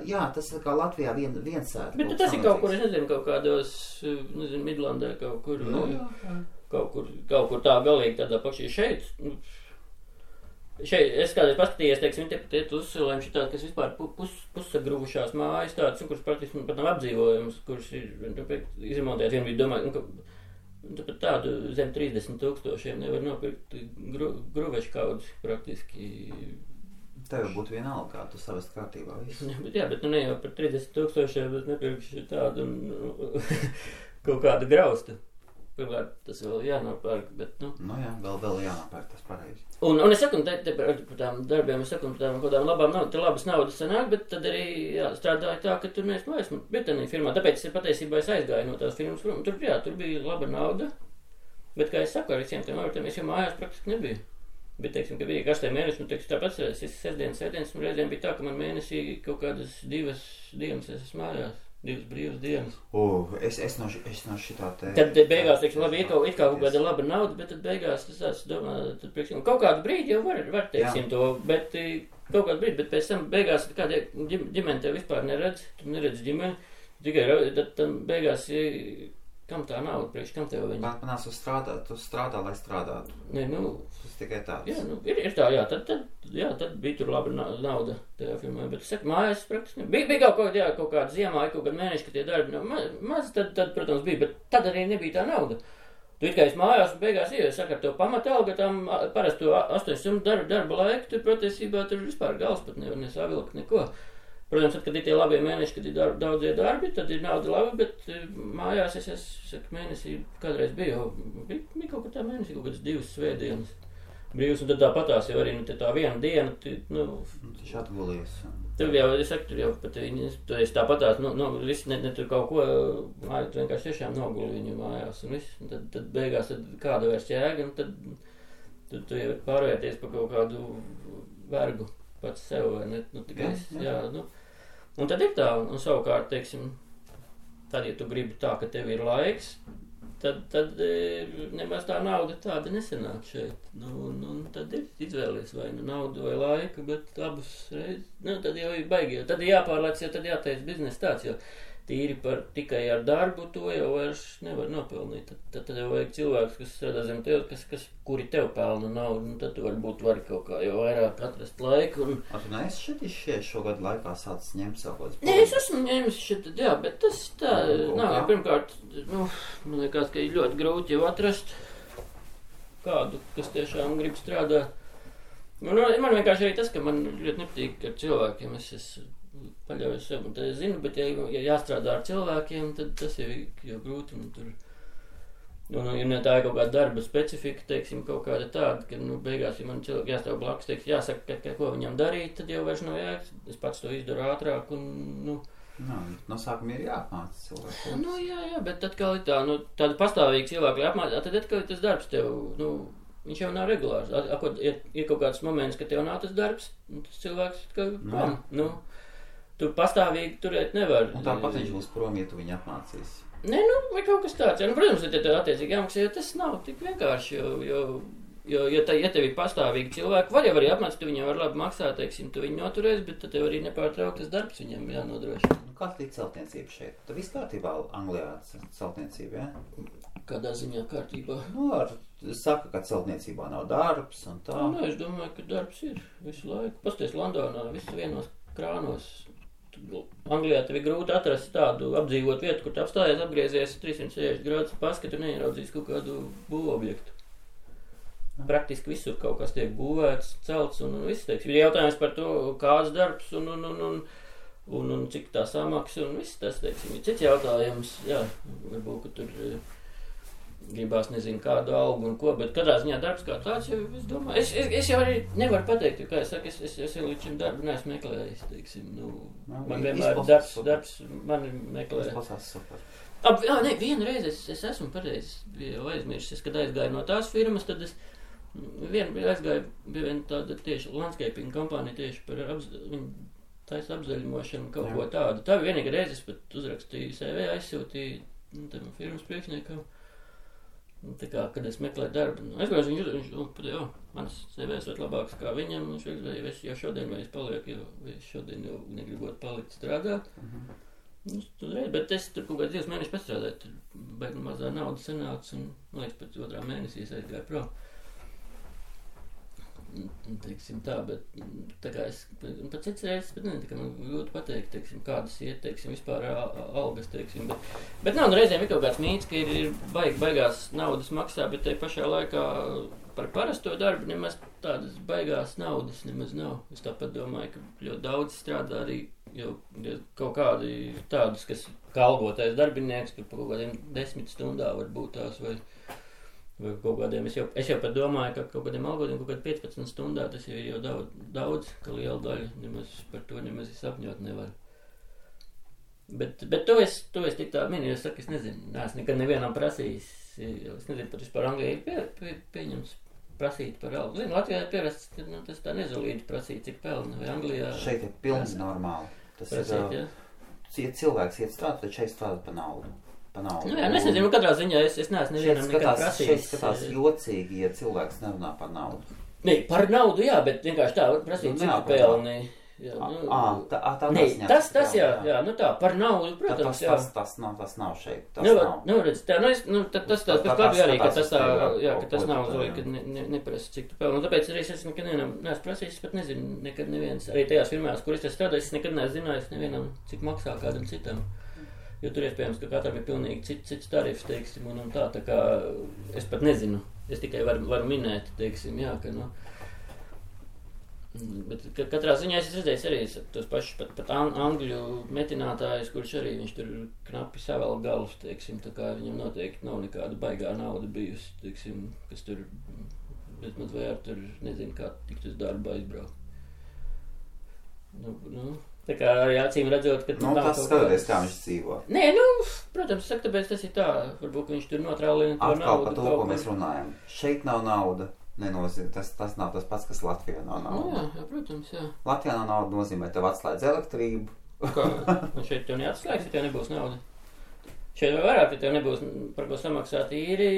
Jā, tas ir kā Latvijā viens sēta. Bet tas ir kaut kur, es nezinu, kaut kādos, nezinu, Midlandē kaut kur. Nu, jā. Kaut kur tā galīgi tādā pakšī šeit. Šeit, es kādreiz paskatījos, teiksim, tie uzsilējumi šitādi, kas vispār pussagrūvušās mājas tādas, kuras praktiski pat nav apdzīvojums, kuras ir izremontēts. Vien bija domāju, ka pat tādu zem 30 tūkstošiem nevar nopirkt gruvešu kaudzi praktiski. Tev būtu vienalga, kā tu savest kārtībā visu. Bet nu ne jau par 30 tūkstošiem, bet nepirkšu tādu kaut kādu graustu. Pirmkārt, tas vēl jānopērk, bet, nu... Nu jā, vēl jānopērk, tas pareizi. Un es saku, te par tām darbiem, es saku, par tādām labām naudas, te labas naudas sanāk, bet tad arī strādāja tā, ka tur neesmu vairs Britanija firmā. Tāpēc patiesībā es aizgāju no tās firmas prom. Tur bija laba nauda, bet, kā es saku, ar visiem tiem avotiem, es jau mājās praktiski nebiju. Bet, teiksim, ka bija karstie mēneši, nu, teiksim, tāpat es sestdienas, un reizēm bija tā, ka man mēnesī kaut kādas 2 dienas es esmu mājās. 2 brīvas dienas. Es no šitā te... Tad beigās, teiksim, labi, ir kaut kāda laba nauda, bet tad beigās es domā, tad priekšņi, kaut kādu brīdi jau var teiksim to, bet kaut kādu brīdi, bet pēc tam beigās kāda ģimene tev vispār neredz, tu neredz ģimeni, tikai tad beigās, kam tā nauda, priekš, kam tev viņa? Panās uz strādāt, tu strādā, lai strādātu. Nē, nu... Tas tikai tāds. Jā, nu, ir tā, jā, tad bija tur laba nauda tajā filmā, bet es saku, mājās praktiski bija kaut kāda ziemā, kaut kāda mēneša, ka tie darbi nav maz, tad, protams, bija, bet tad arī nebija tā nauda. Tu it kā esi mājās un beigās saka, ar to pamatalgu, tam parastu 8 stundu darba laiku, tur patiesībā tur vispār gals pat nevar nesavilkt neko. Protams, tad, kad ir tie labie mēneši, kad ir daudzie darbi, tad ir nauda laba, bet mājās es saku, mēnesī kādreiz bija kaut kā tā mēnesī, kaut kādas 2 svētdienas brīvas, un tad tāpatās jau arī, nu, tā viena diena, nu... Taču atgulies. Tur jau, es saku, tur jau pat viņi, tu esi tāpatās, visi ne tur kaut ko, māju, tu vienkārši tiešām noguli viņu mājās, un viss, un tad beigās, tad kāda vairs jēga, un tad tu jau pārvērties pa kaut kādu vergu pats sev, vai ne, nu, tikai jā, nu... Un tad ir tā, un savukārt, teiksim, tad, ja tu gribi tā, ka tev ir laiks, tad nemaz tā nauda tāda nesenāk šeit. Nu, tad ir izvēlies vai nu naudu vai laiku, bet abas reizes, nu, tad jau ir baigi, tad ir jāpārlēc, jo tad jāteic biznesa tāds, jo tīri tikai ar darbu to jau vairs nevar nopelnīt. Tad jau vajag cilvēks, kas strādā zem tev, kuri tev pelna naudu, un tad tu varbūt vari kaut kā jau vairāk atrast laiku. Tu neesi šeit šogad laikā sācis ņemt savu kaut kādu? Nē, es esmu ņēmis šeit, jā, bet tas tā nav. Pirmkārt, man liekas, ka ir ļoti grūti jau atrast kādu, kas tiešām grib strādāt. Man vienkārši arī tas, ka man ļoti nepatīk ar cilvēkiem, es paļauju sev, un tad es zinu, bet ja jāstrādā ar cilvēkiem, tad tas jau grūti, un tur, ja tā ir kaut kāda darba specifika, teiksim, kaut kāda tāda, ka, beigās, ja man cilvēki jāstāv blakus, teiksim, jāsaka, ko viņam darīt, tad jau vairs nav jēgas, es pats to izdaru ātrāk, un, no sākuma ir jāapmāca cilvēku. Jā, bet atkal ir tā, tāda pastāvīga cilvēku jāapmāca, tad atkal ir tas darbs tev, viņš jau nav regulārs. Ir kaut kāds moments, ka tev nav tas darbs, un tas cilvēks, tu pastāvīgi turēt nevar. Un tāpat viņš būs prom, ja tu viņu apmācīsi. Nē, vai kaut kas tāds. Protams, ja tev attiecīgi jāmaksā, jo tas nav tik vienkārši, jo ja tev ir pastāvīgi cilvēki, var jau arī apmācīt, tu viņiem var labi maksāt, teiksim, tu viņu noturēs, bet tad tev arī nepārtrauktas darbs viņam jānodrošina. Kāda ir celtniecība šeit? Tad viss kārtībā Anglijā celtniecība, jā? Kādā ziņā kārtībā? Saka, ka celtniecībā nav darbs un tā. Es domāju, ka darbs ir visu laiku. Pasties Londonā, visu vienos krānos. Anglijā tev ir grūti atrast tādu apdzīvot vietu, kur tu apstājies, apgriezies 360 grādus paskatu un neieraudzīs kaut kādu būvobjektu. Praktiski visur kaut kas tiek būvēts, celts un viss, teiksim. Ir jautājums par to, kāds darbs un cik tā samaksa un viss tas, teiksim. Ir cits jautājums, jā, varbūt, ka tur gribās nezinu kādu algu un ko, bet katrā ziņā darbs kā tāds jau, es domāju, es jau arī nevaru pateikt, jo, kā es saku, es līdz šim darbu neesmu meklējis, teiksim, man vienmēr darbs mani meklē. Izplasās super. Vienreiz es esmu pareizi jau aizmirsis, kad aizgāju no tās firmas, tad es aizgāju, bija viena tāda tieši landscaping kompānija tieši par viņu taisa apzaļumošanu, kaut ko tādu. Tā bija vienīga reize, es pat uzrakstīju CV, aizsūtīju tam firmas priekšniekam. Tā kā, kad es meklēju darbu, es viņš manas CVs vēl labāks kā viņam, es jau šodien vairs palieku, jo es šodien jau negribot palikt strādāt. Bet es tur kaut kāds 2 mēnešus pastrādāju, tur baigi mazā nauda sanāca, un, man liekas, pēc 2. mēnesī es aizgāju prom. Teiksim tā, bet tā kā es pat cits reizes, bet tā kā man grūti pateikt, teiksim, kādas iet, teiksim, vispār algas, teiksim, bet nav reizēm ir kaut kāds mīts, ka ir baigās naudas maksā, bet te pašā laikā par parasto darbu nemaz tādas baigās naudas nemaz nav. Es tāpat domāju, ka ļoti daudz strādā arī jau kaut kādi tādus, kas kā algotais darbinieks, tur pa kaut kādiem 10 stundā varbūt tās vai kaut kādiem, es jau pat domāju, ka kaut kādiem algodiem kaut kādi 15 stundā tas jau ir jau daudz, ka liela daļa nemaz par to nemaz sapņot nevar. Bet to es tik tā minēju, es saku, es nezinu, neesmu nekad nevienam prasījis, es nezinu, pat vispār Anglijā ir pieņems prasīt par algu. Zinu, Latvijā ir pierasts, ka tas tā nezolīti prasīt, cik pelna, vai Anglijā... Šeit ir pilnīgi normāli. Tas prasīt, ir, ja cilvēks iet strādāt, tad šeit strādāt pa naudu. Es nezinu, katrā ziņā es neesmu nevienam nekad prasījis. Šeit skatās jocīgi, ja cilvēks nerunā par naudu. Nē, par naudu, jā, bet vienkārši tā var prasīt, cik pelni. Tas tā, par naudu, protams, jā. Tas nav šeit. Redz, tā, tas labi arī, ka tas tā, jā, ka tas nav zoli, ka neprasa, cik tu pelni. Un tāpēc arī es nekad neesmu prasījis, pat nezinu, nekad neviens, arī tajās firmās, kur es strādāju, es nekad neesmu zinājis nevienam, cik maksā kādam citam. Jo tur iespējams, ka katram ir pilnīgi cits tarifs, teiksim, un tā kā es pat nezinu, es tikai varu minēt, teiksim, jā, ka, bet katrā ziņā es redzēju arī tos pašus pat angļu metinātājus, kurš arī viņš tur knapi savēl galus, teiksim, tā kā viņam noteikti nav nekāda baigā nauda bijusi, teiksim, kas tur bezmaz vai ar tur nezinu, kā tikt uz darbu aizbraukt. Tā kā arī acīm redzot, ka... tas skatoties, kā viņš dzīvo. Nē, protams, saka, tāpēc tas ir tā, varbūt viņš tur notrālina to naudu. Atkal par to, ko mēs runājam. Šeit nav nauda, nenozīmē, tas nav tas pats, kas Latvijā nav nauda. Jā, protams, jā. Latvijā nav nauda nozīmē, tev atslēdz elektrību. Kā? Un šeit tev neatslēgs, ja tev nebūs nauda? Šeit vēl vairāk, ja tev nebūs par ko samaksāt īri.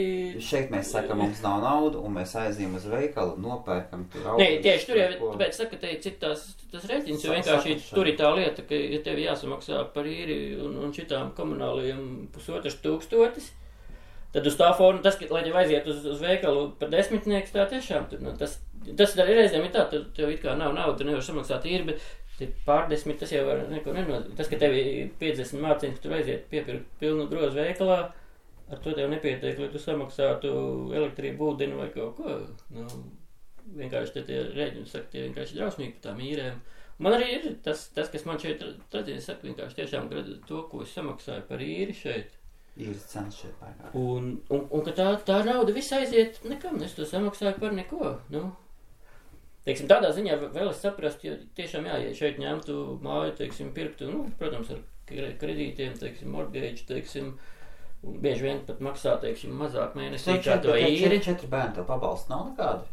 Šeit mēs sakam, mums nav naudu, un mēs aizījām uz veikalu, nopērkam tur augus. Nē, tieši tur jau, tāpēc saka, te cik tas rēķins, jo vienkārši tur ir tā lieta, ka ja tev jāsamaksā par īri un šitām komunālajiem 1500, tad uz tā forma, tas, lai tev aiziet uz veikalu par 10, tā tiešām tur, tas arī reizēm ir tā, tev it kā nav nauda, tu nevar samaksāt īri, bet pār 10, tas jau var neko nenot. Tas, ka tev ir 50 mārciņas, ka tu aiziet piepirkt pilnu grozu veikalā, ar to tev nepietiek, lai tu samaksātu elektrību, ūdeni vai kaut ko. Nu, vienkārši tie rēģini, saka, tie vienkārši drausmīgi par tām īrēm. Man arī ir tas kas man šeit, tad es saku, vienkārši tiešām to, ko es samaksāju par īri šeit. Īres cenas šeit pārāk. Un ka tā nauda viss aiziet nekam, es to samaksāju par neko, nu. Teiksim, tādā ziņā vēl es saprastu, jo tiešām ja šeit ņemtu māju, teiksim, pirktu, protams, ar kredītiem, teiksim, mortgage, teiksim, un bieži vien pat maksā, teiksim, mazāk mēnesī kā to īri. 4 bērni tev pabalsta nav nekādi?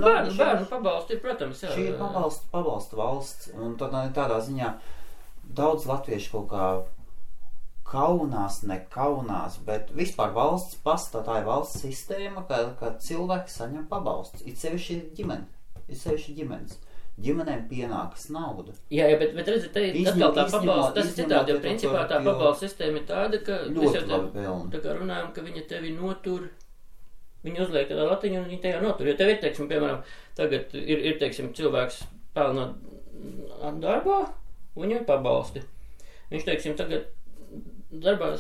Bērnu pabalsti ir, protams, jā. Šī ir pabalsta valsts, un tādā ziņā daudz latviešu kaut kā kaunās, bet vispār valsts pastā, tā ir valsts sistēma, ka cilvēki saņem pabalstus, it sevišķi ģimenes. Ģimenēm pienākas nauda. Jā, bet redziet, atkal tā pabalsta, tas ir citādi, jo principā tā pabalsta sistēma ir tāda, ka ļoti labi pelna. Tā kā runājam, ka viņa tevi notur, viņa uzliek tādā latiņu un viņa tevi notur. Jo tev ir, teiksim, piemēram, tagad ir teiksim, cilvēks pelna darbā, un viņam ir pabalsti. Viņš, teiksim, tagad darbā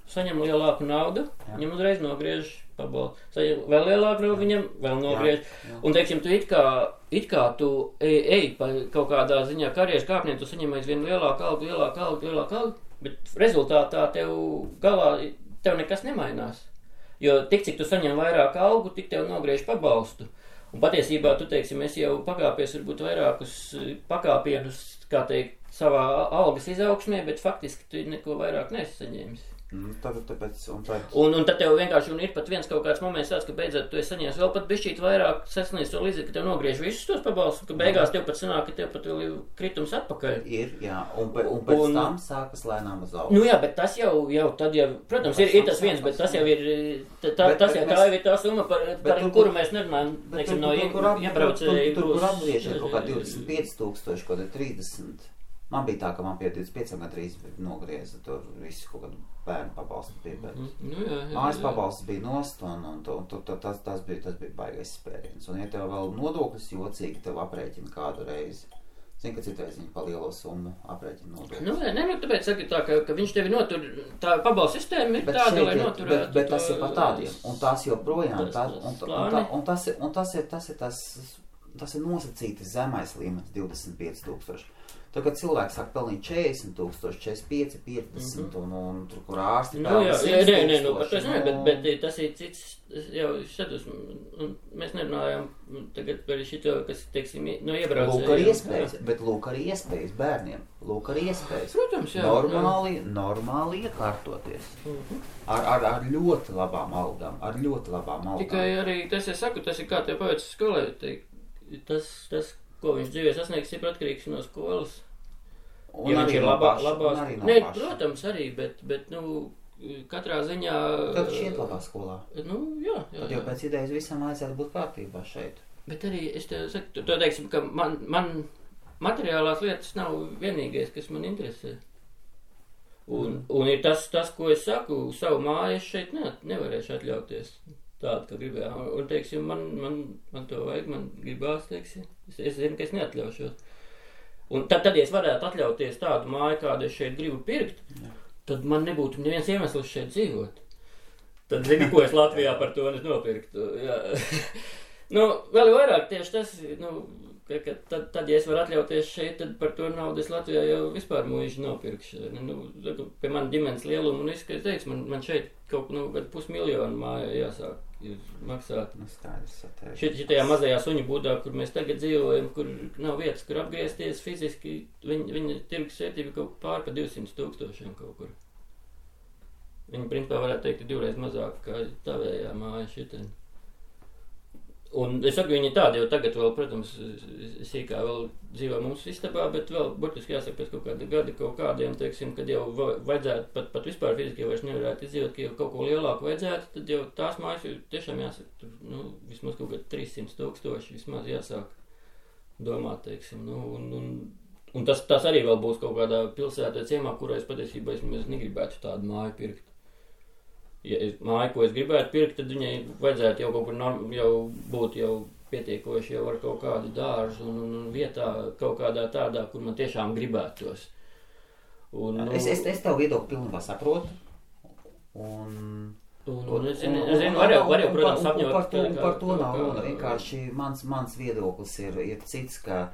saņem lielāku naudu, viņam uzreiz nogriež pabalstu. Saņem vēl lielāku naudu, viņam vēl nogriež. Jā. Un, teiksim, tu it kā tu ej pa kaut kādā ziņā karjeras kāpniem, tu saņem aizvien lielāku algu, bet rezultātā tev galā nekas nemainās. Jo tik, cik tu saņem vairāk algu, tik tev nogriež pabalstu. Un patiesībā tu, teiksim, esi jau pakāpies varbūt vairākus pakāpienus, kā teikt, savā algas izaugsmē, bet faktiski tu neko vairāk nesaņēmis. Un tad tev vienkārši ir pat viens kaut kāds moments tāds, ka beidzot tu esi saņēmis vēl pat bišķīt vairāk sasniedz to līdzi, ka tev nogriež visus tos pabalstus, ka beigās tev pat sanāk, ka tev pat vēl ir kritums atpakaļ. Ir, jā, un pēc tam sākas lēnām uz augstu. Nu jā, bet tas jau tad jau, protams, ir tas viens, bet tas jau ir, tā ir tā summa, par kuru mēs nerunājam, neksim, no iebraucēju. Tur, kur apgriež ir kaut kā 25,000, kaut kā 30. Man bija tā, ka man pie 25 gandrīz nogrieza tur visu kaut kādu bērnu pabalstu bija, bet mājas pabalsts bija nost, un tas bija baigais spēriens. Un ja tev vēl nodoklis jocīgi, tev aprēķina kādu reizi. Zini, ka citreiz viņi pa lielo summu aprēķina nodoklis. Tāpēc saka tā, ka viņš tevi notur, tā pabalstu sistēma ir tāda, lai noturētu. Bet tas ir pa tādiem, un tās joprojām, tas ir nosacīti zemais līmenis 25,000. Tā, kad cilvēks sāk pelnīt 40,000, 45, 50 un tur, kur ārsti pelna 100,000. Bet tas ir cits, jau šadus, un mēs nerunājam tagad par šito, kas, teiksim, no iebraucējiem. Lūk arī iespējas bērniem, Protams, jā. Normāli iekārtoties. Ar ļoti labām algām, Tikai arī, tas es saku, tas ir kā tev paveicis skolē, tas, ko viņš dzīvē sasniegs, ir atkarīgs no skolas. Un arī no labās. Nē, protams, arī, bet katrā ziņā... Tad šeit labā skolā. Jā. Tad jau pēc idejas visam vajadzētu būt kārtībā šeit. Bet arī, es tev saku, to teiksim, ka man materiālās lietas nav vienīgais, kas man interesē. Un ir tas, ko es saku, savu māju es šeit nevarēšu atļauties. Tādu, ka gribēju. Un, teiksim, man to vajag, man gribās, teiksim. Es zinu, ka es neatļaušos. Un tad, ja es varētu atļauties tādu māju, kādu es šeit gribu pirkt, tad man nebūtu neviens iemesls šeit dzīvot. Tad zinu, ko es Latvijā par to nopirktu. Jā. Vēl vairāk tieši tas, ka tad, ja es varu atļauties šeit, tad par to naudu es Latvijā jau vispār mūžu nopirkšu. Pie man ģimenes lielumu, un es teicu, man šeit kaut 500,000 mājā jāsāk maksāt. Šitajā mazajā suņu būdā, kur mēs tagad dzīvojam, kur nav vietas, kur apgriezties fiziski, viņa tirgus vērtība kaut pār pa 200,000 kaut kur. Viņa principā varētu teikt, ir 2 reiz mazāk kā tavējā māja šitien. Un es saku, viņi tādi jau tagad vēl, protams, sīkā vēl dzīvo mums istabā, bet vēl, burtiski jāsaka, pēc kaut kāda gada kaut kādiem, teiksim, kad jau vajadzētu, pat vispār fiziski vairs nevarētu izdzīvot, ka jau kaut ko lielāku vajadzētu, tad jau tās mājas tiešām jāsaka, tur, nu, vismaz kaut kādi 300,000 vismaz jāsāk domāt, teiksim, nu, un tas arī vēl būs kaut kādā pilsētā ciemā, kurā es patiesībā es negribētu tādu māju pirkt. Ja māju, ko es gribētu pirkt, tad viņai vajadzētu jau kaut kur jau būt jau pietiekoši jau ar kaut kādu dārzu un vietā kaut kādā tādā, kur man tiešām gribētos. Un, es tev viedokli pilnībā saprotu. Un es zinu, var jau, protams, sapņot. Par to nav runa. Vienkārši mans viedoklis ir cits, ka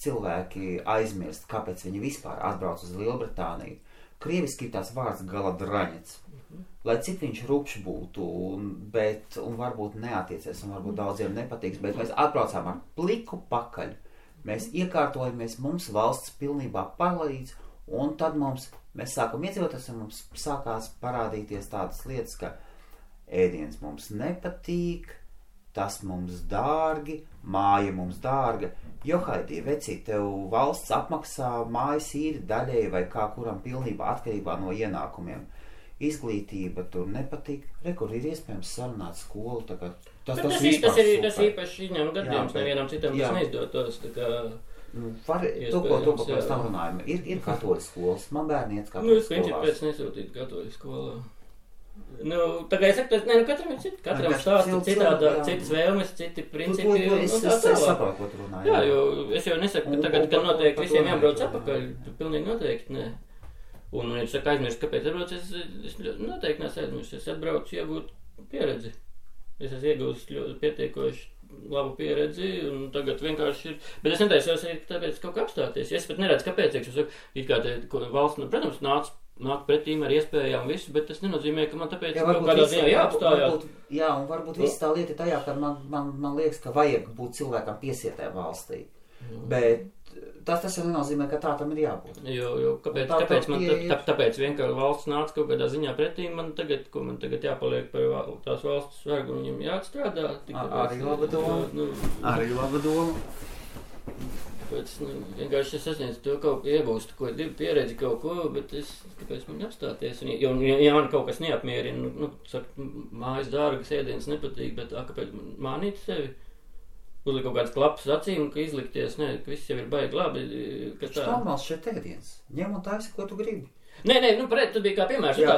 cilvēki aizmirst, kāpēc viņi vispār atbrauc uz Lielbritāniju. Krieviski ir tāds vārds galadraņets. Lai cik viņš rupšs būtu, un varbūt neatiecies, un varbūt daudziem nepatīks, bet mēs atbraucām ar pliku pakaļ. Mēs iekārtojamies, mums valsts pilnībā palīdz, un tad mēs sākam iedzīvoties, un mums sākās parādīties tādas lietas, ka ēdiens mums nepatīk, tas mums dārgi, māja mums dārga. Johaidī, vecīt, tev valsts apmaksā mājas īri daļēji vai kā kuram pilnībā atkarībā no ienākumiem. Izglītība tur nepatīk. Kur ir iespējams sarunāt skolu, tā kā tas īpaši izņem gadījums, nevienam citam tas neizdotos, tā kā to, ko pēc tam runājam. Ir katoļu skolas, man bērni iet katoļu skolās. Nu, viņš ir pēc nesūtīt katoļu skolā. Nu, tā kā es saku, katram ir citi, katram stāsta citādā, citas vēlmes, citi principi. Es saprotu, ko tu runāji. Jā, jo es jau nesaku, ka tagad, kad noteikti visiem jābrauc atpakaļ, pilnīgi noteikti, ne. Un, ja tu saka aizmirst, kāpēc atbrauc, es noteikti nesu aizmirst, es atbraucu iegūt pieredzi. Es esmu iegūst ļoti pietiekoši labu pieredzi, un tagad vienkārši ir, bet es netaisos arī tāpēc kaut kā apstāties. Es pat neredzu, kāpēc, es saku, it kā te valsts, protams, nāk pretīm ar iespējām visu, bet tas nenozīmē, ka man tāpēc kaut kādā ziņā jāapstājās. Jā, un varbūt viss tā lieta tajā, ka man liekas, ka vajag būt cilvēkam piesietē valstī. Bet tas jau nenozīmē, ka tā tam ir jābūt. Jo kāpēc vienkārši valsts nāca kaut kādā ziņā pretī, man tagad jāpaliek par tās valsts vergu un viņam jāatstrādā. Arī laba doma. Arī laba doma. Tāpēc, vienkārši es sasniedzu to kaut iegūstu, ko pieredzi kaut ko, bet kāpēc man apstāties? Ja man kaut kas neapmierina, saka, mājas dārgas, ēdienas nepatīk, bet kāpēc mānīt sevi? Uzlikt kaut kāds klapas acīm, ka izlikties, ka viss jau ir baigi labi. Tas normāls šeit ēdiens. Ņem un taisi, ko tu gribi. Nē, tu biji kā piemērs, jo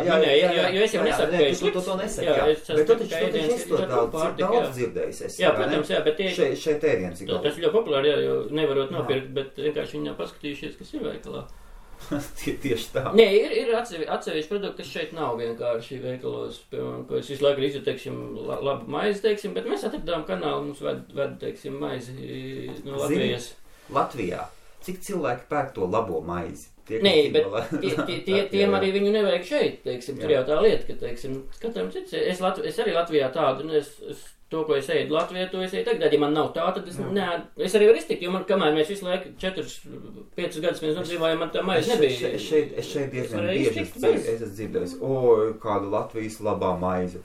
es jau nesaku, ka es slikts. To nesaki, jā. Bet tu taču daudz dzirdējis. Jā, protams, jā, bet šeit ēdiens ir galvā. Tas ir ļoti populāri, jā, jo nevarot nopirkt, bet vienkārši viņi nav paskatījušies, kas ir veikalā. Tieši tā. Nē, ir atsevišķi produkti, kas šeit nav vienkārši veikalos, piemēram, ko es visu laiku izjūtu, teiksim, labu maizi, teiksim, bet mēs atradām kanālu, mums ved teiksim, maizi no Latvijas. Latvijā? Cik cilvēki pērk to labo maizi? Nē, bet tiem arī viņu nevajag šeit, teiksim, tur jau tā lieta, ka, teiksim, katram cits, es arī Latvijā tādu, to, ko es ēdu Latvijā, to es ēdu tagad, ja man nav tā, tad es arī varu iztikt, jo man, kamēr mēs visu laiku 4-5 gadus mēs nodzīvājam, man tā maize nebija. Es šeit diezgan bieži esmu dzirdējis, kāda Latvijas labā maize.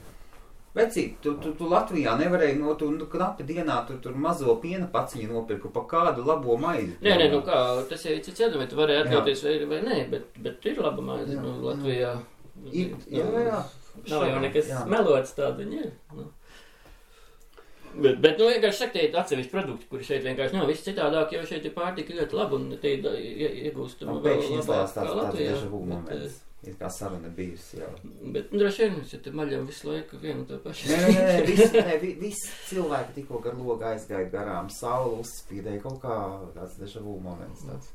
Vecīt, tu Latvijā nevarēji tu knapi dienā tur mazo piena paciņu nopirku pa kādu labo maizi. Nē, kā, tas jau cits jādam, vai tu varēji atļauties vai nē, bet ir laba maize Latvijā. Jā. Nav jau nekas melots tāda viņa ir. Bet vienkārši saka, tie ir atsevišķi produkti, kuri šeit vienkārši nav viss citādāk, jo šeit ir pārtika ļoti laba un te iegūstama vēl labāk kā Latvijā. Ir kā saruna bijusi jau. Bet droši vien, ja te maļam visu laiku vienu to pašu. Nē, visi cilvēki tikko gar logu aizgāja garām, saule uzspīdēja kaut kā tāds deja vu moments, tāds,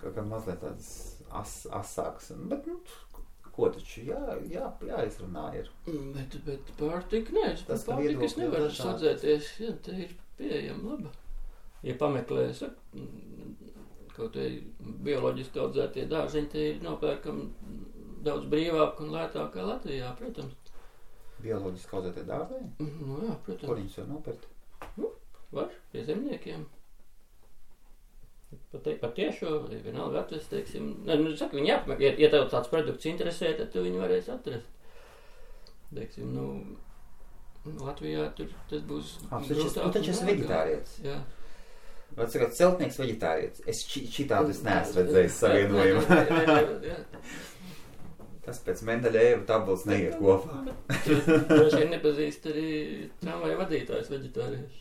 kā mazliet tāds asāks. Bet, ko taču jāizrunā ir. Bet pārtika, nē, pārtika es nevaru sadzēties, jā, te ir pieejama laba. Ja pameklē, kaut vai bioloģiski audzētie dārziņi, te ir nopērkam daudz brīvāk un lētāk kā Latvijā, protams. Bioloģiski audzētie dārziņi? Nu jā, protams. Kur viņus var nopirkt? Var, pie zemniekiem. Pat tiešo, vienalga atrast, teiksim. Saka, viņi jāpameklē, ja tev tāds produkts interesē, tad tu viņu varēsi atrast. Teiksim, Latvijā tas būs... Tu taču esi veģetārietis. Jā. Vai sakāt, celtnieks veģetārietis? Es šitādu neesmu redzējis savienojumu. Tas pēc Mendeļeva tabulas neiet kopā. Droši vien nepazīst arī tramvaju vadītājs veģetārieši.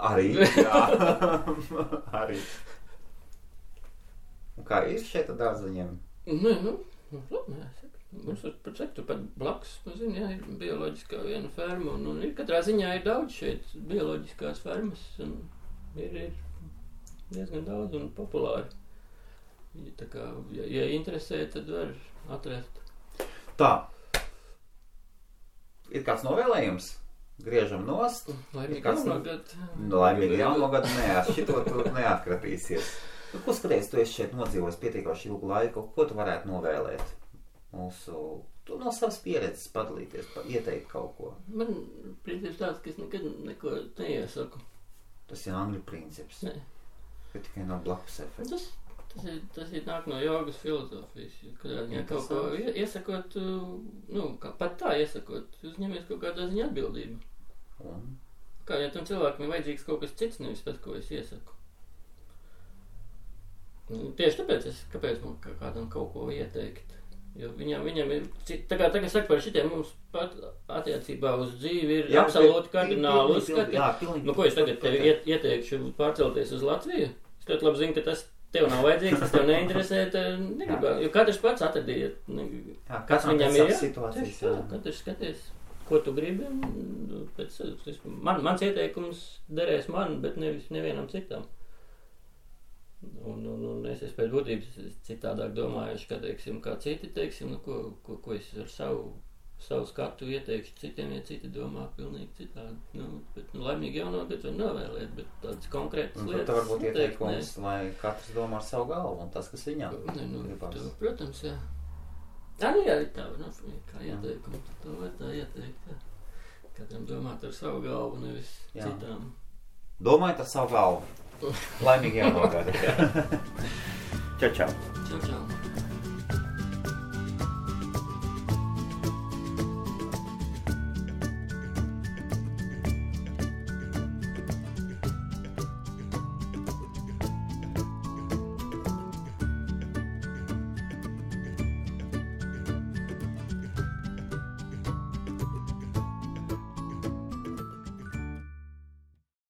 Arī, jā. Arī. Un kā ir šeit ar dārzeņiem? Mums pat blakus, jā, ir bioloģiskā viena ferma, un ir katrā ziņā ir daudz šeit bioloģiskās fermas, un ir diezgan daudz un populāri. Tā kā, ja interesē, tad var atrast. Tā. Ir kāds novēlējums? Griežam nost. Laimīgi jauno gadu. Laimīgi jauno gadu, nē, ar šito tu neatkratīsies. Ko skaties, tu esi šeit nodzīvojis pietiekoši ilgu laiku, ko tu varētu novēlēt? Tu no savas pieredzes padalīties, ieteikt kaut ko. Man princips tāds, ka es nekad neko neiesaku. Tas ir angļu princips. Nē. Ka tikai nav blakus efekts. Tas ir nāk no jogas filozofijas. Kad kaut ko iesakot, pat tā iesakot, uzņemies kaut kādā ziņā atbildību. Kā, ja tam cilvēkam ir vajadzīgs kaut kas cits, nevis tas, ko es iesaku. Tieši tāpēc kāpēc man kādam kaut ko ieteikt? Jo viņam ir, tagad saka par šitiem mums pat attiecībā uz dzīvi ir absolūti kardināli uzskati. Ko es tagad tev ieteikšu pārcelties uz Latviju? Es ļoti labi zinu, ka tas tev nav vajadzīgs, tas tev neinteresē, jo katrs pats atradīja, kas viņam ir. Katrs skaties, ko tu gribi. Mans ieteikums derēs man, bet nevienam citam. Un es pēc būtības citādāk domājuši, kā citi, ko es ar savu skatu ieteikšu citiem, ja citi domā pilnīgi citādi. Bet laimīgi jauno gadu var novēlēt, bet tādas konkrētas lietas. Tā varbūt ieteikums, lai katrs domā ar savu galvu un tas, kas viņam gribas. Protams, jā. Jā, tā var kā ieteikumu, to var tā ieteikt. Jā. Katram domāt ar savu galvu, nevis citām. Domājiet ar savu galvu. Laimīgi jauno gadu. Čau, čau. Čau, čau.